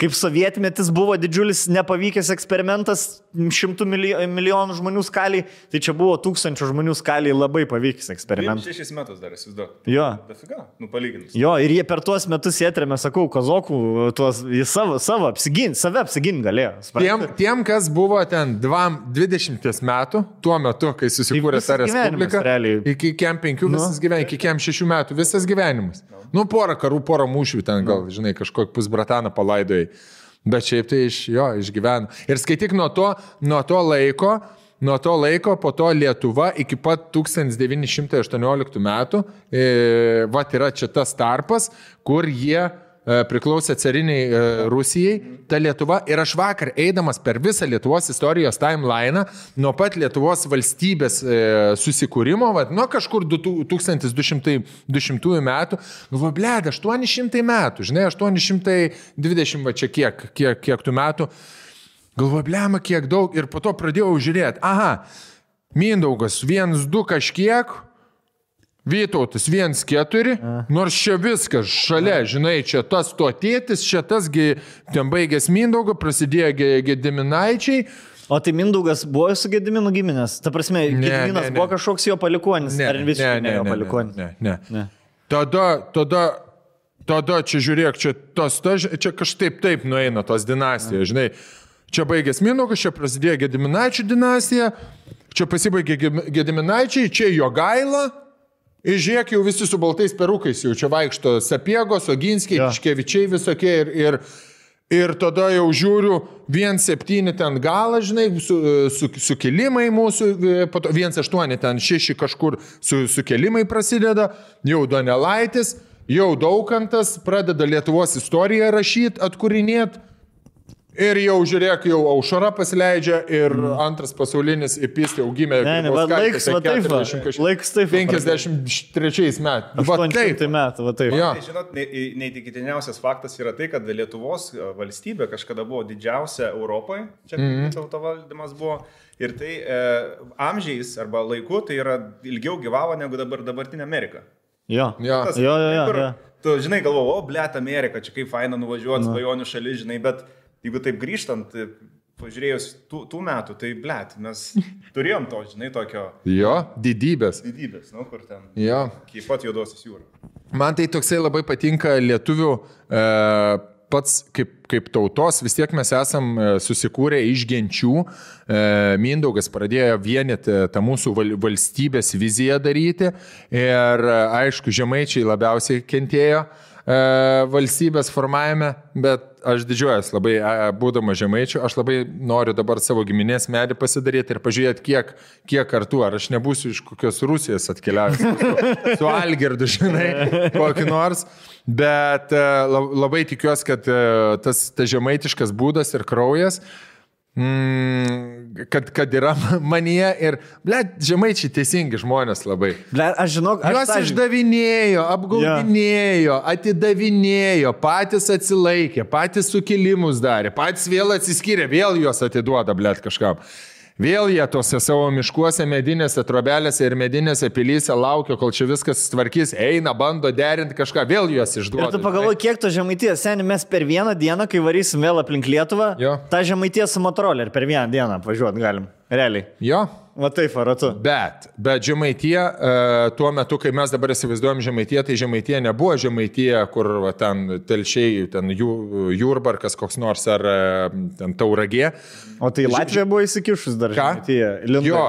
kaip sovietmetis buvo didžiulis nepavykęs eksperimentas 100 milijonų žmonių skaliai, tai čia buvo 1000 žmonių skaliai labai pavykęs eksperimentas. 6 metus dar esi daug. Jo. Dafiga, palyginus. Jo, ir jie per tuos metus atrėmė, sakau, kazokų, jie save apsigint galėjo. Tiem, kas buvo ten 20 metų, tuo metu, kai susikūrė ta respublika, iki kem 5 visas gyvenimas, iki kem 6 metų visas gyvenimas. Nu, porą karų, porą mūšių ten gal, žinai, kažkokį pusbrataną palaidojai. Bet šiaip tai išgyveno. Ir skaityk nuo to laiko, po to Lietuva iki pat 1918 metų, yra čia tas tarpas, kur jie priklausė cariniai Rusijai, ta Lietuva. Ir aš vakar, eidamas per visą Lietuvos istorijos timeliną, nuo pat Lietuvos valstybės susikūrimo, nuo kažkur 1200 metų, galvoju, blėd, 800 metų, žinai, 820, va čia kiek tų metų, galvoju, blėma, kiek daug, ir po to pradėjau žiūrėti, Mindaugas 1-2 kažkiek, Vytautas 1-4, nors čia viskas šalia, žinai, čia tas to tėtis, čia tasgi ten baigęs Mindaugo, prasidėjo Gediminaičiai. O tai Mindaugas buvo su Gediminu giminės? Ta prasme, Gediminas buvo kažkoks jo palikuonis, ar visiškai ne jo palikuonis? Ne. Tada čia žiūrėk, čia kažkaip taip nueina tos dinastijos, žinai. Čia baigęs Mindaugas, čia prasidėjo Gediminaičių dinastija, čia pasibaigė Gediminaičiai, čia Jogaila. Ir žiūrėk, jau visi su baltais perukais, jau čia vaikšto Sapiegos, Oginskiai, Tiškevičiai visokie ir tada jau žiūriu 1-7 ten galą, žinai, sukilimai mūsų, 1-8 ten 6 kažkur sukilimai prasideda, jau Donelaitis, jau Daukantas pradeda Lietuvos istoriją rašyti, atkūrinėti. Ir jau žiūrėk, jau Aušra pasileidžia ir antras pasaulinis įpistė jau gimė. Laiks taip. 53 metų. 800 metų, va taip. Ja. Tai, žinot, neįtikėtiniausias faktas yra tai, kad Lietuvos valstybė kažkada buvo didžiausia Europoje, čia tauto valdymas buvo. Ir tai amžiais arba laiku tai yra ilgiau gyvavo negu dabartinė Amerika. Jo. Tu, žinai, galvoju, blėt, Amerika, čia kaip faina nuvažiuoti, svajonių šalis, žinai, bet jeigu taip grįžtant, pažiūrėjus tų metų, tai blėt, mes turėjom to, žinai, tokio... Jo, didybės, kur ten... Jo. Kaip pat Juodosios jūros. Man tai toksai labai patinka lietuvių pats kaip tautos, vis tiek mes esam susikūrę iš genčių. Mindaugas pradėjo vienyti tą mūsų valstybės viziją daryti ir aišku, žemaičiai labiausiai kentėjo valstybės formavime, bet aš didžiuojas labai, būdama žemaičiu, aš labai noriu dabar savo giminės medį pasidaryti ir pažiūrėti, kiek kartų, ar aš nebūsiu iš kokios Rusijos atkeliavęs su Algirdu, žinai, kokį nors, bet labai tikiuosi, kad tas žemaitiškas būdas ir kraujas, kad yra manyje ir, žemaičiai teisingi žmonės labai. Aš žinau, juos išdavinėjo, apgaudinėjo, atidavinėjo, patys atsilaikė, patys sukilimus darė, patys vėl atsiskyrė, vėl juos atiduoda, kažkam. Vėl jie tose savo miškuose, medinėse trobelėse ir medinėse pilyse laukia, kol čia viskas tvarkys, eina, bando derinti kažką, vėl juos išduoda. Ir tu pagalvoji, kiek to Žemaitijos, seniai, mes per vieną dieną, kai varysim vėl aplink Lietuvą, tą Žemaitijos su Motorola ir per vieną dieną važiuoti galim. Realiai. Jo. Va taip, aratu. Bet Žemaitija, tuo metu, kai mes dabar įsivaizduojam Žemaitiją, tai Žemaitija nebuvo Žemaitija, kur ten telšiai, ten Jurbarkas koks nors ar ten Tauragė. O tai Latvija buvo įsikišus dar Žemaitija. Jo,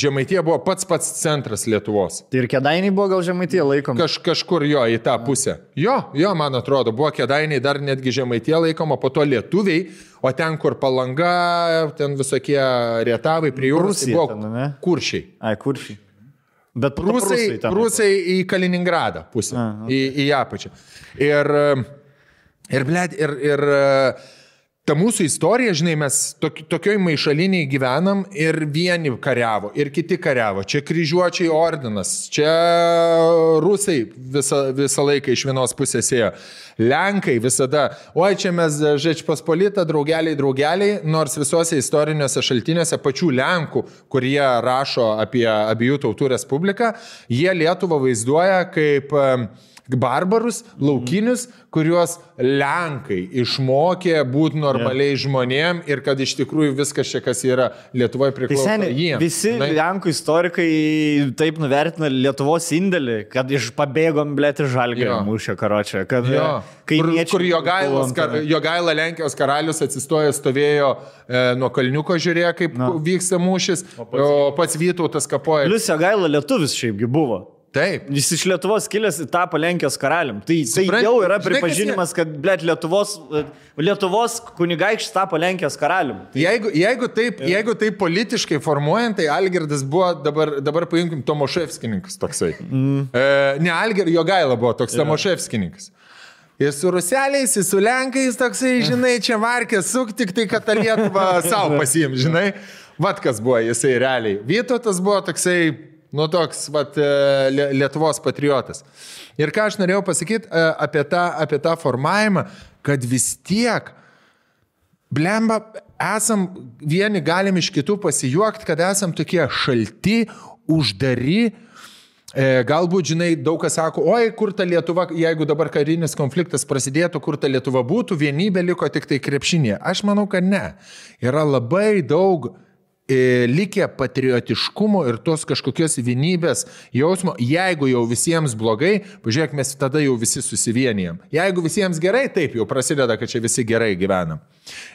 Žemaitija buvo pats centras Lietuvos. Tai ir Kėdainiai buvo gal Žemaitija laikoma? Kažkur jo, į tą pusę. Jo, man atrodo, buvo Kėdainiai dar netgi Žemaitija laikoma, po to lietuviai, o ten, kur Palanga, ten visokie Rietavai prie jūros, tai buvo Kuršiai. Kuršiai. Bet Prūsai į Kaliningradą pusę, į apačią. Ir ta mūsų istorija, žinai, mes tokioj maišaliniai gyvenam ir vieni kariavo, ir kiti kariavo. Čia kryžiuočiai ordinas, čia rusai visą laiką iš vienos pusės ėjo. Lenkai visada, čia mes Žečpospolita, draugeliai, nors visuose istoriniuose šaltiniuose pačių Lenkų, kurie rašo apie abiejų tautų respubliką, jie Lietuvą vaizduoja kaip barbarus, laukinius, kuriuos Lenkai išmokė būti normaliai žmonėm ir kad iš tikrųjų viskas čia, kas yra Lietuvoje priklauso jiems. Visi Lenkų istorikai taip nuvertina Lietuvos indėlį, kad pabėgom, blėti, Žalgirio mūšio karočią. Kur Jogaila Lenkijos karalius atsistojo, stovėjo nuo kalniuko, žiūrėjo, kaip vyksta mūšis, o pats Vytautas kapoja. Plius Jogaila lietuvis šiaipgi buvo. Taip. Jis iš Lietuvos kilęs tapo Lenkijos karalium. Tai jau yra pripažinimas, kad, blėt, Lietuvos kunigaikštis tapo Lenkijos karalium. Jeigu taip politiškai formuojant, tai Algirdas buvo, dabar paimkim, Tomaševskininkas toksai. Ne, Jogaila buvo toks Tomaševskininkas. Ir su ruseliais, ir su lenkais toksai, žinai, čia varkės suk, tik tai, kad tą Lietuvą savo pasiim, žinai. Vat kas buvo jisai realiai. Vytautas buvo toksai, toks, Lietuvos patriotas. Ir ką aš norėjau pasakyti apie tą formavimą, kad vis tiek, blemba, vieni galim iš kitų pasijuokti, kad esam tokie šalti, uždari. Galbūt, žinai, daug kas sako, oi, kur ta Lietuva, jeigu dabar karinis konfliktas prasidėtų, kur ta Lietuva būtų, vienybė liko tik tai krepšinėje. Aš manau, kad ne. Yra labai daug likę patriotiškumo ir tos kažkokios vienybės jausmo. Jeigu jau visiems blogai, pažiūrėk, mes tada jau visi susivienijam. Jeigu visiems gerai, taip jau prasideda, kad čia visi gerai gyvenam.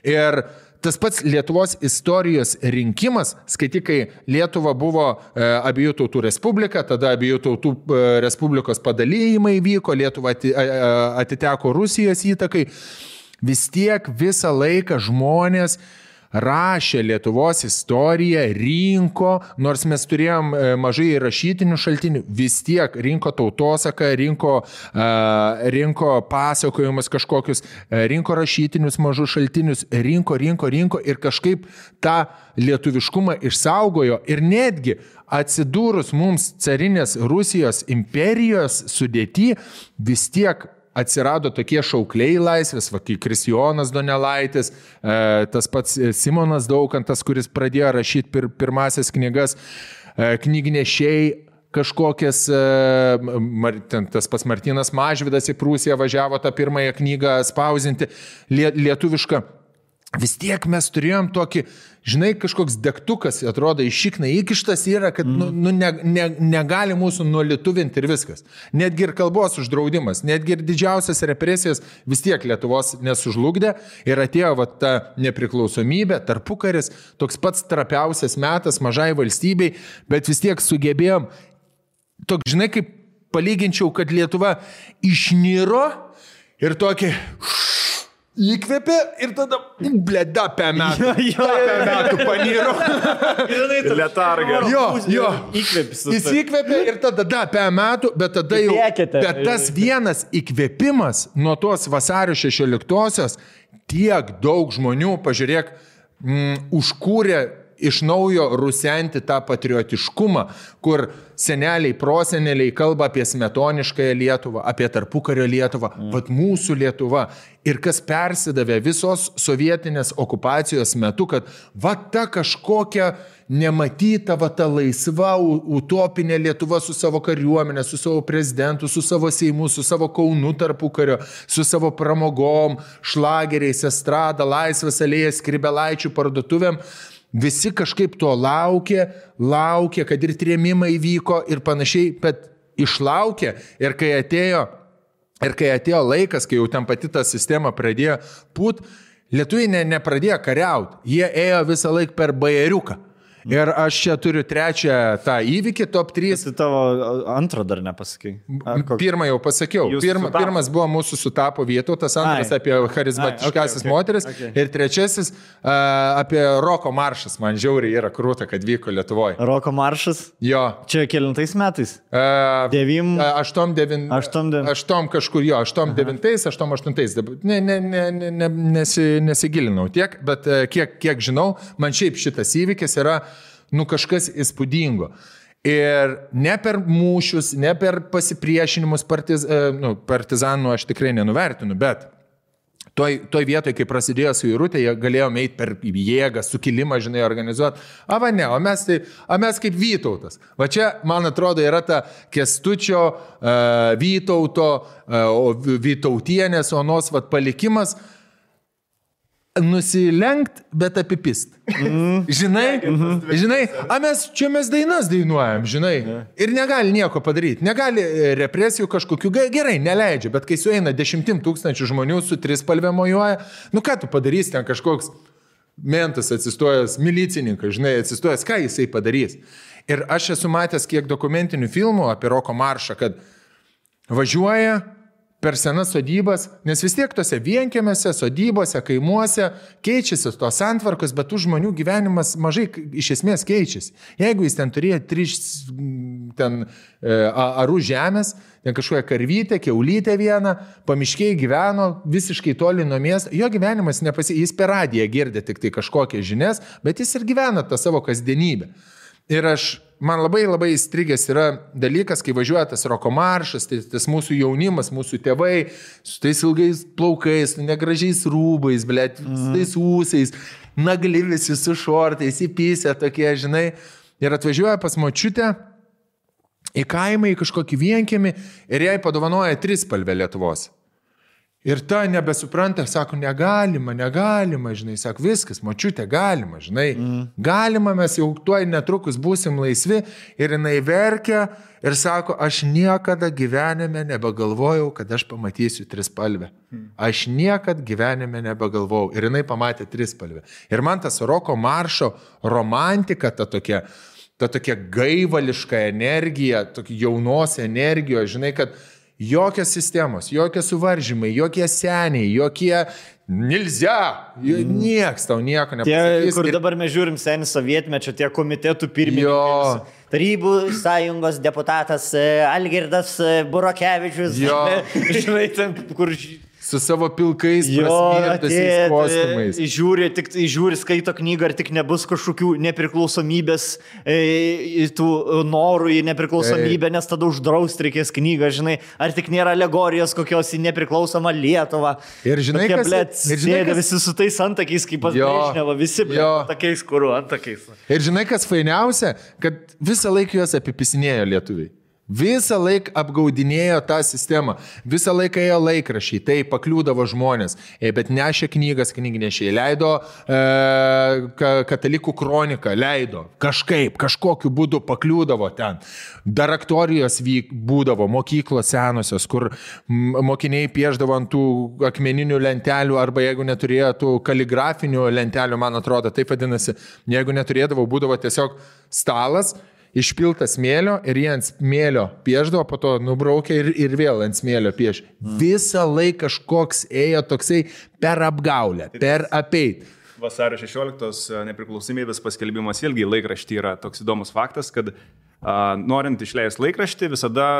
Ir tas pats Lietuvos istorijos rinkimas, skaitykai, Lietuva buvo abiejų tautų respublika, tada abiejų tautų respublikos padalijimai vyko, Lietuva atiteko Rusijos įtakai. Vis tiek visą laiką žmonės rašė Lietuvos istoriją, rinko, nors mes turėjom mažai rašytinių šaltinių, vis tiek rinko tautosaką, rinko pasakojimus kažkokius, rinko rašytinius mažus šaltinius, rinko ir kažkaip tą lietuviškumą išsaugojo ir netgi atsidūrus mums carinės Rusijos imperijos sudėty, vis tiek atsirado tokie šaukliai laisvės, kai Kristijonas Donelaitis, tas pats Simonas Daukantas, kuris pradėjo rašyti pirmasias knygas, knygnešiai kažkokias, tas pats Martynas Mažvydas į Prūsiją važiavo tą pirmąją knygą spausinti lietuvišką. Vis tiek mes turėjom tokį, žinai, kažkoks degtukas, atrodo, iš šikna įkištas yra, kad negali mūsų nulietuvinti ir viskas. Netgi ir kalbos uždraudimas, netgi ir didžiausias represijas vis tiek Lietuvos nesužlugdė ir atėjo ta nepriklausomybė, tarpukaris, toks pats trapiausias metas mažai valstybei, bet vis tiek sugebėjom, toks, žinai, kaip palyginčiau, kad Lietuva išniro ir tokį įkvėpė ir tada, bleda, apie metų paniro. Letarga. Jo. Jis įkvėpė ir tada, apie metų, bet tada jau, bet tas vienas įkvėpimas nuo tos vasario 16-osios tiek daug žmonių, pažiūrėk, užkūrė iš naujo rusenti tą patriotiškumą, kur seneliai, proseneliai kalba apie smetoniškąją Lietuvą, apie tarpukario Lietuvą, vat mūsų Lietuva. Ir kas persidavė visos sovietinės okupacijos metu, kad va ta kažkokia nematyta, va ta laisva, utopinė Lietuva su savo kariuomenė, su savo prezidentu, su savo Seimu, su savo Kaunu tarpukario, su savo pramogom, šlageriais, estrada, Laisvės alėja, Skribelaičių parduotuvėm. Visi kažkaip to laukė, kad ir trėmimai vyko ir panašiai, bet išlaukė ir kai atėjo laikas, kai jau ten pati ta sistema pradėjo pūt, lietuviai nepradėjo kariauti, jie ėjo visą laiką per bajeriuką. Ir aš čia turiu trečią tą įvykį, top 3. Tu tavo antrą dar nepasakai. Pirmą jau pasakiau. Pirmas buvo mūsų sutapo Vytautas, antras apie charizmatiškasis moteris ir trečiasis apie Roko maršas. Man žiauriai yra krūta, kad vyko Lietuvoje. Roko maršas? Jo. Čia kelintais metais? 8 kažkur jo, 8-9, 8-8. Nesigilinau tiek, bet kiek žinau, man šiaip šitas įvykis yra kažkas įspūdingo. Ir ne per mūšius, ne per pasipriešinimus partizanų aš tikrai nenuvertinu, bet toj vietoj, kai prasidėjo suirutė, jie galėjo eiti per jėgą, sukilimą, žinai, organizuoti. O mes kaip Vytautas. Va čia, man atrodo, yra ta Kęstučio, Vytauto, Vytautienės, Onos palikimas. Nusilenkt, bet apipist. Žinai, mes dainas dainuojam, žinai, ir negali nieko padaryti, negali represijų kažkokių, gerai, neleidžia, bet kai sueina 10 000 žmonių su trispalvė mojuoja, ką tu padarysi, ten kažkoks mentas atsistojęs, milicininkas, žinai, atsistojęs, ką jisai padarys. Ir aš esu matęs kiek dokumentinių filmų apie roko maršą, kad važiuoja per senas sodybas, nes vis tiek tose vienkiemėse, sodybose, kaimuose keičiasi tos santvarkos, bet tų žmonių gyvenimas mažai iš esmės keičiasi. Jeigu jis ten turėjo 3 arų žemės, ten kažkokią karvytę, kiaulytę vieną, pamiškiai gyveno visiškai toli nuo miesto, jo gyvenimas jis per radiją girdė tik tai kažkokias žinias, bet jis ir gyvena tą savo kasdienybę. Ir man labai įstrigęs yra dalykas, kai važiuoja tas roko maršas, tas mūsų jaunimas, mūsų tėvai, su tais ilgais plaukais, negražiais rūbais, su tais ūsais, nagli visi su šortais, įpysę tokie, žinai, ir atvažiuoja pas močiutę į kaimą, į kažkokį vienkiemį ir jai padovanoja trispalvę Lietuvos. Ir ta nebesupranta, sako, negalima, žinai, sako, viskas, močiutė, galima, žinai, galima, mes jau tuoj netrukus būsim laisvi, ir jinai verkia ir sako, aš niekada gyvenime nebegalvojau, kad aš pamatysiu trispalvę. Aš niekada gyvenime nebegalvojau. Ir jinai pamatė trispalvę. Ir man tas roko maršo romantika, ta tokia gaivališka energija, tokia jaunos energijos, žinai, kad jokios sistemos, jokie suvaržymai, jokie seniai, jokie nilzia, nieks tau nieko nepasakys. Tie, kur dabar mes žiūrim senį sovietmečio, tie komitetų pirmininkai. Tarybų sąjungos deputatas Algirdas Burokevičius. Žinai, ten, kur... Su savo pilkais prasmirtusiais kostiumais. Žiūri, skaito knygą, ar tik nebus kažkokių nepriklausomybės, tų norų į nepriklausomybę, nes tada uždrausti reikės knygą, žinai, ar tik nėra alegorijos kokios į nepriklausomą Lietuvą. Ir žinai, sėdė visi su tais antakiais, kaip pas Brežnevą, visi tokiais, kuriuo antakiais. Ir žinai, kas fainiausia, kad visą laiką juos apipisinėjo lietuviai. Visą laiką apgaudinėjo tą sistemą, visą laiką ėjo laikrašiai, tai pakliūdavo žmonės, bet nešė knygas, knygnešiai, leido katalikų kroniką, leido, kažkokiu būdu pakliūdavo ten. Daraktorijos būdavo, mokyklos senosios, kur mokiniai pieždavo ant tų akmeninių lentelių, arba jeigu neturėjo tų kaligrafinių lentelių, man atrodo, taip vadinasi, jeigu neturėdavo, būdavo tiesiog stalas, išpiltas smėlio ir jie ant smėlio pieždavo, po to nubraukė ir vėl ant smėlio pieš. Visą laiką kažkoks ėjo toksai per apgaulę, per apeit. Vasario 16 nepriklausomybės paskelbimas vėlgi laikraštį yra toks įdomus faktas, kad norint išleisti laikraštį, visada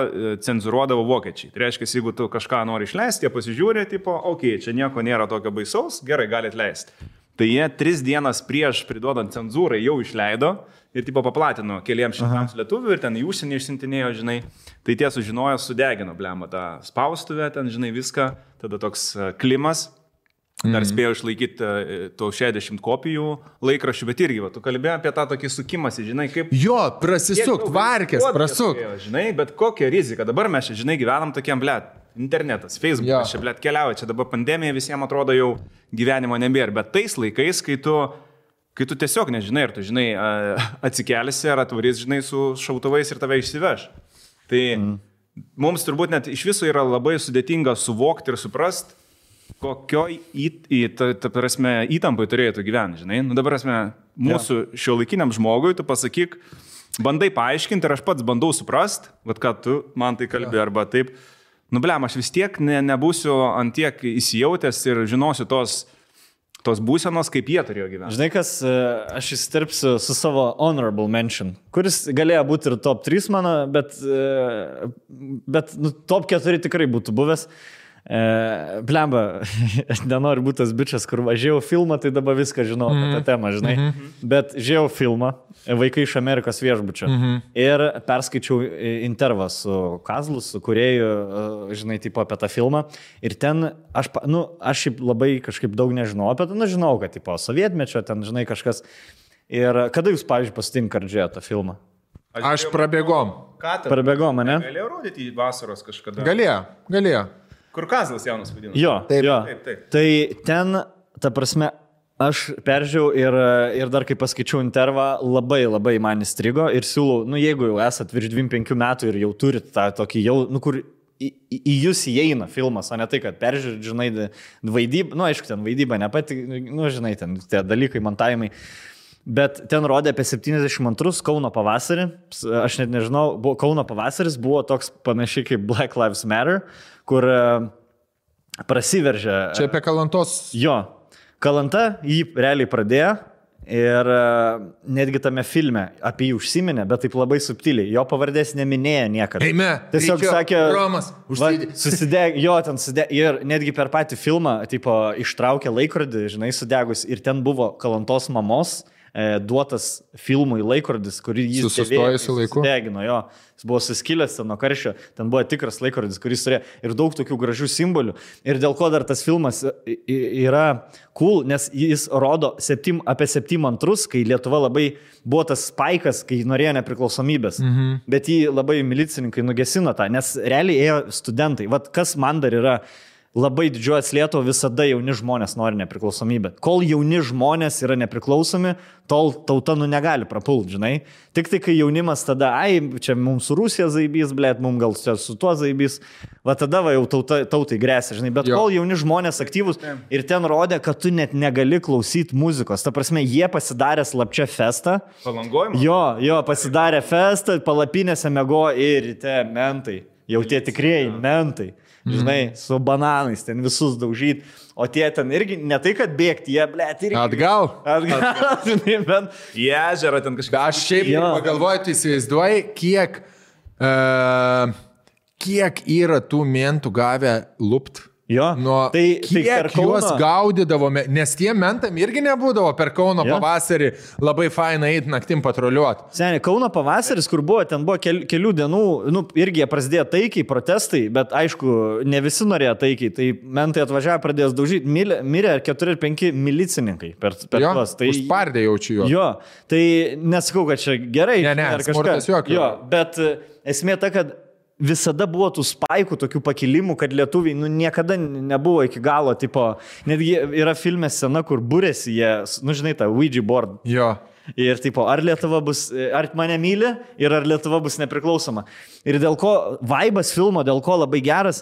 cenzuruodavo vokiečiai. Tai reiškia, jeigu tu kažką nori išleisti, jie pasižiūrė, tipo, čia nieko nėra tokio baisaus, gerai, galit leisti. Tai jie 3 dienas prieš priduodant cenzūrai jau išleido ir tipo paplatino keliems šimtams lietuvių ir ten į užsienį išsintinėjo, žinai. Tai tie sužinojo, sudegino, blemą, tą spaustuvę, ten, žinai, viską. Tada toks klimas. Dar spėjo išlaikyti to 60 kopijų laikraščių, bet irgi, tu kalbėjai apie tą tokį sukimąsi, žinai, kaip... Jo, prasisukt, varkės, prasukt. Žinai, bet kokia rizika. Dabar mes čia, žinai, gyvenam tokiam, internetas, Facebookas, čia, keliauja, čia dabar pandemija visiems atrodo jau gyvenimo nebėra, bet tais laikais, kai tu tiesiog nežinai, ar tu, žinai, atsikelsi, ar atvarys, žinai, su šautuvais ir tave išsiveš. Tai mums turbūt net iš viso yra labai sudėtinga suvokti ir suprasti, kokioj įtampai turėtų gyventi, žinai. Nu, dabar, mūsų šiuolaikiniam žmogui, tu pasakyk, bandai paaiškinti ir aš pats bandau suprasti, ką tu man tai kalbi, arba taip. Nu, blem, aš vis tiek nebūsiu ant tiek įsijautęs ir žinosiu tos būsenos, kaip jie turėjo gyventi. Žinai, kas, aš įsiterpsiu su savo honorable mention, kuris galėjo būti ir top 3 mano, bet top 4 tikrai būtų buvęs. Blemba, aš nenoriu būti tas bičias, kur važiavau filmą, tai dabar viską žinau apie tą temą, žinai. Bet žiūrėjau filmą, Vaikai iš Amerikos viešbučio. Ir perskaičiau intervą su Kazlu, su kūrėju, žinai, tipo apie tą filmą. Ir ten aš šiaip labai kažkaip daug nežinau apie tą, žinau, kad tipo sovietmečio, ten, žinai, kažkas. Ir kada jūs, pavyzdžiui, pasitinkat žiūrėti tą filmą? Aš prabėgom. Prabėgom, ne? Galėjau rodyti į vasaros kažkada. Galėjo. Kur Kazlas jaunas vadino. Jo, Taip. Tai ten, ta prasme, aš peržiūrėjau ir dar kai paskaičiau intervą, labai labai man įstrigo ir siūlau, jeigu jau esat virš 25 metų ir jau turit tą tokį jau, kur į jūs įeina filmas, o ne tai, kad peržiūrėt, žinai, vaidybą, aišku, ten vaidyba nepati, žinai, ten tie dalykai, montavimai. Bet ten rodė apie 72 Kauno pavasarį, aš net nežinau, Kauno pavasaris buvo toks panašiai kaip Black Lives Matter, kur prasiveržė. Čia apie Kalantos. Jo, Kalanta jį realiai pradėjo ir netgi tame filme apie jį užsiminė, bet taip labai subtiliai, jo pavardės neminėjo niekada. Eime, tiesiog sakė, Romas, susidegė, jo, ten sudegė ir netgi per patį filmą, tipo, ištraukė laikrodį, žinai, sudegus ir ten buvo Kalantos mamos duotas filmui laikrodis, kurį jis sudegino, jo. Jis buvo suskilęs ten nuo karščio, ten buvo tikras laikrodis, kuris turėjo ir daug tokių gražių simbolių. Ir dėl ko dar tas filmas yra cool, nes jis rodo apie 72, kai Lietuva labai buvo tas spaikas, kai norėjo nepriklausomybės. Bet jį labai milicininkai nugesino tą, nes realiai ėjo studentai. Vat kas man dar yra labai didžiuojas Lietuva, visada jauni žmonės nori nepriklausomybę. Kol jauni žmonės yra nepriklausomi, tol tauta negali prapult, žinai. Tik tai, kai jaunimas tada, čia mums su Rusija zaibys, blėt, mums gal su tuo zaibys, va tada va jau tautai grėsia, žinai. Bet kol jauni žmonės aktyvus ir ten rodė, kad tu net negali klausyti muzikos. Ta prasme, jie pasidarė slapčia festą. Palangojimą? Jo, pasidarė festą, palapinėse mego ir ryte mentai. Jau tie tikrieji mentai. Žinai, su bananais ten visus daužyti, o tie ten irgi ne tai, kad bėgti, jie, blėt, irgi. Atgal, žinai, bent. Į ežerą ten kažką. Aš šiaip pagalvoju, tu įsivaizduoji, kiek yra tų mentų gavę lupt. Jo, kiek juos gaudydavome, nes tie mentam irgi nebūdavo per Kauno pavasarį labai fainai eiti naktim patruliuoti. Seniai, Kauno pavasaris, kur buvo, ten buvo kelių dienų, irgi prasidėjo taikiai, protestai, bet aišku, ne visi norėjo taikiai, tai mentai atvažiavo, pradėjo daužyti, mirė 4 ar 5 milicininkai per tuos. Tai užpardė jaučiu juos. Jo, tai nesakau, kad čia gerai. Ne, smurtas jokio. Jo, bet esmė ta, kad visada buvo tų spaikų, tokių pakilimų, kad lietuviai niekada nebuvo iki galo, tipo, netgi yra filme scena, kur būrėsi jie, žinai, tą Ouija board. Jo. Ir tipo, ar Lietuva bus, ar mane myli ir ar Lietuva bus nepriklausoma. Ir dėl ko, vaibas filmo, dėl ko labai geras,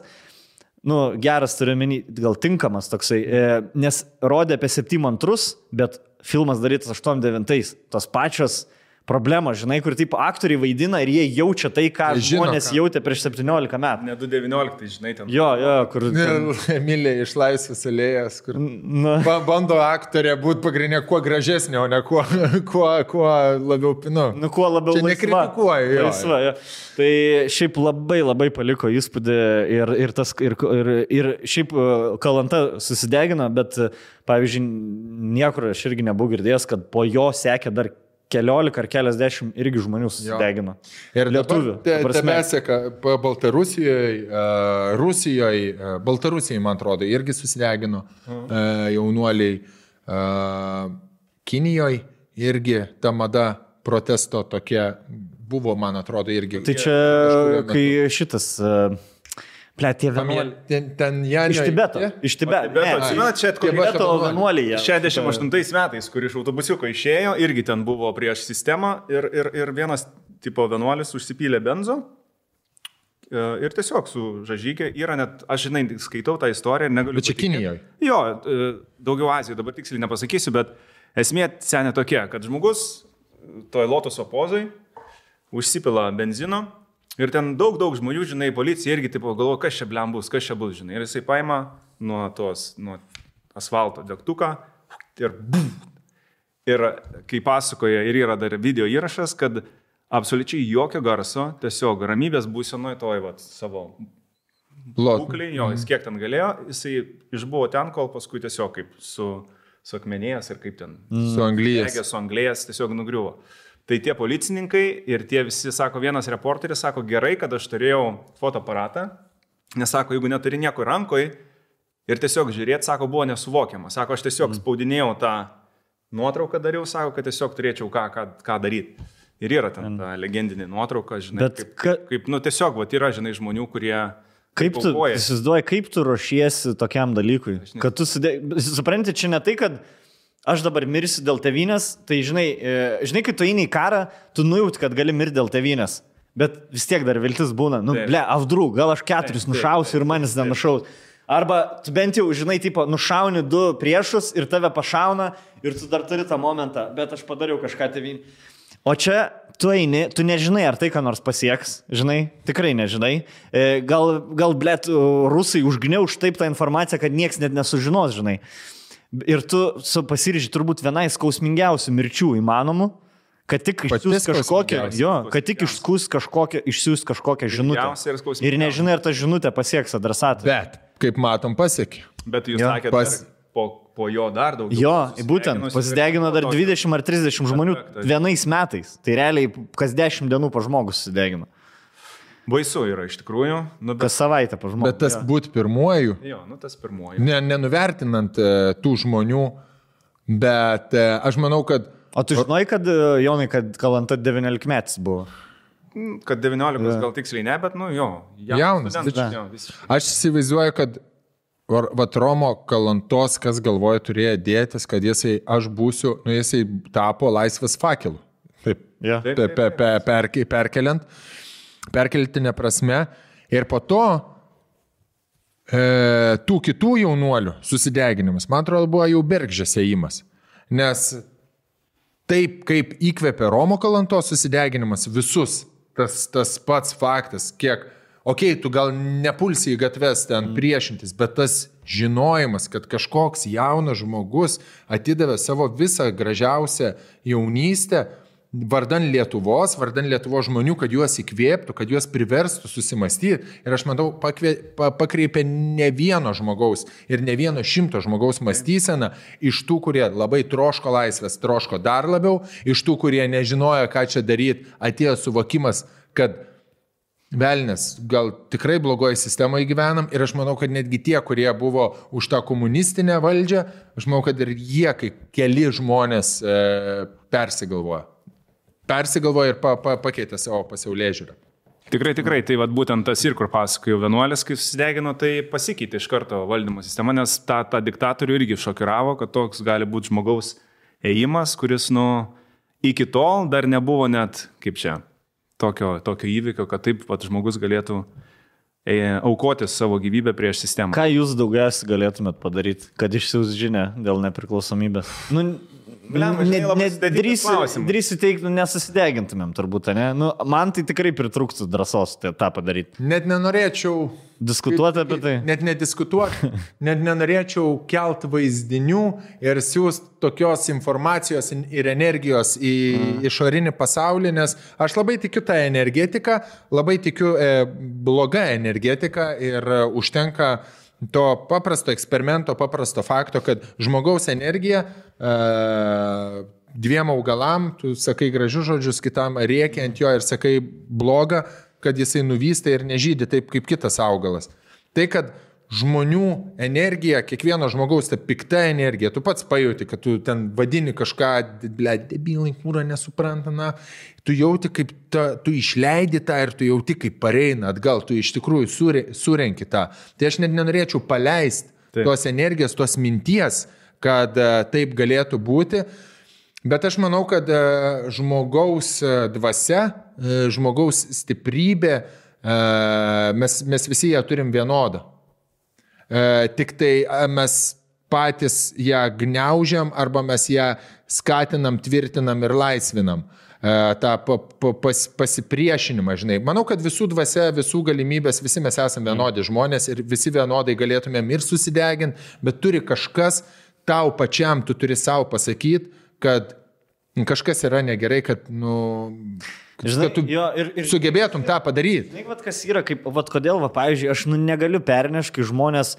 geras turiu menį, gal tinkamas toksai, nes rodė apie 72, bet filmas darytas 89, tos pačios problema, žinai, kur taip aktoriai vaidina ir jie jaučia tai, ką žmonės jautė prieš 17 metų. Ne 2019, žinai, ten. Jo, kur... Emilija iš Laisvės alėjos, kur bando aktorė būti pagrindinė kuo gražesnė, o ne kuo labiau, kuo labiau čia nekritikuoju. Laisva, jo. Tai šiaip labai labai paliko įspūdį ir šiaip Kalanta susidegino, bet, pavyzdžiui, niekur aš irgi nebuvau girdėjęs, kad po jo sekė dar keliolika ar keliasdešimt irgi žmonių susidegino. Ir lietuvių. Tame seka Baltarusijoje, Rusijoje, Baltarusijai, man atrodo, irgi susidegino jaunuoliai. Kinijoje irgi ta mada protesto tokia buvo, man atrodo, irgi. Tai čia, kai šitas... Tie vienuoliai. Iš Tibeto. Iš Tibeto. Čia Tibeto vienuoliai. 68 metais, kur iš autobusiuko išėjo, irgi ten buvo prieš sistemą ir vienas tipo vienuolis užsipylė benzo ir tiesiog su žažykė yra net, aš žinai, skaitau tą istoriją ir negaliu. Bet čia Kinijoje. Jo, daugiau Azijoje, dabar tiksliai nepasakysiu, bet esmė senė tokia, kad žmogus toj lotoso pozai užsipila benzino. Ir ten daug žmonių, žinai, policija irgi tipo galvoja, kas čia bus, žinai. Ir jisai paima nuo asfalto degtuką ir Ir kai pasakoja, ir yra dar video įrašas, kad absoliučiai jokio garso, tiesiog ramybės būsenoje toj savo būklį, jo, jis kiek ten galėjo, jisai išbuvo ten, kol paskui tiesiog kaip su akmenėjęs ir kaip ten. Su anglijas. Su anglijas tiesiog nugriuvo. Tai tie policininkai ir tie visi, sako, vienas reporteris, sako, gerai, kad aš turėjau fotoaparatą, nes sako, jeigu neturi nieko rankoje ir tiesiog žiūrėti, sako, buvo nesuvokiama. Sako, aš tiesiog spaudinėjau tą nuotrauką dariau, sako, kad tiesiog turėčiau ką daryti. Ir yra ten ta legendinė nuotrauka, žinai, kaip tiesiog, yra, žinai, žmonių, kurie... Kaip tu, įsivaizduoji, kaip tu ruošiesi tokiam dalykui? Kad tu supranti, čia ne tai, kad aš dabar mirsiu dėl tėvynės, tai žinai, kai tu eini į karą, tu nujauti, kad gali mirti dėl tėvynės. Bet vis tiek dar viltis būna. Avdrų, gal aš 4 nušausiu ir manis nenušaus. Arba tu bent jau, žinai, nušauni 2 priešus ir tave pašauna ir tu dar turi tą momentą, bet aš padariau kažką tėvynį. O čia tu eini, tu nežinai, ar tai ką nors pasieks, žinai, tikrai nežinai. Gal blėt, rusai užgniauš taip tą informaciją, kad nieks net nesužinos, žinai. Ir tu pasiryži turbūt vienai skausmingiausių mirčių įmanomų, kad tik išsiųs kažkokią žinutę. Ir nežinai, ar ta žinutė pasieks adresatą. Bet, kaip matom, pasiekė. Bet jūs sakėte, po jo dar daugiau. Jo, būtent, pasidegino dar 20 ar 30 žmonių vienais metais. Tai realiai kas 10 dienų po žmogus susidegino. Baisu yra iš tikrųjų. Kas savaitę po žmogus. Bet tas būt pirmuoju. Jo, tas pirmuoju. Nenuvertinant tų žmonių, bet aš manau, kad... O tu žinai, kad, Jonai, kad Kalanta 19 metais buvo? Kad 19 gal tiksliai ne, bet jaunas. Aš įsivaizduoju, kad Romo Kalantos, kas galvoja, turėjo dėtis, kad aš būsiu, jisai tapo laisvės fakelu. Taip, perkeltinė prasme. Ir po to tų kitų jaunuolių susideginimas, man atrodo, buvo jau bergždžias ėjimas. Nes taip, kaip įkvėpė Romo Kalantos susideginimas visus, tas pats faktas, kiek... Tu gal nepulsi į gatves ten priešintis, bet tas žinojimas, kad kažkoks jaunas žmogus atidavė savo visą gražiausią jaunystę vardan Lietuvos žmonių, kad juos įkvėptų, kad juos priverstų susimastyti. Ir aš matau, pakreipė ne vieno žmogaus ir ne vieno 100 žmogaus mąstyseną iš tų, kurie labai troško laisvės, troško dar labiau, iš tų, kurie nežinojo, ką čia daryti, atėjo suvokimas, kad velnės, gal tikrai blogoje sistemoje gyvenam ir aš manau, kad netgi tie, kurie buvo už tą komunistinę valdžią, aš manau, kad ir jie, kai keli žmonės persigalvoja ir pakeitė savo pasaulėžiūrą. Tikrai, tai būtent tas ir kur pasakojo vienuolis, kai susidegino, tai pasikeitė iš karto valdymo sistema, nes tą diktatorių irgi šokiravo, kad toks gali būti žmogaus ėjimas, kuris iki tol dar nebuvo net kaip čia. Tokio įvykio, kad taip pat žmogus galėtų aukoti savo gyvybę prieš sistemą. Ką jūs daugiausiai galėtumėt padaryti, kad išsiųs žinią dėl nepriklausomybės? Drįsiu teikti, nesusidegintumėm turbūt, ne? Man tai tikrai pritrūktų drąsos tą padaryti. Net nenorėčiau diskutuoti apie tai. Net nediskutuoti, net nenorėčiau kelt vaizdinių ir siūsti tokios informacijos ir energijos į išorinį pasaulį, nes aš labai tikiu tą energetiką, labai tikiu blogą energetiką ir užtenka to paprasto eksperimento, paprasto fakto, kad žmogaus energija 2 augalam, tu sakai gražius žodžius, kitam rėkia ant jo ir sakai blogą, kad jisai nuvysta ir nežydi taip kaip kitas augalas. Tai, kad žmonių energija, kiekvieno žmogaus ta pikta energija, tu pats pajauti, kad tu ten vadini kažką, debilai, kūra nesupranta, tu jauti, kaip tu išleidi tą ir tu jauti, kaip pareina atgal, tu iš tikrųjų surenki tą. Tai aš net nenorėčiau paleisti tos energijos, tos minties, kad taip galėtų būti. Bet aš manau, kad žmogaus dvasia, žmogaus stiprybė, mes visi ją turim vienodą. Tik tai mes patys ją gniaužiam arba mes ją skatinam, tvirtinam ir laisvinam. tą pasipriešinimą, žinai. Manau, kad visų dvasia, visų galimybės, visi mes esame vienodi žmonės ir visi vienodai galėtumėm ir susideginti, bet turi kažkas tau pačiam, tu turi savo pasakyti, kad kažkas yra negerai, kad, Kad tu sugebėtum tą padaryti. Žinai, vat, kas yra, kaip, vat, kodėl, va, pavyzdžiui, aš negaliu pernešti, kai žmonės,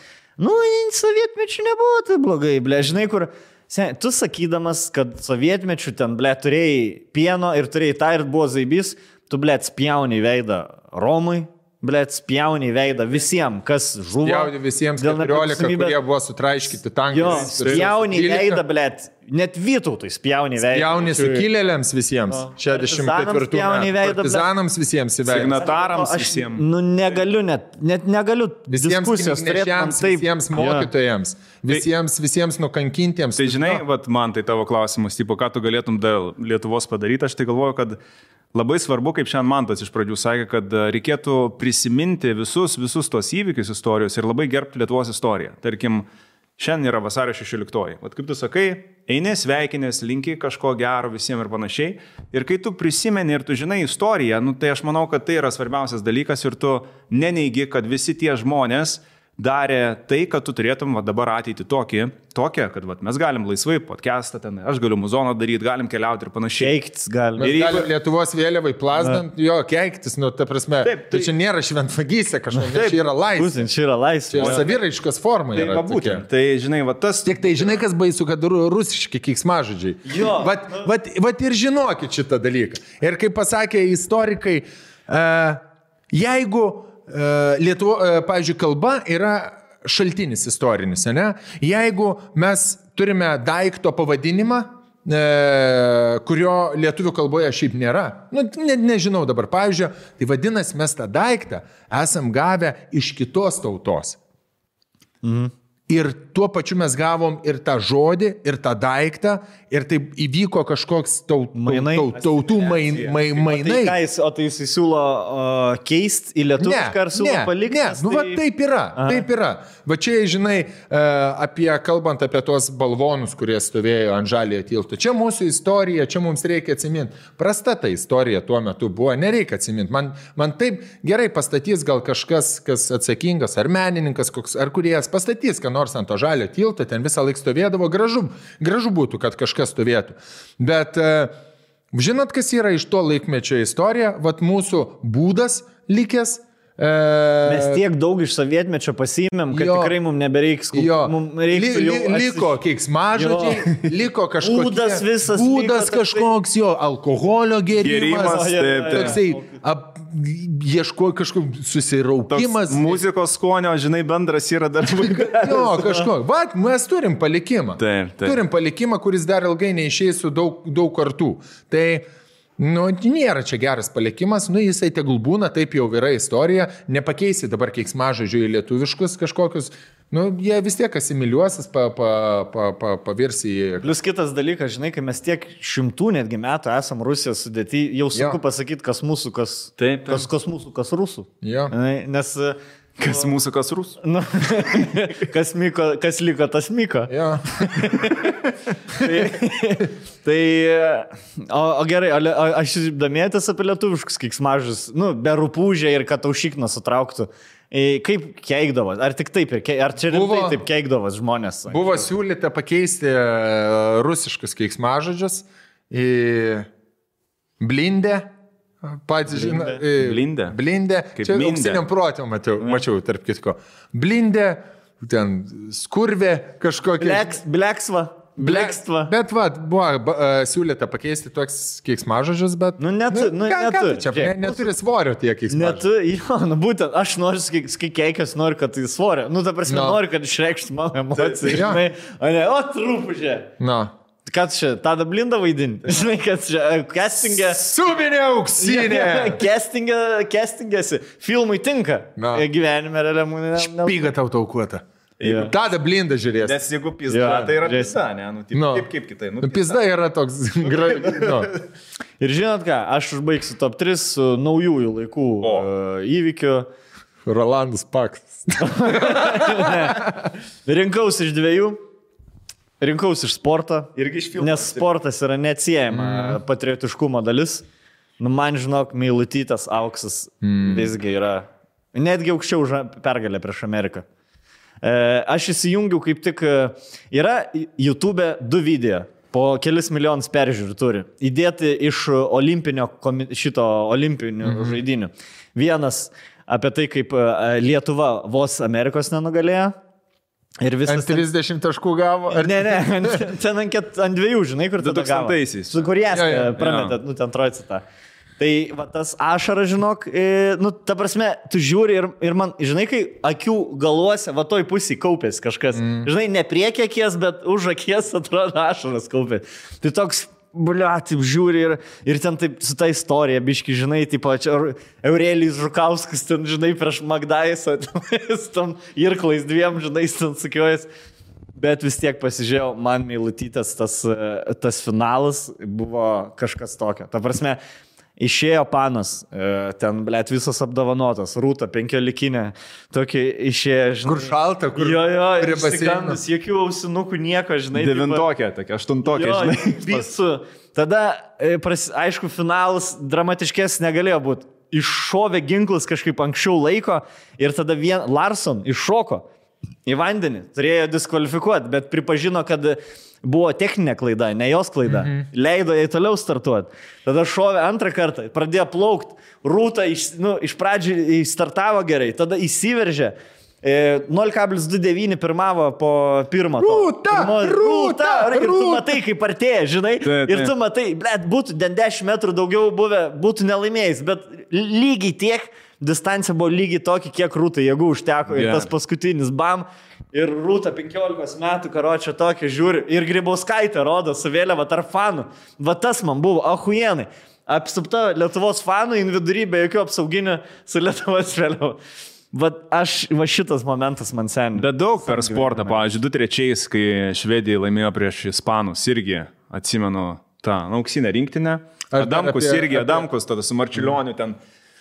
sovietmečių nebuvo tai blogai, ble, žinai, kur, tu sakydamas, kad sovietmečių ten, ble, turėjai pieno ir turėjai tą ir buvo zaibys, tu, ble, spjauni veidą Romui, ble, spjauni veidą visiems, kas žuvo. Spjauni visiems 14, kurie buvo sutraiškyti tankais. Jo, spjauni veidą, ble, net Vytautui spjauni veidą. Spjauni sukilėliams visiems. 64 metų. Partizanams visiems į veidą. Signatarams visiems. Negaliu, net negaliu diskusijos turėti. Visiems mokytojams, visiems nukankintiems. Tai žinai, vat, man tai tavo klausimas, tipo, ką tu galėtum dėl Lietuvos padaryti, aš tai galvoju, kad labai svarbu, kaip šiandien Mantas iš pradžių sakė, kad reikėtų prisiminti visus tos įvykius istorijos ir labai gerbti Lietuvos istoriją. Tarkim, šiandien yra vasario 16. Vat kaip tu sakai, eini sveikinės, linki kažko gero visiems ir panašiai. Ir kai tu prisimeni ir tu žinai istoriją, tai aš manau, kad tai yra svarbiausias dalykas ir tu neneigi, kad visi tie žmonės darė tai, kad tu turėtum dabar ateitį tokią, kad mes galim laisvai podcastą ten, aš galiu muzoną daryti, galim keliauti ir panašiai. Keiktis galim. Mes galim Lietuvos vėliavai plasdant, keiktis, ta prasme. Taip, tai čia nėra šventvagystė kažkokia, čia yra laisvė. Čia yra laisvė. Čia saviraiškos forma yra. Tai žinai, tas... Tik tai žinai, kas baisu, kad rusiški keiksmažodžiai. Jo. Vat ir žinokit šitą dalyką. Ir kaip pasakė istorikai, jeigu Lietuvo, pavyzdžiui, kalba yra šaltinis istorinis, ne? Jeigu mes turime daikto pavadinimą, kurio lietuvių kalboje šiaip nėra, nežinau dabar, pavyzdžiui, tai vadinasi, mes tą daiktą esam gavę iš kitos tautos. Mhm. Ir tuo pačiu mes gavom ir tą žodį, ir tą daiktą, ir taip įvyko kažkoks tautų mainai. O tai jis siūlo keisti į lietuvišką ar siūlo palikti? Ne, taip yra, taip yra. Va čia, žinai, kalbant apie tos balvonus, kurie stovėjo ant Žaliojo tilto. Čia mūsų istorija, čia mums reikia atsiminti. Prasta ta istorija tuo metu buvo, nereikia atsiminti. Man taip gerai pastatys gal kažkas, kas atsakingas, ar menininkas, ar kuriejas pastatys, ką nors ant to Žaliojo tilto, ten visą laiką stovėdavo, gražu būtų, kad kažkas stovėtų. Bet žinot, kas yra iš to laikmečio istorija? Vat mūsų būdas likęs. Mes tiek daug iš sovietmečio pasiėmėm, kad tikrai mums nebereiks. Liko keiksmažodžiai, liko kažkoks būdas visas. Būdas kažkoks, alkoholio gėrimas. Toksai ieško kažkoks susiraukimas. Muzikos skonio, žinai, bendras yra dar vaikas. Kažkoks. Vat, mes turim palikimą. Taip. Turim palikimą, kuris dar ilgai neišeis su daug kartų. Tai nėra čia geras palikimas, jisai tegul būna, taip jau yra istorija, nepakeisi dabar keiksmažodžių į lietuviškus kažkokius, jie vis tiek asimiliuosis, pavirs į... Plius kitas dalykas, žinai, kai mes tiek šimtų netgi metų esam Rusijos sudėti, jau sunku pasakyti, kas mūsų, kas mūsų, kas rusų. Jo. Nes... Kas mūsų, kas rusų? Kas liko, tas myko. Ja. O gerai, aš domėtis apie lietuviškus keiksmažodžius, be rupūžė ir kad aušikną sutrauktų. Kaip keikdavas? Ar tik taip? Ar čia rimtai taip keikdavas žmonės? Buvo siūlyta pakeisti rusiškus keiksmažodžius į blindę. Pats žinai, blindė. Čia auksiniam protėm mačiau, tarp kitko. Blindė, ten skurvė kažkokia. Blekstva. Bet buvo siūlyta pakeisti toks keiksmažodžius, bet... Neturi svorio tie keiksmažodžiai. Būtent, aš noriu, kai keikias, noriu, kad tai svorio. Ta prasme, noriu, kad išreikštų mano emociją. O, truputį. Ką čia, tada blindą vaidinti? Žinai, kad čia castingė... Subinė auksinė! Castingėsi. Filmui tinka. Gyvenime realiamų... Špyga tau taukuota. Tada blindą žiūrės. Nes jeigu pizda, tai yra pizda, ne? Kaip kitai. Pizda yra toks... Ir žinot ką, aš užbaigsiu top 3 su naujųjų laikų įvykiu. Rolandas Paksas. Rinkausi iš 2. Rinkausi iš sporto, nes sportas yra neatsiejama patriotiškumo dalis. Man, žinok, Meilutytės auksas visgi yra netgi aukščiau už pergalę prieš Ameriką. Aš įsijungiau kaip tik, yra YouTube 2 video. po kelis milijonus peržiūrų turi. Įdėti iš olimpinių žaidinių. Vienas apie tai, kaip Lietuva vos Amerikos nenugalėjo. Ir visas... Ant 30 taškų gavo? Ar... Ne, ten ant 2, žinai, kur tada gavo. 2000-aisiais. Su kurias prametė, ten trojcitą. Tai va, tas ašaras, žinok, ta prasme, tu žiūri ir man, žinai, kai akių galuose, va toj pusėj kaupės kažkas. Žinai, ne priekį akies, bet už akies atrodo ašaras kaupės. Tai toks, taip žiūri ir ten taip su ta istorija, biški, žinai, taip Eurelijus Žukauskas, ten, žinai, prieš Magdaisą, tam irklais 2, žinai, ten sukiojas. Bet vis tiek pasižiūrėjau, man meilutytas tas finalas buvo kažkas tokio. Ta prasme, išėjo Panas, ten, blėt, visas apdovanotas, Rūta 15, tokį išėjo, žinai. Kur šalta, kur prie baseino. Jokių ausinukų, nieko, žinai. 9-tokė, tokia 8-tokė, žinai. Visu. Tada, aišku, finalas dramatiškesnis negalėjo būti. Iššovė ginklas kažkaip anksčiau laiko ir tada Larson iššoko į vandenį. Turėjo diskvalifikuoti, bet pripažino, kad buvo techninė klaida, ne jos klaida. Leido jai toliau startuoti. Tada šovė antrą kartą, pradėjo plaukti. Rūta iš pradžių startavo gerai, tada įsiveržė. 0,29 pirmavo po pirmo. Rūta! Ir tu matai, kaip artėja, žinai. Ir tu matai, blėt, būtų 10 metrų daugiau buvę, būtų nelaimėjęs, bet lygiai tiek, distancija buvo lygiai tokia, kiek Rūtai jėgų užteko. Ir tas paskutinis bam. Ir Rūta 15 metų, karočią tokį žiūri. Ir Grybauskaitė rodo su vėliava tarp fanų. Va tas man buvo, ahujenai. Apsupta Lietuvos fanų, vidury be jokių apsauginių su Lietuvos vėliava. Va šitas momentas man seniai. Bet daug per sportą, pavyzdžiui, 2-3, kai Švedija laimėjo prieš Ispanus, irgi atsimenu tą auksinę rinktinę. Adamkus, tada su Marčiulioniu ten.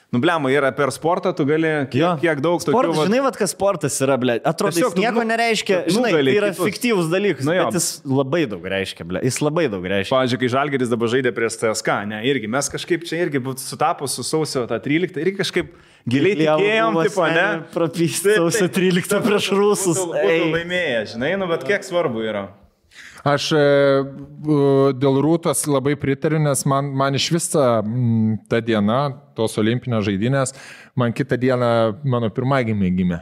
Bliama, yra per sportą, tu gali kiek daug tokių... Sportas, žinai, kas sportas yra, blė. Atrodo, jis nieko nereiškia, žinai, tai yra fiktyvus dalykas, bet jis labai daug reiškia, blė. Jis labai daug reiškia. Pavyzdžiui, kai Žalgiris dabar žaidė prieš CSKA, ne, irgi mes kažkaip čia irgi sutapus su sausio 13, irgi kažkaip giliai tikėjom, tipo, ne? Prapystė sausio 13 prieš Rusus. Būtų laimėję, žinai, bet kiek svarbu yra. Aš dėl Rūtos labai pritariu, nes man iš viso ta diena, tos olimpinės žaidynės, man kitą dieną mano pirmagimė gimė.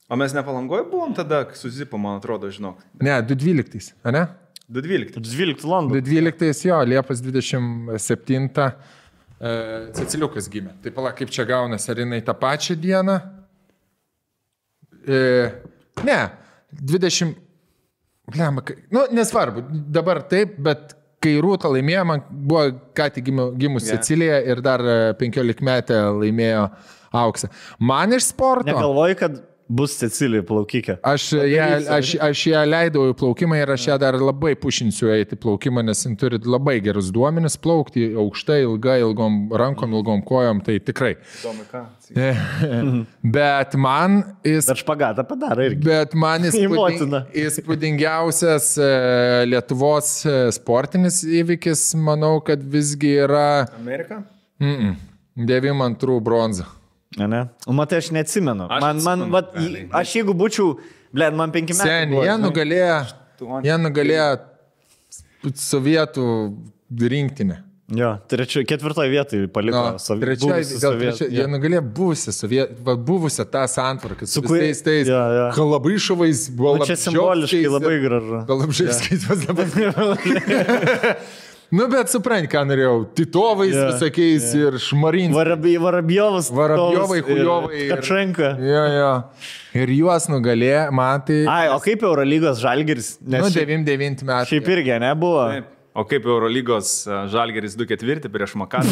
O mes ne Palangoje buvom tada, su Zipu, man atrodo, žinok. Ne, 2012, ne? 2012 London. 2012, jo, Liepos 27 Ceciliukas gimė. Tai pala, kaip čia gaunasi, ar jinai tą pačią dieną? Ne, 20... nesvarbu, dabar taip, bet kai Rūta laimėjo, man buvo ką tik gimus Cecilija ir dar 15 metę laimėjo auksą. Man iš sporto... Negalvoju, kad bus Cecilija plaukikė. Aš ją leidau į plaukimą ir aš ją dar labai pušinsiu eiti plaukimą, nes jis turi labai gerus duomenis plaukti aukštai, ilgai, ilgom rankom, ilgom kojom, tai tikrai. Bet man... Bet špagatą padaro irgi. Bet man įspūdingiausias Lietuvos sportinis įvykis, manau, kad visgi yra... Amerika? 92 bronza. Ne? O matai, aš neatsimenu. Aš jeigu būčiau, man 5 metų. Sen, jie nugalėjo sovietų rinktinę. Jo, 4 vietoje paliko sovietų. Jie nugalėjo buvusią tą santvarką su visais tais Kalabryšovais. Čia simboliškai labai gražu. Kalabryškais vas dabar. Bet supranti, ką norėjau. Titovais visokiais ir Šmarins. Varabjovai, Hujovai. Kačenka. Ir juos nugalėjo, man tai... O kaip Eurolygos Žalgiris? 99 metų. Šiaip irgi nebuvo. O kaip Eurolygos Žalgiris 2-4 prieš Makabį?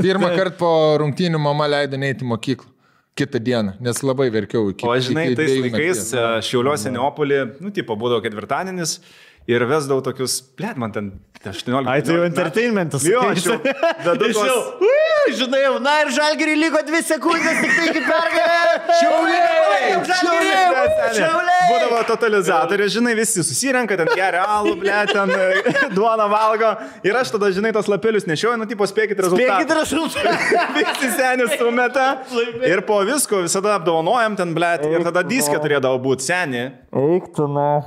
Pirmą kartą po rungtynių mama leido neiti į mokyklą. Kitą dieną, nes labai verkiau. O žinai, tais laikais Šiauliuose Neopolį, būdavo ketvirtadienis. Ir vesdavau tokius, man ten 18. Ai, tai jau entertainmentas. Jo, aš jau. Žinai, ir Žalgiriui liko 2 sekundės, tik tai iki pergalė. Šiauliai! Būdavo totalizatorius, žinai, visi susirenka, ten geria alų, ten duoną valgo. Ir aš tada, žinai, tos lapelius nešioju, spėkit rezultatą. Visi senis sumeta. Ir po visko visada apdovanojam ten, ir tada diskė turėdavo būti seni.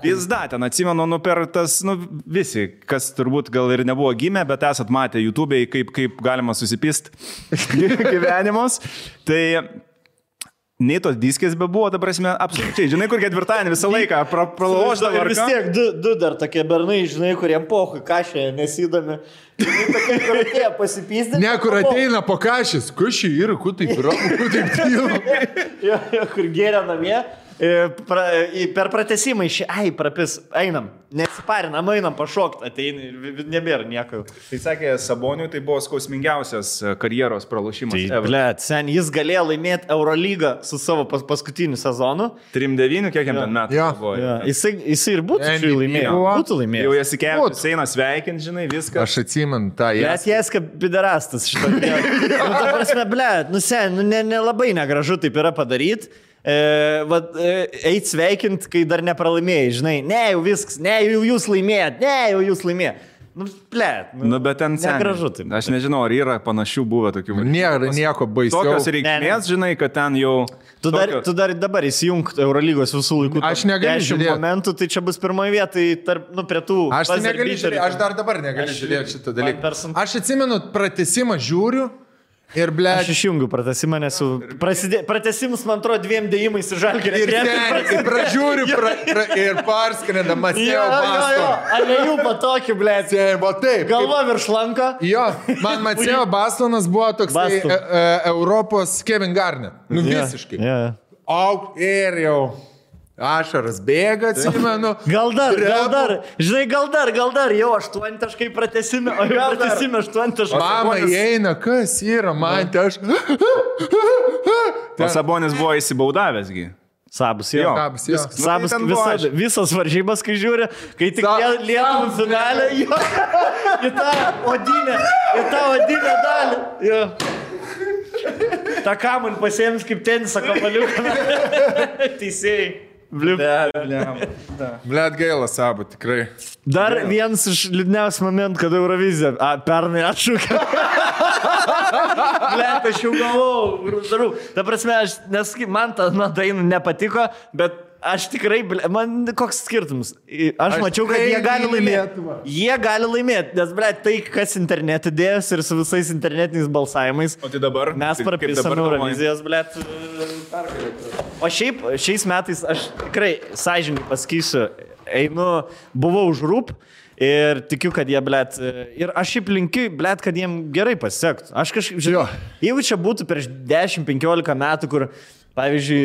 Pizda, ten atsimenu, per tas, visi, kas turbūt gal ir nebuvo gimę, bet esat matę YouTube'ai, kaip galima susipist gyvenimus. Tai nei tos diskės be buvo, ta prasme, absoliučiai. Žinai, kur ketvirtadienį visą laiką pralauždavo. Ir vis tiek du dar tokie bernai, žinai, kuriem pohui kašė nesidami. Tokie, kur atėjo pasipysdė. Ne, kur ateina po kašės. Kašį yra, kur taip ramu, kur taip tylo. Jo, kur gėrė namie. Per pratesimą prapis, einam, nesiparinam, einam pašokti, ateini, nebėra nieko. Tai sakė, Saboniui tai buvo skausmingiausias karjeros pralošimas. Blet, sen, jis galėjo laimėti Eurolygą su savo paskutiniu sezonu. 3-9, kiek jam ten metų buvo. Jisai ir būtų laimėjęs. Jau Jasikevičius eina sveikinti, žinai, viską. Aš atsimenu tą jas. Blet, Jaska piderastas šitą. Ta prasme, blet, sen, nelabai negražu taip yra padaryti. Eit sveikint, kai dar nepralaimėjai, žinai, ne jau viskas, ne jau jūs laimėjat. Bet ten negražu taip. Aš nežinau, ar yra panašių buvę tokių. Nėra nieko baisiau. Tokios reikmės, žinai, kad ten jau... Tu dar dabar įsijung Eurolygos visų laikų. Aš negaliu žiūrėti. Momentų, tai čia bus pirmoje vietoje prie tų... Aš tai negaliu žiūrėti, aš dar dabar negaliu žiūrėti šitą dalyką. Aš atsimenu, pratesimą žiūriu. Ir, ble... Aš išjungiu pratesimą, nes pratesimus, man atrodo, 2 dėjimais ir Žalgiris. Ir pražiūriu ir parskrenda Mateo Bastonas. Alejų patokį, ble. Taip. Galva virš lanko. Jo, man Mateo Bastonas buvo toks Europos Kevin Garnett. Visiškai. Auk ir jau. Ašaras bėga, atsimenu. Gal dar, žinai, gal dar, jau 8 taškai pratesime, o jau pratesime 8 taškai. Mama įeina, kas yra, man tai aš... O Sabonis buvo įsibaudavęsgi. Sabus, jo. Sabus, visas varžybas, kai žiūri, kai tik Lietuvų finalė, į tą odinę dalį. Jo. Ta kamuolį pasėmis kaip tenisą kamuoliuką. Teisėjai. Blet gaila Sabo, tikrai. Dar vienas iš liūdniausių momentų, kada Eurovizija pernai atšūkė. Blet, aš jau galvojau. Ta prasme, man ta daina nepatiko, bet aš tikrai, man koks skirtumas. Aš mačiau, kad jie gali laimėti. Jie gali laimėti, nes, blet, tai, kas internete dėjęs ir su visais internetiniais balsavimais. O tai dabar? Mes prapisam Eurovizijos, blet, pergalėti. O šiais metais aš tikrai sąžininkai pasakysiu, buvau už rūp ir tikiu, kad jie, blet, ir aš šiaip linkiu, blet, kad jiem gerai pasisektų. Aš kažkaip, žinau, jeigu čia būtų prieš 10-15 metų, kur, pavyzdžiui,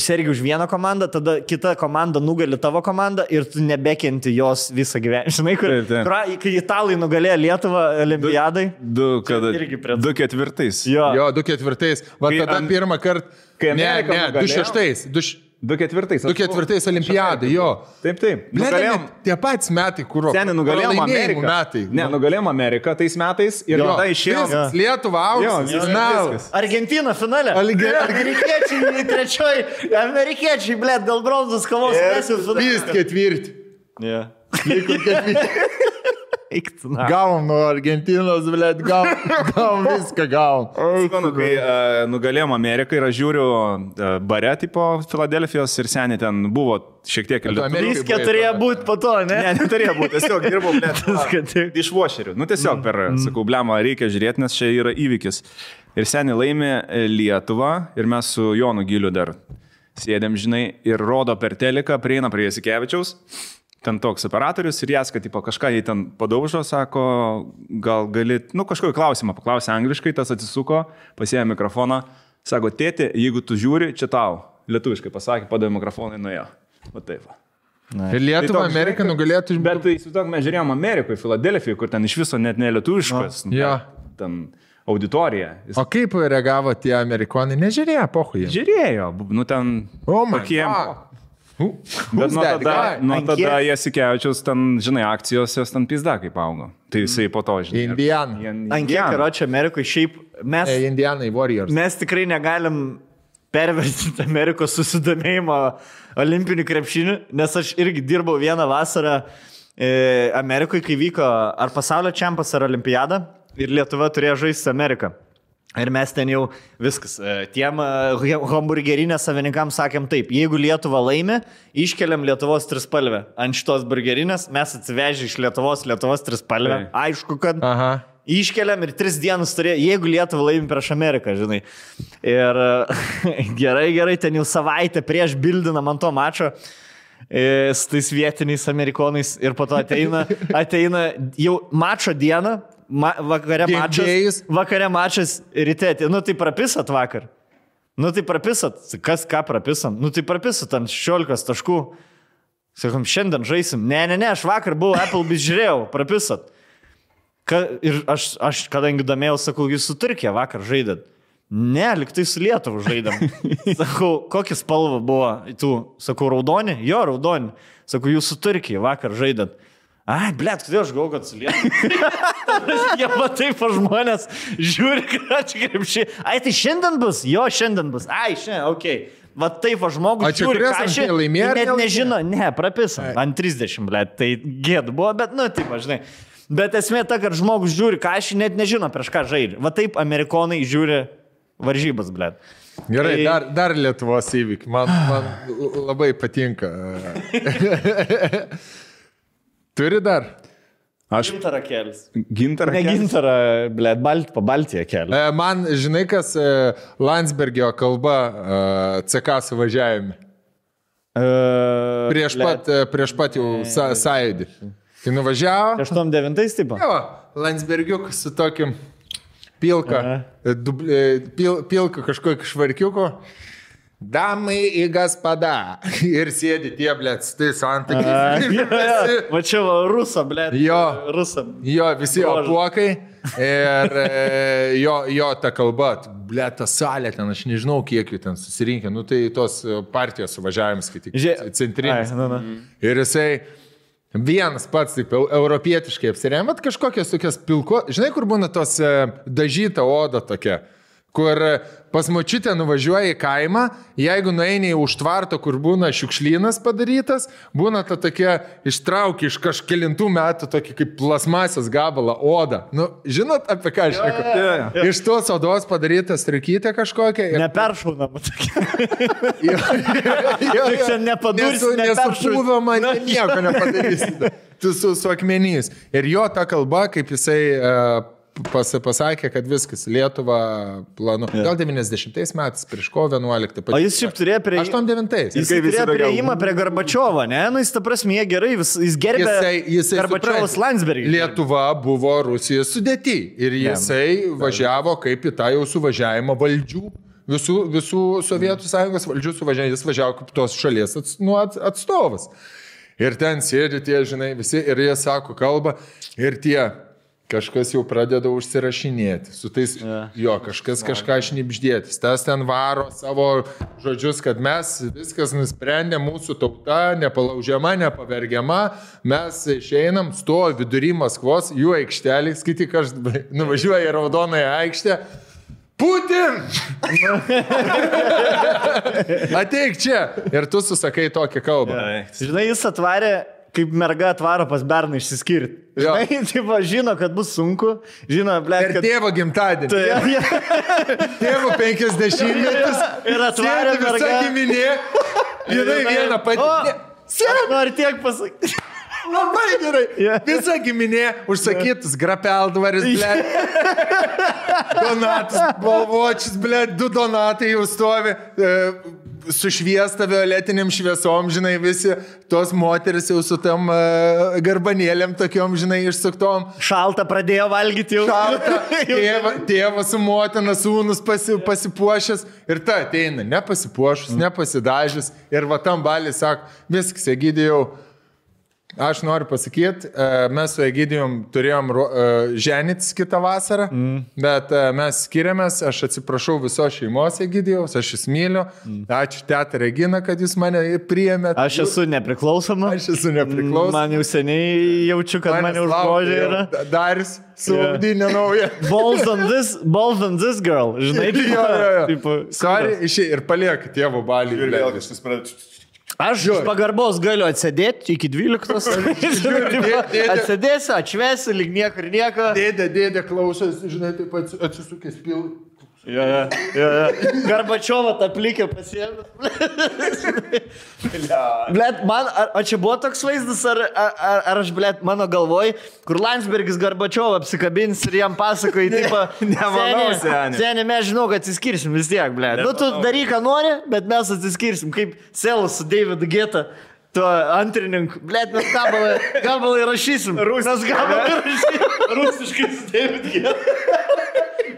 sergi už vieną komandą, tada kita komanda nugali tavo komandą ir tu nebekenti jos visą gyvenimą. Žinai, kai italai nugalėjo Lietuvą olimpiadai. 2-4. Jo, 2-4. Va tada pirmą kartą. Ne, 2-6. 2-4 olimpiadai, jo. Taip. Nugalėjom. Tie patys metai, kur... Seniai nugalėjom Ameriką. Ne, nugalėjom Ameriką tais metais ir tada išėjom. Lietuva, auksas. Argentina finale. Amerikiečiai trečioj. Amerikiečiai, blet, dėl bronzos kovos. Vis ketvirti. Liko ketvirti. Gavom nuo Argentinos, blet, gavom viską, gavom. Kai nugalėjom Ameriką ir aš žiūriu bare tipo Filadelfijos ir seniai ten buvo šiek tiek ir Viską turėjo būti po to, ne? Ne, neturėjo būti, tiesiog dirbau, blet, iš vošerių. Tiesiog tiesiog, blema, reikia žiūrėti, nes čia yra įvykis. Ir seniai laimė Lietuvą ir mes su Jonu Giliu dar sėdėm, žinai, ir rodo per teliką, prieina prie Jasikevičiaus. Ten toks operatorius ir jas, kad tipo, kažką jį ten padaužo, sako, gal gali, kažkokį klausimą paklausė angliškai, tas atsisuko, pasiėmė mikrofoną, sako, tėti, jeigu tu žiūri, čia tau, lietuviškai pasakė, padavė mikrofoną ir nuėjo. Va taip. Ir Lietuva, Amerika nugalėtų... Bet tai įsivaizduok, mes žiūrėjom Amerikoje, Filadelfijoje, kur ten iš viso net ne lietuviškas, ten auditorija. O kaip reagavo tie amerikonai? Nežiūrėjo, pohui. Žiūrėjo, ten... Bet nuo tada Jasikevičiaus ten, žinai, akcijos jos ten pizda kaip augo. Tai jisai po to, žinai. Indiana. Ant kiek, karoči, Amerikoje šiaip mes... Indianai Warriors. Mes tikrai negalim pervertinti Amerikos susidomėjimo olimpinių krepšinių, nes aš irgi dirbau vieną vasarą Amerikoje, kai vyko ar pasaulio čempas, ar olimpiada ir Lietuva turėjo žaisti Ameriką. Ir mes ten jau viskas. Tiem hamburgerinės savininkams sakėm taip, jeigu Lietuva laimi, iškeliam Lietuvos trispalvę. Ant šitos burgerinės mes atsivežė iš Lietuvos trispalvę. Aišku, kad iškeliam ir 3 dienas turėjo, jeigu Lietuva laimi prieš Ameriką, žinai. Ir gerai, ten jau savaitę prieš bildinam ant to mačo su tais vietiniais amerikonais ir po to ateina jau mačo dieną. Vakare mačas ryte, tai prapisat vakar. Tai prapisat, kas ką prapisam? Tai prapisat ant 16 taškų. Sakom, šiandien žaisim. Ne, aš vakar buvau Applebee's žiūrėjau, prapisat. Ir aš kadangi domėjau, sakau, jūs su Turkija vakar žaidėt. Ne, liktai su Lietuva žaidėm. Sakau, kokia spalva buvo tų? Sakau, raudoni? Jo, raudoni. Sakau, jūs su Turkija vakar žaidėt. Ai, blėt, kodėl aš galvoju, kad su Lietuva? Jie matai po žmonės, žiūri, kad krepšiai. Ai, tai šiandien bus? Jo, šiandien bus. Ai, šiandien, okei. Va taip va žmogus žiūri, ką aš net nežino. Ne, prapisam. Ant 30, blėt, tai gėd buvo, bet, taip, žinai. Bet esmė ta, kad žmogus žiūri, ką aš net nežino, prieš ką žaidžia. Va taip amerikonai žiūri varžybas, blėt. Gerai, dar Lietuvos įvykiai. Man labai patinka. Turi dar? Gintarą kelis. Gintarą kelis? Ne gintarą, blėt, po Baltiją kelią. Man, žinai, kas Landsbergio kalba CK suvažiavime? Prieš pat jau sąjūdį. Tai nuvažiavo. 89 tipo? Jo, Landsbergiukas su tokiu pilka kažkokio švarkiuko. Damai į gaspada. Ir sėdi tie, blėt, su tais antakiais. Va čia va, rusa, blėt. Jo, visi apuokai. Ir jo ta kalba, blėt, ta salė ten, aš nežinau, kiek jų ten susirinkė. Tai tos partijos suvažiavimas, kai tik centrinis. Ir jisai vienas pats, taip, europietiškai apsirėmė, kažkokios tokios pilko. Žinai, kur būna tos dažyta oda tokia? Kur pas močiutę nuvažiuoja į kaimą, jeigu nueini į užtvarto, kur būna šiukšlynas padarytas, būna ta tokia ištraukia iš kažkelintų metų tokį kaip plasmasės gabalą odą. Žinot, apie ką aš šneku? Iš tos odos padaryta striukytė kažkokia. Neperšaunama tokia. Čia nepadursi, nesupūvama, nieko nepadarysi. Tu su akmenys. Ir jo ta kalba, kaip jisai pasakė, kad viskas, Lietuva planu. Gal 90 metais, prieš kovo 11. O jis šiaip turėjo prie... 89. Jis turėjo prieimą prie Gorbačiovo, ne? Jis ta prasme, gerai, jis gerbė Gorbačiovos Landsbergį. Lietuva buvo Rusijos sudėty ir jisai važiavo kaip į tą jau suvažiavimą valdžių. Visų Sovietų sąjungos valdžių suvažiavimą, jis važiavo kaip tos šalies atstovas. Ir ten sėdi tie, žinai, visi ir jie sako kalbą ir tie... Kažkas jau pradeda užsirašinėti. Su tais, kažkas kažką šnibždėtis. Tas ten varo savo žodžius, kad mes viskas nusprendė, mūsų tauta nepalaužiama, nepavergiama. Mes išeinam, stovi vidury Maskvos, jų aikštelį, skaityk, aš nuvažiuoju į Raudonąją aikštę. Putin! Ateik čia. Ir tu susakai tokią kalbą. Žinai, jis atvarė... Kaip merga atvaro pas berną išsiskirti. Žinai, taip, žino, kad bus sunku. Žino, blėt, kad... Ir tėvo gimtadienį. Tėvo 50-metis. Ir atvarė merga. Visa giminė. Jinai vieną patį. Aš noriu tiek pasakyti. Labai gerai. Visa giminė užsakytus grapeldvaris, blėt. Donatas, balvočius, blėt, 2 donatai jau stovi. Sušviesta violetiniam šviesom, žinai, visi tos moteris jau su tam garbanėlėm tokiom, žinai, išsuktom. Šalta pradėjo valgyti jau. Šalta. Tėvas su motina, sūnus pasipuošęs ir ta ateina, nepasipuošus, nepasidažęs ir va tam balį sako, viskas, Egidijau. Aš noriu pasakyti, mes su Egidijum turėjom ženytis kitą vasarą, bet mes skiriamės, aš atsiprašau visos šeimos Egidijaus, aš jūs myliu, ačiū teta Regina, kad jūs mane priėmėt. Aš esu nepriklausoma. Man jau seniai jaučiu, kad mane užgožė yra. Daris su audinė nauja. Balls on this girl, žinai. Sorry, ir paliek tėvo balį. Ir vėl kažkas pradeda. Aš iš pagarbos galiu atsėdėti iki 12. Atsėdėsiu, atšvesiu, lyg nieko ir nieko. Dėdė klausos, žinai, taip atsisukęs Ja. Garbačiovą tą plikę pasiėmė. Blet, man, o čia buvo toks vaizdas, ar aš, blet, mano galvoj, kur Landsbergis Garbačiovą apsikabins ir jam pasakoja, tipo, Nemanau, seni, mes žinau, kad atsiskirsim vis tiek, blet. Nu, tu daryk, ką nori, bet mes atsiskirsim, kaip Selas su Davidu Geta. Tuo antrininku. Blet, mes gabalai rašysim. Mes gabalai rašysim. Rusiškai su Davidu Geta.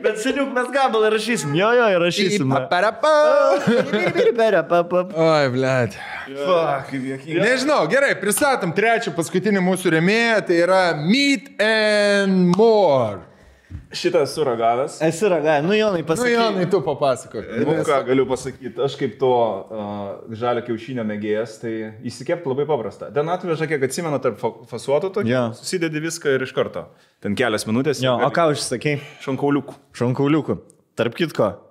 Bet seniuk mes gabalai rašysim. Jo, rašysim. Oi, blėt. Nežinau, gerai, pristatom trečią paskutinį mūsų rėmėją, tai yra Meat and More. Šitas suragavęs. Esi ragavęs, nu Jonai pasakyk. Nu Jonai, tu papasakok. Nu ką galiu pasakyti, aš kaip to žalio kiaušinio mėgėjas, tai įsikepti labai paprasta. Ten atveža, kiek atsimenu, tarp fasuotų tokį, susidedi viską ir iš karto. Ten kelias minutės. Jo, o ką užsakei? Šonkauliukų. Tarp kitko,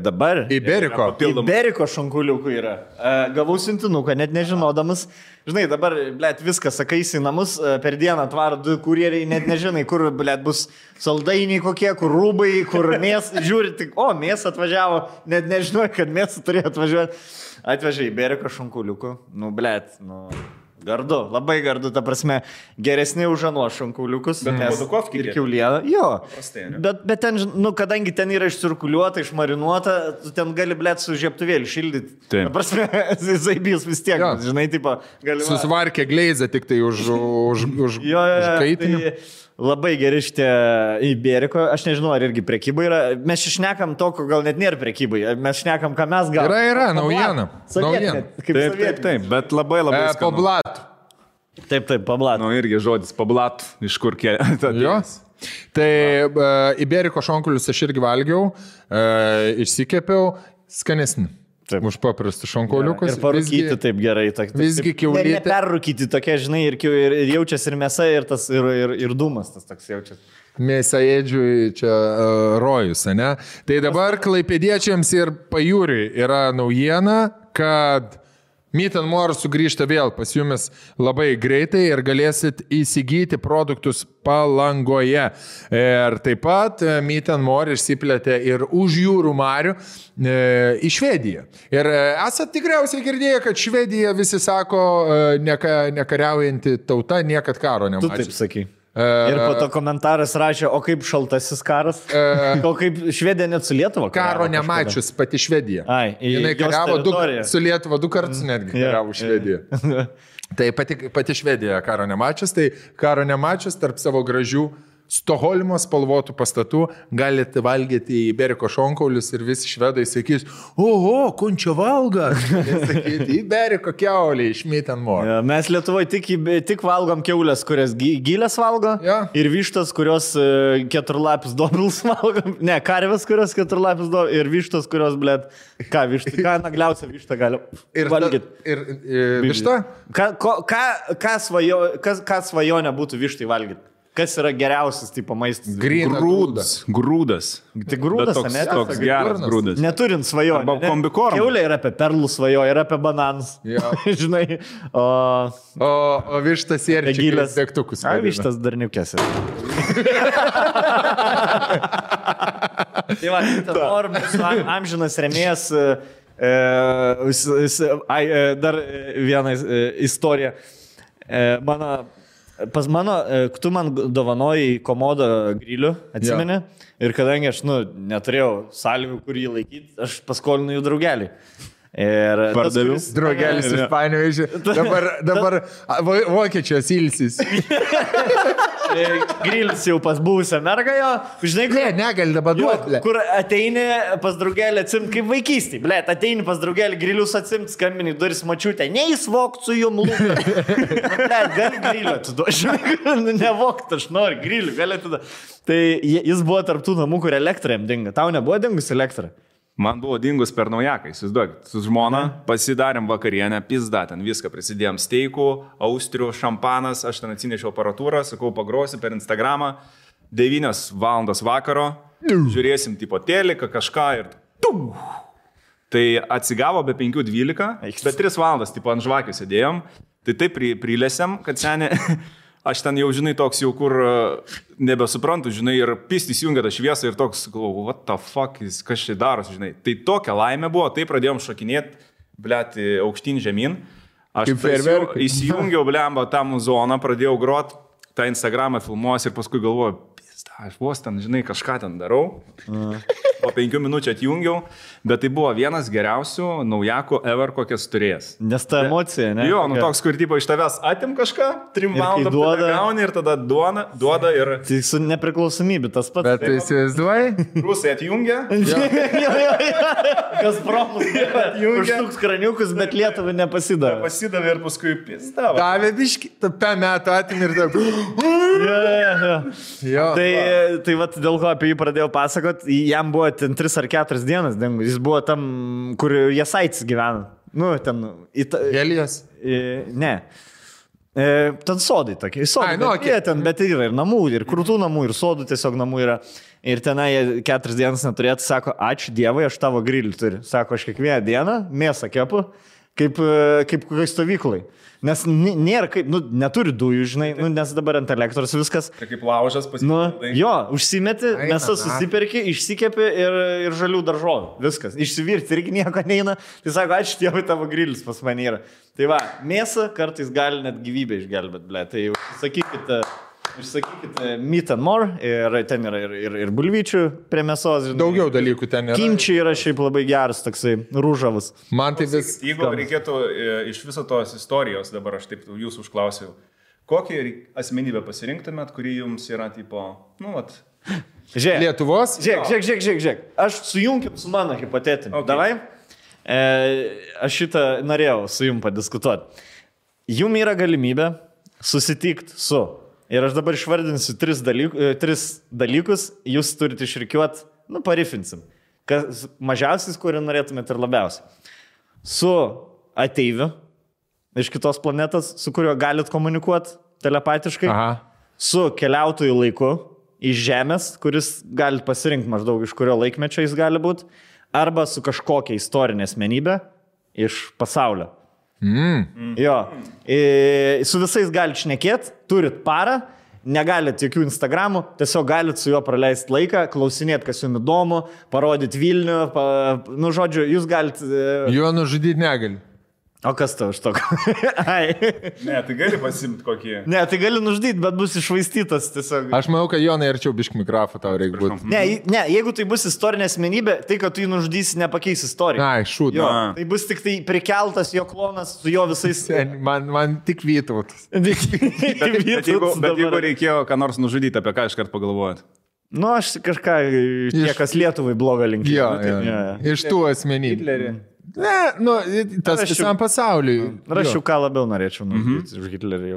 dabar Iberiko šonkauliukų yra. Gavau siuntinuką, net nežinodamas. Žinai, dabar, blėt, viską sakaisi į namus, per dieną atvaro 2 kurjeriai, net nežinai, kur, blėt, bus saldainiai kokie, kur rūbai, kur mėsą, žiūri, tik, mėsą atvažiavo, net nežinau, kad mėsą turėjo atvažiuoti. Atvežė Iberiko šonkauliukų, nu, blėt, nu... Gardu, labai gardu, ta prasme, geresni už anuos šonkauliukus. Bet Bodukovkį ir kiaulieną. Jo, bet ten, nu, kadangi ten yra išcirkuliuota, išmarinuota, tu ten gali, blėt, su žieptuvėlį šildyti. Ta prasme, zaibys vis tiek, žinai, tipo, galima... Susvarkė gleizę tik tai už kaitinį. Labai geri šitie Iberiko, aš nežinau, ar irgi prekyba yra. Mes šnekam to, ko gal net nėra prekybai. Mes šnekam, ką mes galime. Yra, naujiena. Taip, bet labai skanu. Pablat. Taip, pablat. Nu, irgi žodis pablat, iš kur kėlė. Jos. Tai Iberiko šonkaulius aš irgi valgiau, išsikepiau, skanesni. Taip. Už paprastus šonkauliukus. Ir parūkyti taip gerai. Visgi kiaulytė. Neperrūkyti tokia, žinai, ir jaučiasi ir mėsa, ir dūmas tas toks jaučiasi. Mėsaėdžiui čia rojus, ne? Tai dabar klaipėdiečiams ir pajūriui yra naujiena, kad Meat and More sugrįžta vėl pas jumis labai greitai ir galėsit įsigyti produktus Palangoje. Ir taip pat Meat and More išsiplėtė ir už jūrų marių į Švediją. Ir esat tikriausiai girdėję, kad Švedija visi sako nekariaujanti tauta, niekad karo nemačiusi. Tu taip sakai. Ir po to komentaras rašė, o kaip šaltasis karas? O kaip Švedija net su Lietuva? Karo nemačius pati Švedija. Jinai kariavo su Lietuva 2 kartus netgi kariavo Švediją. Tai pati Švedija karo nemačius, tai karo nemačius tarp savo gražių Stokholmo spalvotų pastatų galite valgyti Iberiko šonkaulius ir visi švedai sakys, oho, kunčio valga. Sakyti, Iberiko kiaulė iš Meat and More. Ja, mes Lietuvoje tik valgom kiaulės, kurias gilės valgo, ir vištas, kurios keturlapis dobilus valgom. Ne, karvės, kurios keturlapis dobilus ir vištas, kurios, blėt, ką nagliausia višta gali valgyti. Ir višta? Ką svajonė būtų vištai valgyti? Kas yra geriausias tipo maistas? Grūdas. Tai grūdas, ne? Toks geras grūdas. Neturint svajonę. Arba kombikorm. Kiaulė yra apie perlų svajonę, yra apie bananus. Žinai. O vištas sėrčikas degtukus. Vištas darniukės. Tai va, Meat amžinas rėmėjas. Dar viena istorija. Pas mano, tu man dovanojai komodą grilių, atsimeni? Ir kadangi aš, neturėjau sąlygų, kur jį laikyti, aš paskolinu jų draugelį. Ir pardaviau. Draugelis iš Panevėžio. Dabar vokiečios ilsis. Grilis jau pas buvusią mergą jo. Žinai, negali dabar duoti. Kur ateini pas draugelį atsimti kaip vaikystį. Blet, ateini pas draugelį grilius atsimti, skambini duris mačiutę. Neįsvokt su jum lūką. Blet, gali grilio atiduoti. Nevokt, aš noriu grilių, gali atiduoti. Tai jis buvo tarptų namų, kur elektra jam dinga. Tau nebuvo dingus elektra? Man buvo dingus per naujaką, įsivaizduokit, su žmona pasidarėm vakarienę, pizda, ten viską prisidėjom steikų, austrių, šampanas, aš ten atsinešiau aparatūrą, sakau, pagrosi per Instagramą, 9 valandos vakaro, žiūrėsim tipo teliką, kažką ir tai atsigavo be 5:12, bet 3 valandas tipo ant žvakių sėdėjom, tai taip prilėsiam, kad senė aš ten jau, žinai, toks jau kur nebesuprantu, žinai, ir pistis jungia tą šviesą ir toks, galvoju, what the fuck, kas čia darosi, žinai. Tai tokia laimė buvo, tai pradėjom šokinėti, blėti, aukštyn žemyn. Aš įsijungiau, blemba, tą zoną, pradėjau grot, tą Instagramą filmuos ir paskui galvoju, aš vos ten, žinai, kažką ten darau. Po 5 minučių atjungiau, bet tai buvo vienas geriausių naujakų ever, kokias turėjęs. Nes ta emocija, ne? Jo, nu toks, kur tipo iš tavęs atim kažką, 3 valandų gauni ir tada duoda ir... Tai su nepriklausomybė tas pats. Bet tu įsivaizduoji? Rusai atjungia. Kas promus atjungia. Užtuks kraniukus, bet Lietuvai nepasidavė. Pasidavė ir paskui pizdavo. Davė biški, tą metą atim ir taip. Tai vat dėl ko apie jį pradėjau pasakot, jam buvo ten 3 ar 4 dienas, jis buvo tam, kur Jasaitis gyvena. Nu, ten... Helijos? Ne. Ten sodai tokie. Sodai, bet yra ir namų, ir krūtų namų, ir sodų tiesiog namų yra. Ir tenai 4 dienas neturėtų, sako, ačiū Dievui, aš tavo grilį turiu. Sako, aš kiekvieną dieną mėsą kepu, kaip kokiai stovyklai. Nes nėra kaip, neturi dujų, žinai, nes dabar ant elektros viskas. Tai kaip laužas pasipildai. Jo, užsimeti, mesą susiperki, išsikepi ir žalių daržovių. Viskas. Išsivirti irgi nieko neina. Tai sako, ačiū Dievui, tavo grilis pas mane yra. Tai va, mėsą kartais gali net gyvybę išgelbėti, ble. Tai išsakykite meat and more, ir ten yra ir bulvyčių prie mėsos. Žinai. Daugiau dalykų ten yra. Kimčiai yra šiaip labai geras, toksai rūžavas. Man tai vis... Jeigu reikėtų iš viso tos istorijos, dabar aš taip jūsų užklausiau, kokį asmenybę pasirinktumėt, kuri jums yra tipo, Žiūrėk. Lietuvos? Žiūrėk. Aš sujunkim su mano hipotetiniu. Okay. Davai? Aš šitą norėjau su jum padiskutuoti. Jum yra galimybė susitikti su... Ir aš dabar išvardinsiu 3 dalykus, jūs turite išrikiuoti, parifinsim. Mažiausiais, kurį norėtumėte ir labiausiai. Su ateiviu iš kitos planetos, su kuriuo galit komunikuoti telepatiškai. Aha. Su keliautojų laiku iš Žemės, kuris galit pasirinkti maždaug iš kurio laikmečio jis gali būti. Arba su kažkokia istorinė asmenybė iš pasaulio. Jo, su visais galite šnekėti, turit parą, negalite jokių Instagramų, tiesiog galite su juo praleisti laiką, klausinėti, kas jums įdomu, parodyti Vilnių, žodžiu, jūs galite... Jo nužudyti negali. O kas tau iš to? Ne, tai gali pasimti kokį. Ne, tai gali nužudyti, bet bus iššvaistytas tiesiog. Aš manau, kad Jonai arčiau biškį mikrofą tau reikia būti. Ne, jeigu tai bus istorinė asmenybė, tai kad tu jį nužudysi nepakeis istoriją. Ai, šūd. Tai bus tik tai prikeltas jo klonas su jo visais... Man tik Vytautas. Bet jeigu reikėjo ką nors nužudyti, apie ką iškart pagalvojat? Aš kažką, kas Lietuvai blogą linkį. Iš tų asmenybių. Hitlerį. Ne, tas visam pasauliui. Rašiau, ką labiau norėčiau nužudyti už Hitlerį.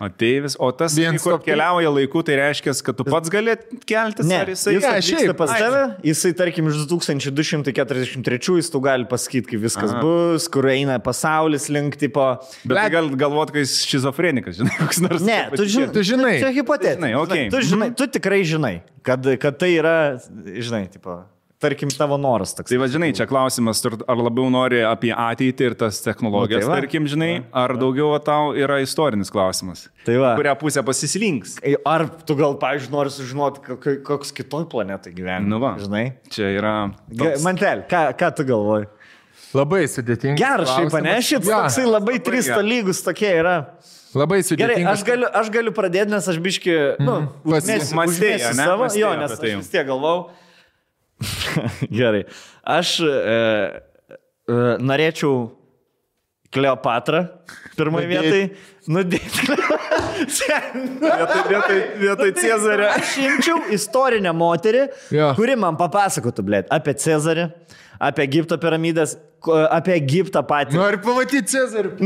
Ateivis, o tas, kur keliauja laiku, tai reiškia, kad tu pats gali keltis? Ne, jis atvyksta pas tave, jisai, tarkim, iš 2243 jis tu gali pasakyti, kaip viskas bus, kur eina pasaulis link tipo. Bet gal galvot, kad jis šizofrenikas, žinai, koks nors. Ne, tu žinai. Čia hipotetiškai. Tu tikrai žinai, kad tai yra, žinai, tipo... Tarkim, tavo noras toks. Tai va, žinai, čia klausimas, ar labiau nori apie ateitį ir tas technologijas, tarkim, žinai, ar daugiau tau yra istorinis klausimas. Tai va. Kurią pusę pasislinks. Ar tu gal, pavyzdžiui, nori sužinoti, koks kitoj planetai gyvena. Nu va, žinai. Čia yra... Mantel, ką tu galvoji? Labai sudėtinga. Geras šiaip, ne? Šiaip toksai labai 3 lygus tokie yra. Labai sudėtinga. Gerai, aš galiu pradėti, nes aš biški, užmėsiu savo, jo, nes aš vis tiek galvau. Gerai. Aš norėčiau Kleopatrą pirmoje vietoje nudėti. Vietoj Cezario. Aš imčiau istorinę moterį, kuri man papasakotų, apie Cezarį, apie Egipto piramidės, apie Egiptą patį. Nori pamatyti Cezarį.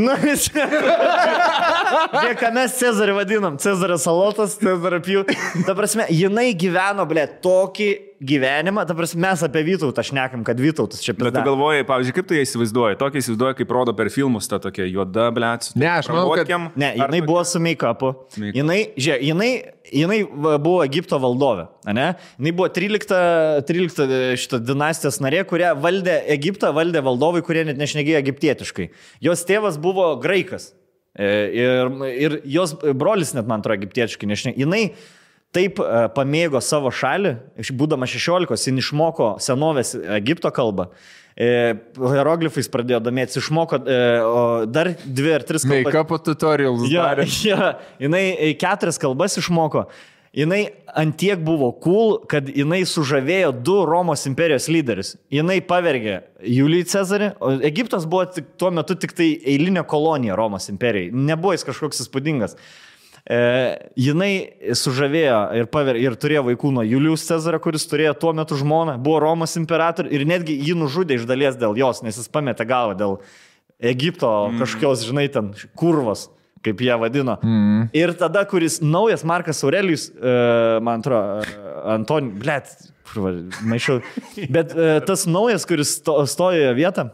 Žiūrėk, ką mes Cezarį vadinam. Cezario salotas, Cezario pjū. Ta prasme, jinai gyveno, tokį gyvenimą. Ta prasme, mes apie Vytautą šnekam, kad Vytautas čia pizda. Bet tu galvoji, pavyzdžiui, kaip tu ją įsivaizduoji? Tokia įsivaizduoji, kaip rodo per filmus, ta tokia juoda, Ne, aš manau, kad... Ne, jinai buvo su make-upu. Jinai buvo Egipto valdovė, ne? Jinai buvo 13 šitą dinastijos narė, kurie valdė Egiptą, valdė valdovai, kurie net nešnekėjo egiptietiškai. Jos tėvas buvo graikas. Ir jos brolis net, man atrodo, egiptietiškai nešneka. Jinai taip pamėgo savo šalį, būdama 16, jin išmoko senovės Egipto kalbą. Hieroglifais pradėjo domėtis, išmoko dar 2 ar 3 kalbas. Make-up tutorials darė. Jinai 4 kalbas išmoko. Jinai antiek buvo cool, kad jinai sužavėjo 2 Romos imperijos lyderius. Jinai pavergė Julijų Cezarį, o Egiptas buvo tuo metu tik tai eilinė kolonija Romos imperijai. Nebuvo jis kažkoks įspūdingas. Jinai sužavėjo ir turėjo vaikų nuo Julijus Cezario, kuris turėjo tuo metu žmoną, buvo Romos imperatorius ir netgi jį nužudė iš dalies dėl jos, nes jis pametė galvą dėl Egipto kažkokios, žinai, ten kurvos, kaip jie vadino. Ir tada, kuris naujas Markas Aurelijus, man atrodo, maišau, bet tas naujas, kuris stojo vietą,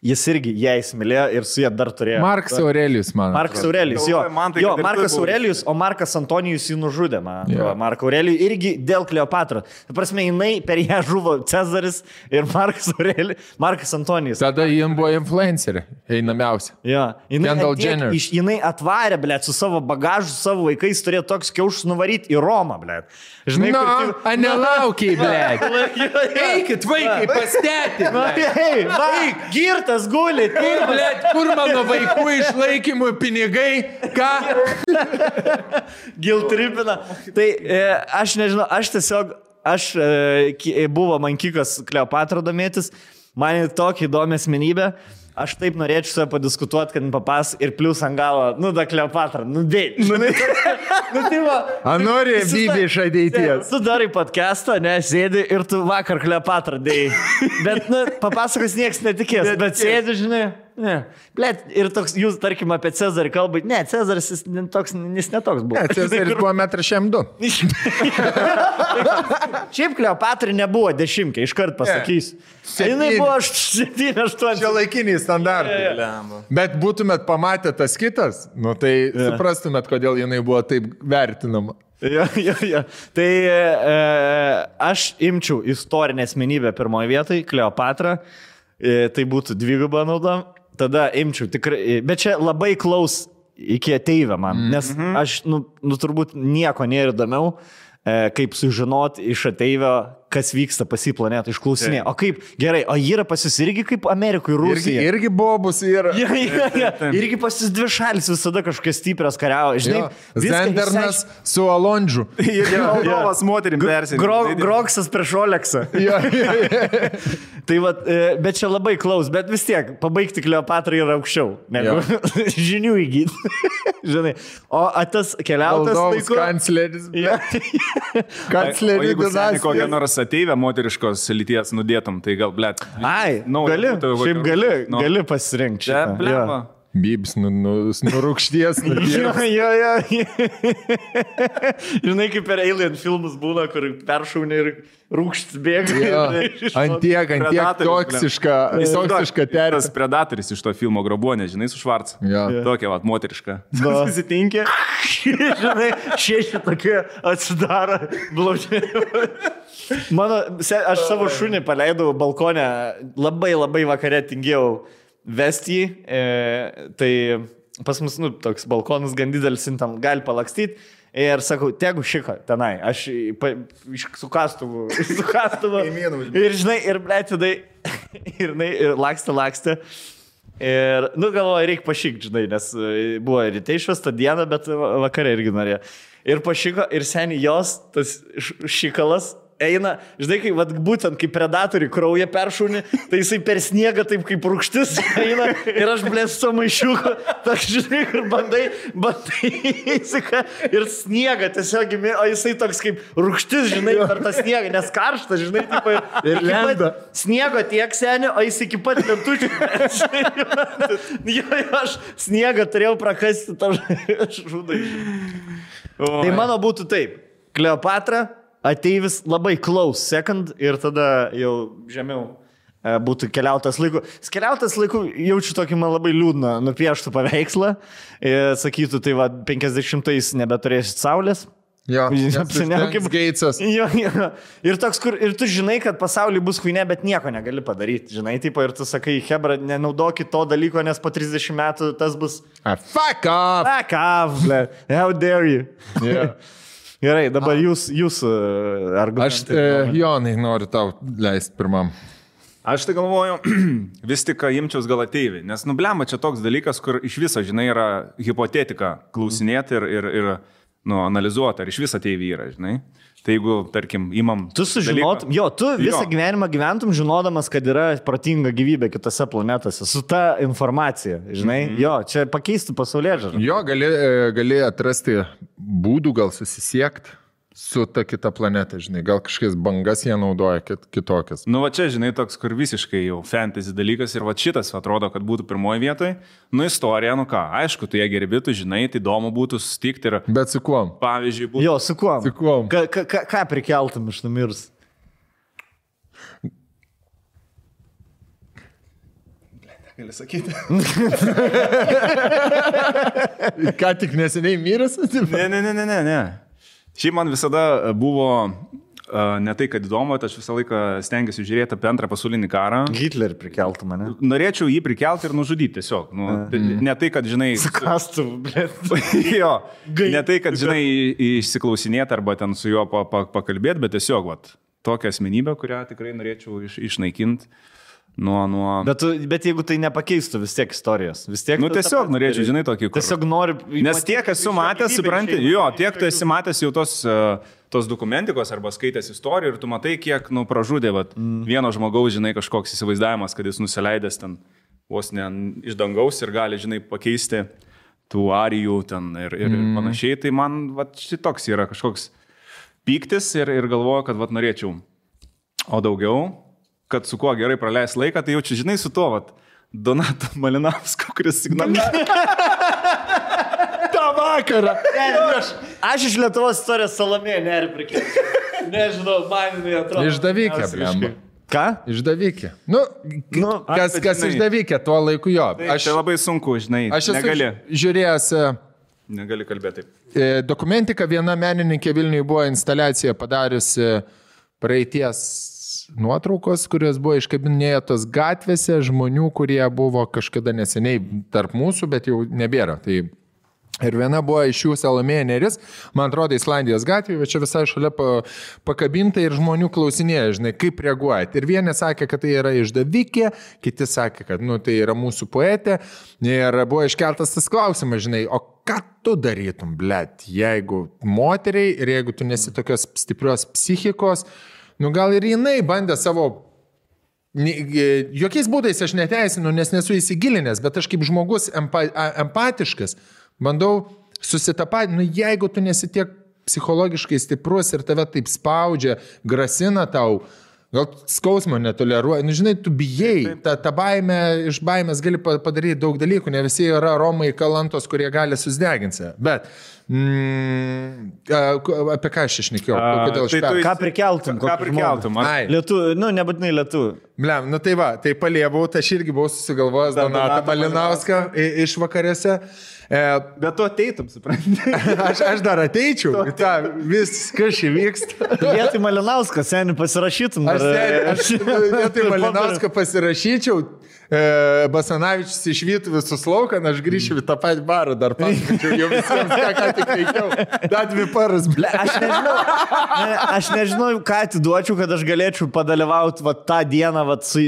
jis irgi ją įsimylėjo ir su jie dar turėjo. Markas Aurelijus, man. Markas Aurelijus, jo. Markas Aurelijus, o Markas Antonijus jį nužudė, man. Marką Aurelijų irgi dėl Kleopatros. Ta prasme, jinai per ją žuvo Cezaris ir Markas Antonijus. Tada jiem buvo influencerė, einamiausia. Jo. Kendall Jenner. Jinai atvarė, blėt, su savo bagažu, su savo vaikais, turėjo toks kiaušus nuvaryti į Romą, blėt. Žinai, nelaukiai, blėt. Eikit, vaikai, pastėti, blėt. Girtas guli. Blėt, kur mano vaikų išlaikymų pinigai? Ką? Giltripina. Tai aš nežinau, buvo man kikas Kleopatra domėtis, man tokia įdomi asmenybė. Aš taip norėčiau su padiskutuoti, kad papas ir plius ant galo, da Kleopatra, dėj. Nori Bibi iš ateities. Tu darai podcastą, sėdi ir tu vakar Kleopatra dėjai. Bet, papasakos nieks netikės, bet sėdi, žinai. Blet, ir toks, jūs, tarkim, apie Cezarį kalbait. Ne, Cezaris jis netoks buvo. Ne, Cezaris buvo 1,2 m. Šiaip Kleopatrai nebuvo 10, iškart pasakysiu. Jinai buvo 7-8. Čia laikiniai standartai. Bet būtumėt pamatę tas kitas, tai suprastumėt, kodėl jinai buvo taip vertinama. Jo. Tai aš imčiau istorinę asmenybę pirmoje vietoje, Kleopatrą. Tai būtų dvigubą naudą. Tada imčiau tikrai, bet čia labai klaus iki ateivę man, nes aš, turbūt nieko nėra įdomiau, kaip sužinoti iš ateivio, kas vyksta pas į planetą, išklausinė. O kaip, gerai, o yra pas jūs irgi kaip Amerikoje, Rusija? Irgi bobus yra. Irgi pas jūs 2 šalis visada kažkokias stiprios kariavo. Žinai, Zendernas su Alondžiu. Ir Moldovas moterim persinė. Groksas prieš Oleksą. Tai va, bet čia labai klaus, bet vis tiek, pabaigti Kleopatrą yra aukščiau, negu žinių įgyti. Žinai, o tas keliautas laiku... Kancleris. Kancleris. Jeigu seni kokią nors ateivę moteriškos lyties nudėtum, tai gal, blėt. Gali pasirinkti. Čia, blėma. Bibs nurūkšties. Žinai, kaip per Alien filmus būna, kur peršaunė ir rūkštis bėga. Antiek toksiška terpė. Tas Predatorius iš to filmo Grobonė, žinai, su Švarcu. Tokia, moteriška. Susitinkė. Žinai, 6 tokie atsidaro blaužiai. Aš savo šunį paleidau balkonę, labai vakare tingėjau vesti, tai pas mus, toks balkonas gan didelis, tam gali palakstyti. Ir sakau, tegu šika tenai, aš su kastuvu. Ir žinai, ir blėtidai, ir lakstė. Ir, galvoju, reikia pašykti, žinai, nes buvo ryte išvesta diena, bet vakare irgi norėjo. Ir pašyko, ir seniai jos, tas šykalas, eina, žinai, kaip, būtent kaip predatoriai kraują peršūnį, tai jisai per sniegą taip kaip rūgštis eina ir aš blėsiu su maišiuku, tak žinai, ir bandai įsika ir sniegą tiesiog, o jisai toks kaip rūgštis, žinai, per tą sniegą, nes karštas, žinai, taip, ir lenda. Sniego tiek seniai, o jis iki pat lentučių. Aš sniegą turėjau prakasti tą žudai. Tai mano būtų taip, Kleopatra, ateivis labai close second ir tada jau žemiau būtų keliautas laiku. Keliautas laiku jaučiu tokį man labai liūdną nupieštų paveikslą. Sakytų, tai 50-ais nebeturėsit saulės. Jo, Seniau kaip Geitsas. Jo. Ir toks, ir tu žinai, kad pasaulyje bus huinė, bet nieko negali padaryti. Žinai, tipo, ir tu sakai, hebra, nenaudokit to dalyko, nes po 30 metų tas bus... Fuck off! Fuck off, ble. How dare you? Yeah. Gerai, dabar jūs argumentai. Jonai, noriu tau leisti pirmam. Aš tai galvoju, vis tik imčiaus gal ateiviai, nes nublemba čia toks dalykas, kur iš viso, žinai, yra hipotetika klausinėti ir analizuoti, ar iš viso ateiviai yra, žinai. Tai jeigu, tarkim, imam... Tu sužinotum, tu visą gyvenimą gyventum žinodamas, kad yra protinga gyvybė kitose planetose, su ta informacija, žinai. Čia pakeistų pasaulėžiūrą. Jo, gali atrasti būdų, gal susisiekti su ta kita planeta, žinai. Gal kažkokias bangas jie naudoja kitokias. Nu, va čia, žinai, toks, kur visiškai jau fantasy dalykas ir va šitas atrodo, kad būtų pirmoji vietoje. Nu, istorija, nu ką, aišku, tu ją gerbi, tu žinai, tai įdomu būtų susitikti ir... Bet su kuom? Pavyzdžiui, būtų... Jo, su kuom? Su kuom? Ką prikeltum iš numirs? Gali sakyti. Ką tik neseniai miręs? Ne. Šiaip man visada buvo ne tai, kad įdomu, aš visą laiką stengiuosi žiūrėti apie antrą pasaulinį karą. Hitlerį prikeltų mane. Norėčiau jį prikelti ir nužudyti tiesiog. Ne tai, kad, žinai... Skastų, blėt. Jo, ne tai, kad, žinai, išsiklausinėti arba ten su juo pakalbėti, bet tiesiog, tokią asmenybę, kurią tikrai norėčiau išnaikinti. Bet jeigu tai nepakeistų vis tiek istorijos, vis tiek... Nu tiesiog norėčiau, žinai, tokį... Tiesiog noriu... Nes tiek esu matęs, supranti, tiek tu esi matęs jau tos dokumentikos arba skaitęs istorijų ir tu matai, kiek, pražudė vieno žmogaus, žinai, kažkoks įsivaizdavimas, kad jis nusileidęs ten vos ne iš dangaus ir gali, žinai, pakeisti tų arijų ten ir panašiai. Tai man, šitoks yra kažkoks pyktis ir galvoju, kad, norėčiau. O daugiau... kad su kuo gerai praleis laiką, tai jaučiu, žinai, su tuo, Donato Malinausko, kuris signalizuoja. tą vakarą. Aš iš Lietuvos istorijos Salomėją neriu prikėti. Nežinau, man jinai atrodo. Išdavikė, blemba. Ką? Išdavikė. Kas išdavikė tuo laiku jo. Tai labai sunku, žinai. Aš esu žiūrėjęs... Negali kalbėti taip. Dokumentika, viena menininkė Vilniuje buvo instaliaciją padariusi praeities nuotraukos, kurios buvo iškabinėtos gatvėse žmonių, kurie buvo kažkada neseniai tarp mūsų, bet jau nebėra. Tai ir viena buvo iš jų Salomėja Nėris, man atrodo, Islandijos gatvėje, bet čia visai šalia pakabinta ir žmonių klausinėja, žinai, kaip reaguojat. Ir vieni sakė, kad tai yra išdavikė, kiti sakė, kad tai yra mūsų poetė. Ir buvo iškeltas tas klausimas, žinai, o ką tu darytum, blet, jeigu moteriai ir jeigu tu nesi tokios stiprios psichikos, gal ir jinai bandė savo, jokiais būdais aš neteisinu, nes nesu įsigilinęs, bet aš kaip žmogus empatiškas bandau susitapatinti, jeigu tu nesi tiek psichologiškai stiprus ir tave taip spaudžia, grasina tau, gal skausmo netoleruoja, žinai, tu bijai, ta baimė, iš baimės gali padaryti daug dalykų, ne visi yra Romai kalantos, kurie gali susideginti. Bet apie ką aš išnekėjau? Ką prikeltum? Ką prikeltum? Lietuvių, nebūtinai lietuvių. Blem, tai paliebau, aš irgi buvau susigalvojęs Donatą Malinauską iš vakarėse. Bet tu ateitum, supranti. Aš dar ateičiau, viskas įvyksta. Vietoj Malinauską, seniai pasirašytum. Aš vietoj Malinauską pasirašyčiau, Basanavičius išvytų visus lauką, aš grįšiu į tą patį barą, dar pasakyčiau, jau visiems ką tik veikiau. Dar 2 paras, ble. Aš nežinau, ką atiduočiau, kad aš galėčiau padalyvauti tą dieną su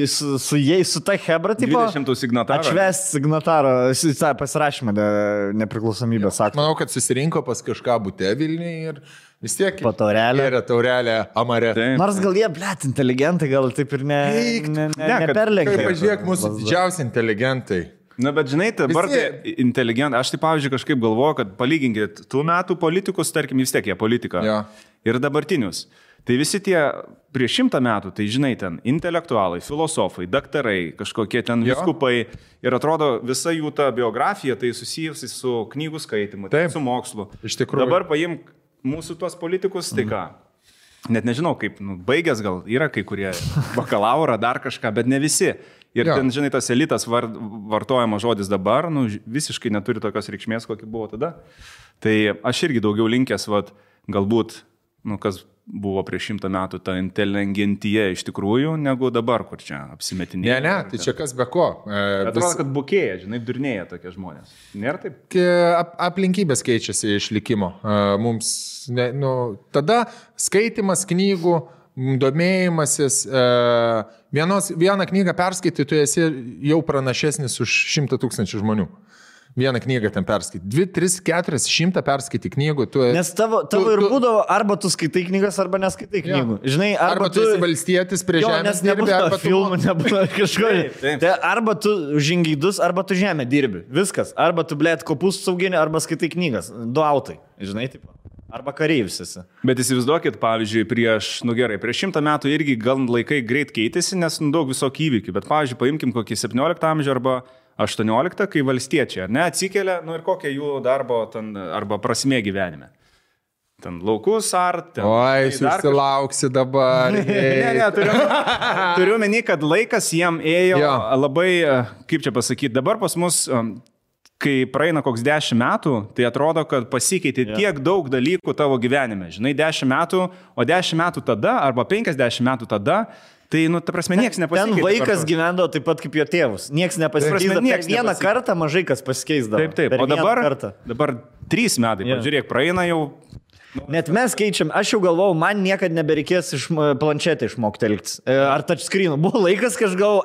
jais, su ta hebra, tipo. 20 signatarą. Atšvest signatarą, pasirašymą nepriklausomybės aktą. Manau, kad susirinko pas kažką bute Vilniuje ir vis tiek taurelė Amare. Nors gal jie, blėt, inteligentai, gal taip ir neperlenkia. Kaip pažiūrėk, mūsų didžiausi inteligentai. Na, bet žinai, dabar inteligentai, aš tai pavyzdžiui kažkaip galvoju, kad palyginkit tų metų politikus, tarkim, vis tiek jie politika. Ja. Ir dabartinius. Tai visi tie prieš 100 metų, tai žinai, ten intelektualai, filosofai, daktarai, kažkokie ten vyskupai. Ir atrodo, visa jų ta biografija tai susijusi su knygų skaitimu, su mokslu. Iš tikrųjų. Dabar paimk mūsų tuos politikus, tai ką? Net nežinau, kaip, baigęs gal yra kai kurie bakalaurą, dar kažką, bet ne visi. Ir ten, žinai, tas elitas vartojama žodis dabar, visiškai neturi tokios reikšmės, kokia buvo tada. Tai aš irgi daugiau linkęs, galbūt, kas buvo prieš 100 metų ta inteligentija iš tikrųjų, negu dabar, kur čia apsimetinėja. Ne, tai čia kas be ko. Atrodo, kad bukėja, durnėja tokie žmonės. Nėra taip? Aplinkybės keičiasi išlikimo. Mums, tada skaitimas knygų, domėjimasis, vieną knygą perskaitai, tu esi jau pranašesnis už 100 000 žmonių. Vieną knygą ten perskaityti. 2, 3, 4, 100 perskaityti knygų. Nes tavo ir būdavo, arba tu skaitai knygas, arba neskaitai knygų. Žinai, arba tu esi valstietis prie žemės dirbi, arba filmų nebūna kažko. Tai arba tu žingeidus, arba tu žemę dirbi. Viskas. Arba tu, blėt, kopus sauginį, arba skaitai knygas. 2 autai. Žinai, taip. Arba kareivis esi. Bet įsivaizduokit, pavyzdžiui, prieš 100 metų irgi gal laikai greit keitėsi, nes daug visokių įvykių. Bet, pavyzdžiui, paimkim kokį 17 amžių arba 18, kai valstiečiai, atsikėlė, ir kokia jų darbo ten, arba prasmė gyvenime. Ten laukus ar... Oi, susilauksi dabar. Turiu meni, kad laikas jiem ėjo labai, kaip čia pasakyti, dabar pas mus, kai praeina koks 10 metų, tai atrodo, kad pasikeitė tiek daug dalykų tavo gyvenime. Žinai, 10 metų, o 10 metų tada, arba 50 metų tada, tai, ta prasme, nieks nepasikeitė. Ten vaikas gyvendavo taip pat kaip jo tėvus. Nieks nepasikeitė. Vieną kartą mažai kas pasikeisdavo. Taip. O dabar 3 metai, pažiūrėk, praeina jau... Net mes keičiam, aš jau galvojau, man niekada nebereikės iš planšetę išmokti elgtis. Ar touchscreen'u. Buvo laikas, kai aš galvojau,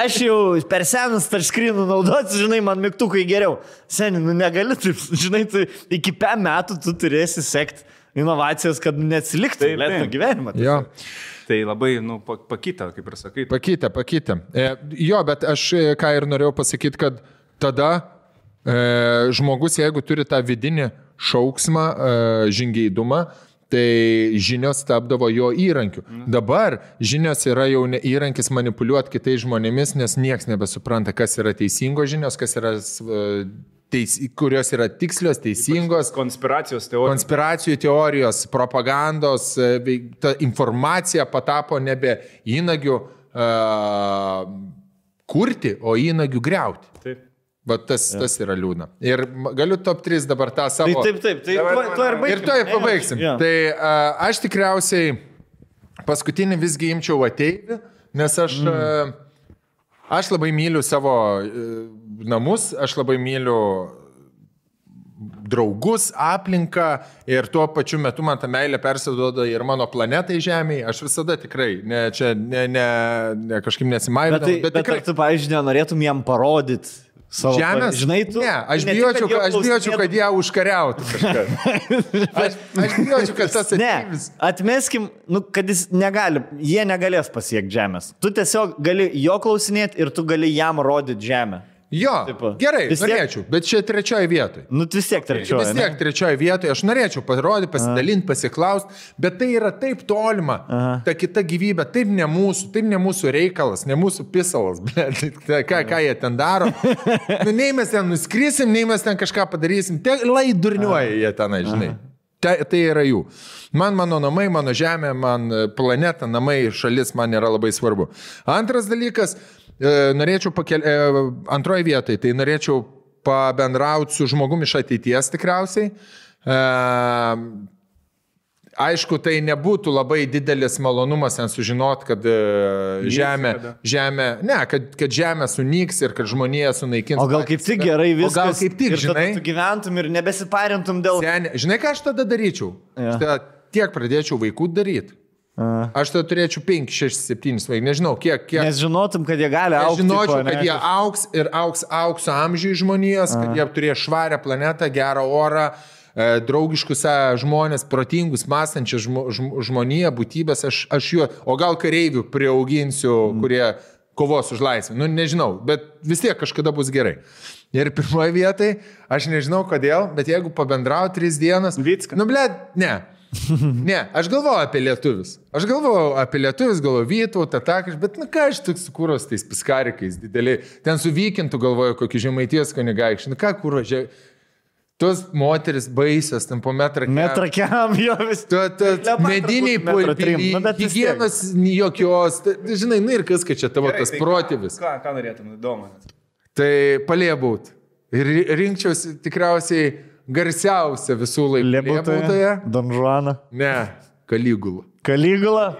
aš jau per senas touchscreen'u naudoti, žinai, man mygtukai geriau. Seni, negali taip, žinai, tu iki 5 metų tu turėsi sekti inovacijas, kad neatsiliktų gyvenimą. Jo. Tai labai, pakitę, kaip ir sakai. Pakitę. Jo, bet aš ką ir norėjau pasakyti, kad tada žmogus, jeigu turi tą vidinį šauksmą, žingeidumą, tai žinios tapdavo jo įrankiu. Dabar žinios yra jau įrankis manipuliuoti kitais žmonėmis, nes nieks nebesupranta, kas yra teisingos žinios, kas yra... kurios yra tikslios, teisingos. Konspiracijų teorijos, propagandos, ta informacija patapo nebe įnagių kurti, o įnagių griauti. Taip. Bet tas yra liūdna. Ir galiu top 3 dabar tą savo... Taip. Ir to ir pabaigsim. Tai aš tikriausiai paskutinį visgi imčiau ateivį, nes aš labai myliu savo namus, aš labai myliu draugus, aplinką ir tuo pačiu metu man ta meilė persiduoda ir mano planetai Žemėje. Aš visada tikrai, kažkaip nesimaivinu. Bet tikrai tu, pavyzdžiui, nenorėtum jam parodyti savo Žemės? Žinai, tu... Ne, aš bijočiau, kad ją užkariautų kažkas. Aš bijočiau, kad tas ateivis... Ne, atmeskim, kad jie negalės pasiekti Žemės. Tu tiesiog gali jo klausinėti ir tu gali jam rodyti Žemę. Jo, gerai, norėčiau, bet čia 3 vietoje. Vis tiek 3. Vis tiek 3 vietoje, aš norėčiau parodyti, pasidalinti, pasiklausti, bet tai yra taip tolima, ta kita gyvybė, taip ne mūsų reikalas, ne mūsų pisalas, ką jie ten daro. Nei mes ten nuskrisim, nei mes ten kažką padarysim, lai durniuoja jie tenai, žinai. Tai yra jų. Man mano namai, mano žemė, man planeta, namai, šalis man yra labai svarbu. Antras dalykas, norėčiau antroje vietoje, tai norėčiau pabendrauti su žmogumi iš ateities tikriausiai. Aišku, tai nebūtų labai didelis malonumas ten sužinoti, kad kad žemė sunyks ir kad žmonija sunaikins. O gal kaip tik gerai viskas. O gal kaip tik, ir žinai, tu gyventum ir nebesiparintum dėl... Žinai, ką aš tada daryčiau? Tiek pradėčiau vaikų daryti. Aš tada turėčiau 5, 6, 7 vaikų, nežinau, kiek... Nes žinotum, kad jie gali augti. Žinočiau, kad jie augs ir augs aukso amžiui žmonijos, kad jie turės švarę planetą, gerą orą, draugiškus žmonės, protingus, mąstančius žmoniją, būtybės, aš juo, o gal kareivių priauginsiu, kurie kovos už laisvę, nežinau, bet vis tiek kažkada bus gerai. Ir pirmoje vietoje, aš nežinau kodėl, bet jeigu pabendrau 3 dienas... Vicka. Ne, aš galvoju apie lietuvius. Galvoju Vytautą, bet ką aš tik su kūros tais piskarikais dideliai. Ten su Vykintu galvoju kokį Žemaitijos kunigaikštį. Ką kūro, tos moteris baisios, ten po metrakiam, jo vis. Mediniai pulpiliai, higienos jokios. Žinai, ir kas, kad čia tavo tas protėvis. Ką norėtum, įdomu? Tai palėbūt. Ir rinkčiausi tikriausiai garsiausia visų laikų Liepūtoje. Don Juana. Ne, Kaligula. Kaligula.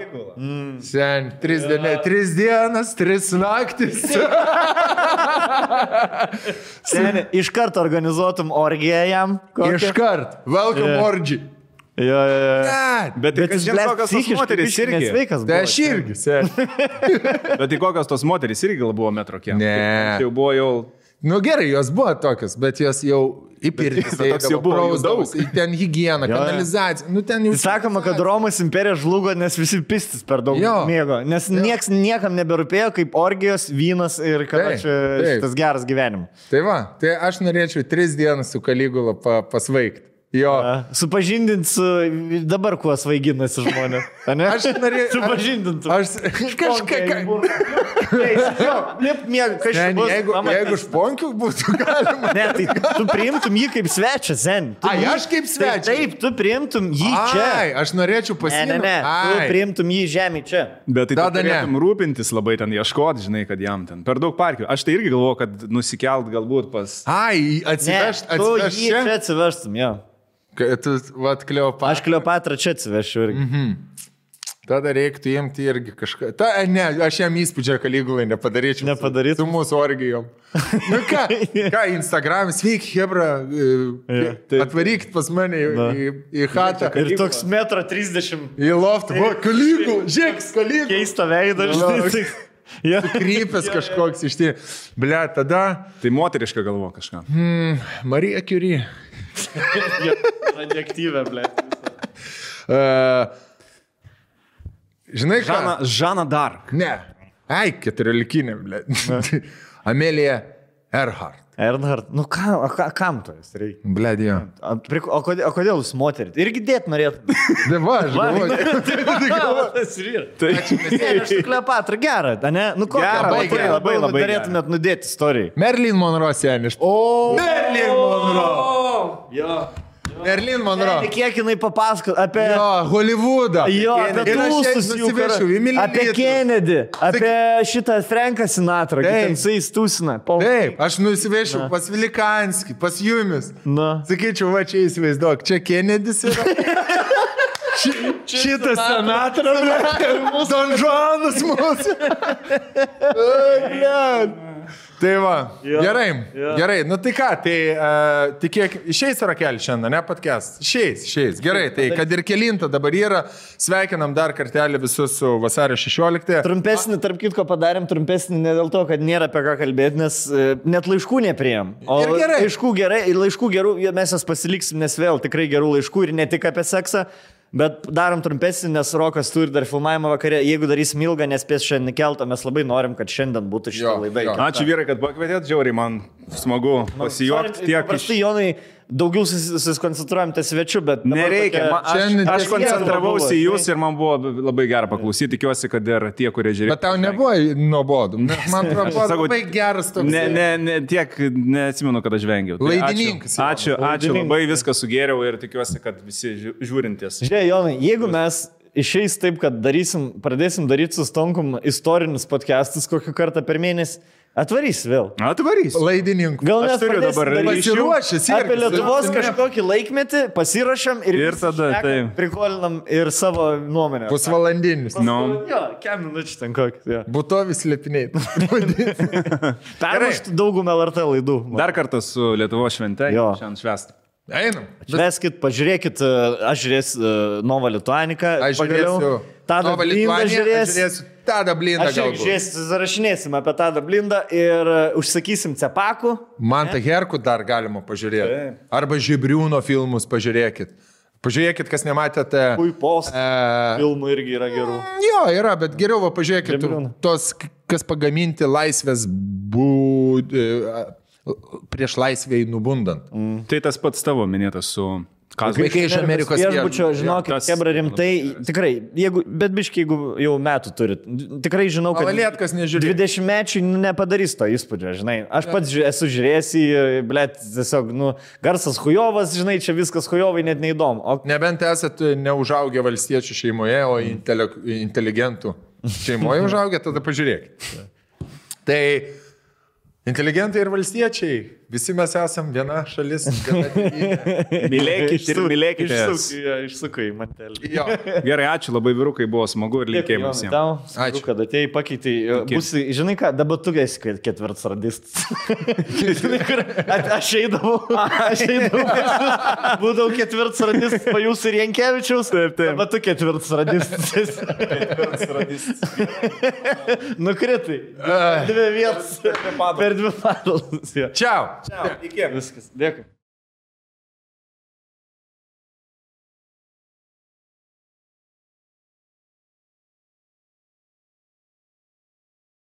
Sen, 3 dienas, 3 naktis. Seni, iš karto organizuotum orgiją jam. Iš karto. Welcome orgy. Jo. Bet kas žinai, kokios tos moterys irgi. Sveikas. Tai aš irgi, sen. Bet tai kokios tos moterys irgi gal buvo metro kiek. Ne. Jau buvo jau... Nu gerai, jos buvo tokios, bet jos jau įpirtis. Toks jau buvo jų daug. Ten higiena, kanalizacija. Nu, ten jau... Sakoma, kad Romos imperija žlugo, nes visi pistis per daug mėgo. Nes niekam neberūpėjo kaip orgijos, vynas ir kad šitas geras gyvenimas. Tai va, tai aš norėčiau 3 dienas su Kaligula pasvaigti. Jo. Supažindint su dabar kuo svaiginasi žmonės. Aš norėjau... Supažindint. Aš kažką... Jeigu šponkių būtų galima... Ne, tai tu priimtum jį kaip svečią, sen. Aš kaip svečią? Taip, tu priimtum jį čia. Aš norėčiau pasiimti. Ne, tu priimtum jį žemį čia. Bet tai turėtum rūpintis labai ten, ieškoti, žinai, kad jam ten per daug parkių. Aš tai irgi galvoju, kad nusikelt galbūt pas... Atsivežt tu jį čia atsivežtum, jo. Tu, vat, Kleopatra. Aš Kleopatrą čia atsivešiu irgi. Tada reiktų imti irgi kažką. Ne, aš jam įspūdžią Kaligulai nepadaryčiau. Nepadarytum? Su mūsų orgijom. Nu ką, Instagram, sveiki, hebra, atvarykit pas mane į chatą. Ir toks 1,30 m. Į loftą. Kaligula, žiūrėk, Kaligula. Keista veidą, žinai. Krypęs kažkoks iš tie. Ble, tada... Tai moteriška galvo kažką. Marija Curie. Radioaktyvė, ble. Žinai ką? Žana Dark. Ne. 14, ble. Amelija Earhart. Earhart. Nu kam to jis reikia? Bledėjo. O kodėl jūs moterit? Irgi dėt norėtum. Deva, aš galvoju. Aš Kleopatra gerą, ne? Nu kokią labai norėtumėt nudėti istorijai. Marilyn Monroe seniš. Marilyn Monroe. Marilyn Monroe. Kiek jinai papasako apie... Jo, Hollywoodą. Jo, apie tūstus jų. Apie Kennedy. Apie šitą Franką Sinatrą. Ten su jais tūsina. Taip, aš nusivešiu pas Vilikanskį, pas Jumis. Sakyčiau, va čia įsivaizduok, čia Kennedys yra. Šitas Sinatra, Don Juanas mūsų. Tai va, gerai, nu tai ką, tai kiek išeis Rakelį šiandien, ne podcast? Išeis, gerai, tai kad ir kelinta dabar yra, sveikinam dar kartelį visus su vasario 16. Trumpesnį, tarp kitko padarėm trumpesnį ne dėl to, kad nėra apie ką kalbėti, nes net laiškų nepriėm. O laiškų gerai, ir laiškų gerų, mes jas pasiliksim, nes vėl tikrai gerų laiškų ir ne tik apie seksą. Bet darom trumpesnį, nes Rokas turi dar filmavimą vakarė. Jeigu darysim ilgą, nespės šiandien keltą, mes labai norim, kad šiandien būtų šitą laidą. Ačiū vyrai, kad pakvietėt, žiauriai man smagu pasijuokti tiek. Paprastai, Jonai, daugiau susikoncentruojam ties svečiu, bet... Nereikia, aš koncentravausi į jūs ir man buvo labai gera paklausyti, tikiuosi, kad ir tie, kurie žiūrėjo. Bet tau nebuvo nuobodu, man atrodo, labai geras toks. Ne, tiek neatsimenu, kad aš vengiau. Laidininkas. Ačiū, labai viską sugėriau ir tikiuosi, kad visi žiūrintys. Žiūrėjau, Jonai, jeigu mes išeis taip, kad pradėsim daryti su Stonkum istorinius podcastus kokį kartą per mėnesį, atvarys vėl. Atvarys. Laidininkų. Gal mes turiu dabar pasiruošęs apie Lietuvos kažkokį laikmetį, pasirašam ir tada prikolinam ir savo nuomonę. Pusvalandinis. Jo, kem minučių ten kokį. Būtovis lepiniai. Permuštų daugumą LRT laidų. Dar kartą su Lietuvos švente. Šiandien švęsti. Einam. Šveskit, pažiūrėkit, aš žiūrėsiu Nova Lituanika. Aš žiūrėsiu Tadą Blindą žiūrėsiu. Tadą Blindą galbūt. Aš zarašinėsim apie Tadą Blindą ir užsakysim cepakų. Mantą Herkų dar galima pažiūrėti. Arba Žibriūno filmus pažiūrėkit. Pažiūrėkit, kas nematėte. Puipos filmų irgi yra gerų. Jo, yra, bet geriau va pažiūrėkit tos, kas pagaminti laisvės prieš laisvėj nubundant. Tai tas pats tavo minėtas su... Vaikai iš Amerikos viešbučio, žinokit, kebra rimtai, tikrai, bet biškai, jeigu jau metų turit, tikrai žinau, kad 20-mečiai nepadarys to įspūdžio, žinai. Aš pats esu žiūrėjęs į, blėt, tiesiog, garsas hujovas, žinai, čia viskas hujovai net neįdomu. Nebent esat neužaugę valstiečių šeimoje, o inteligentų šeimoje užaugę, tada pažiūrėkit. Tai inteligentai ir valstiečiai visi mes esam viena šalis. Mylėkite ir mylėkite. Išsukai į mantelį. Jo. Gerai, ačiū labai vyrukai, buvo smagu ir linkėjimai visiems. Ačiū, kad atėjai, pakeitai. Žinai ką, dabar tu esi ketvirtas radistas. Žinai, kur aš eidavau. Būdavau ketvirtas radistas, po jūsų ir Jankievičiaus. Taip. Dabar tu ketvirtas radistas. Nukritai. 2 vietas. Per 2 valandas. Čiau. Iki. Viskas. Dėkui.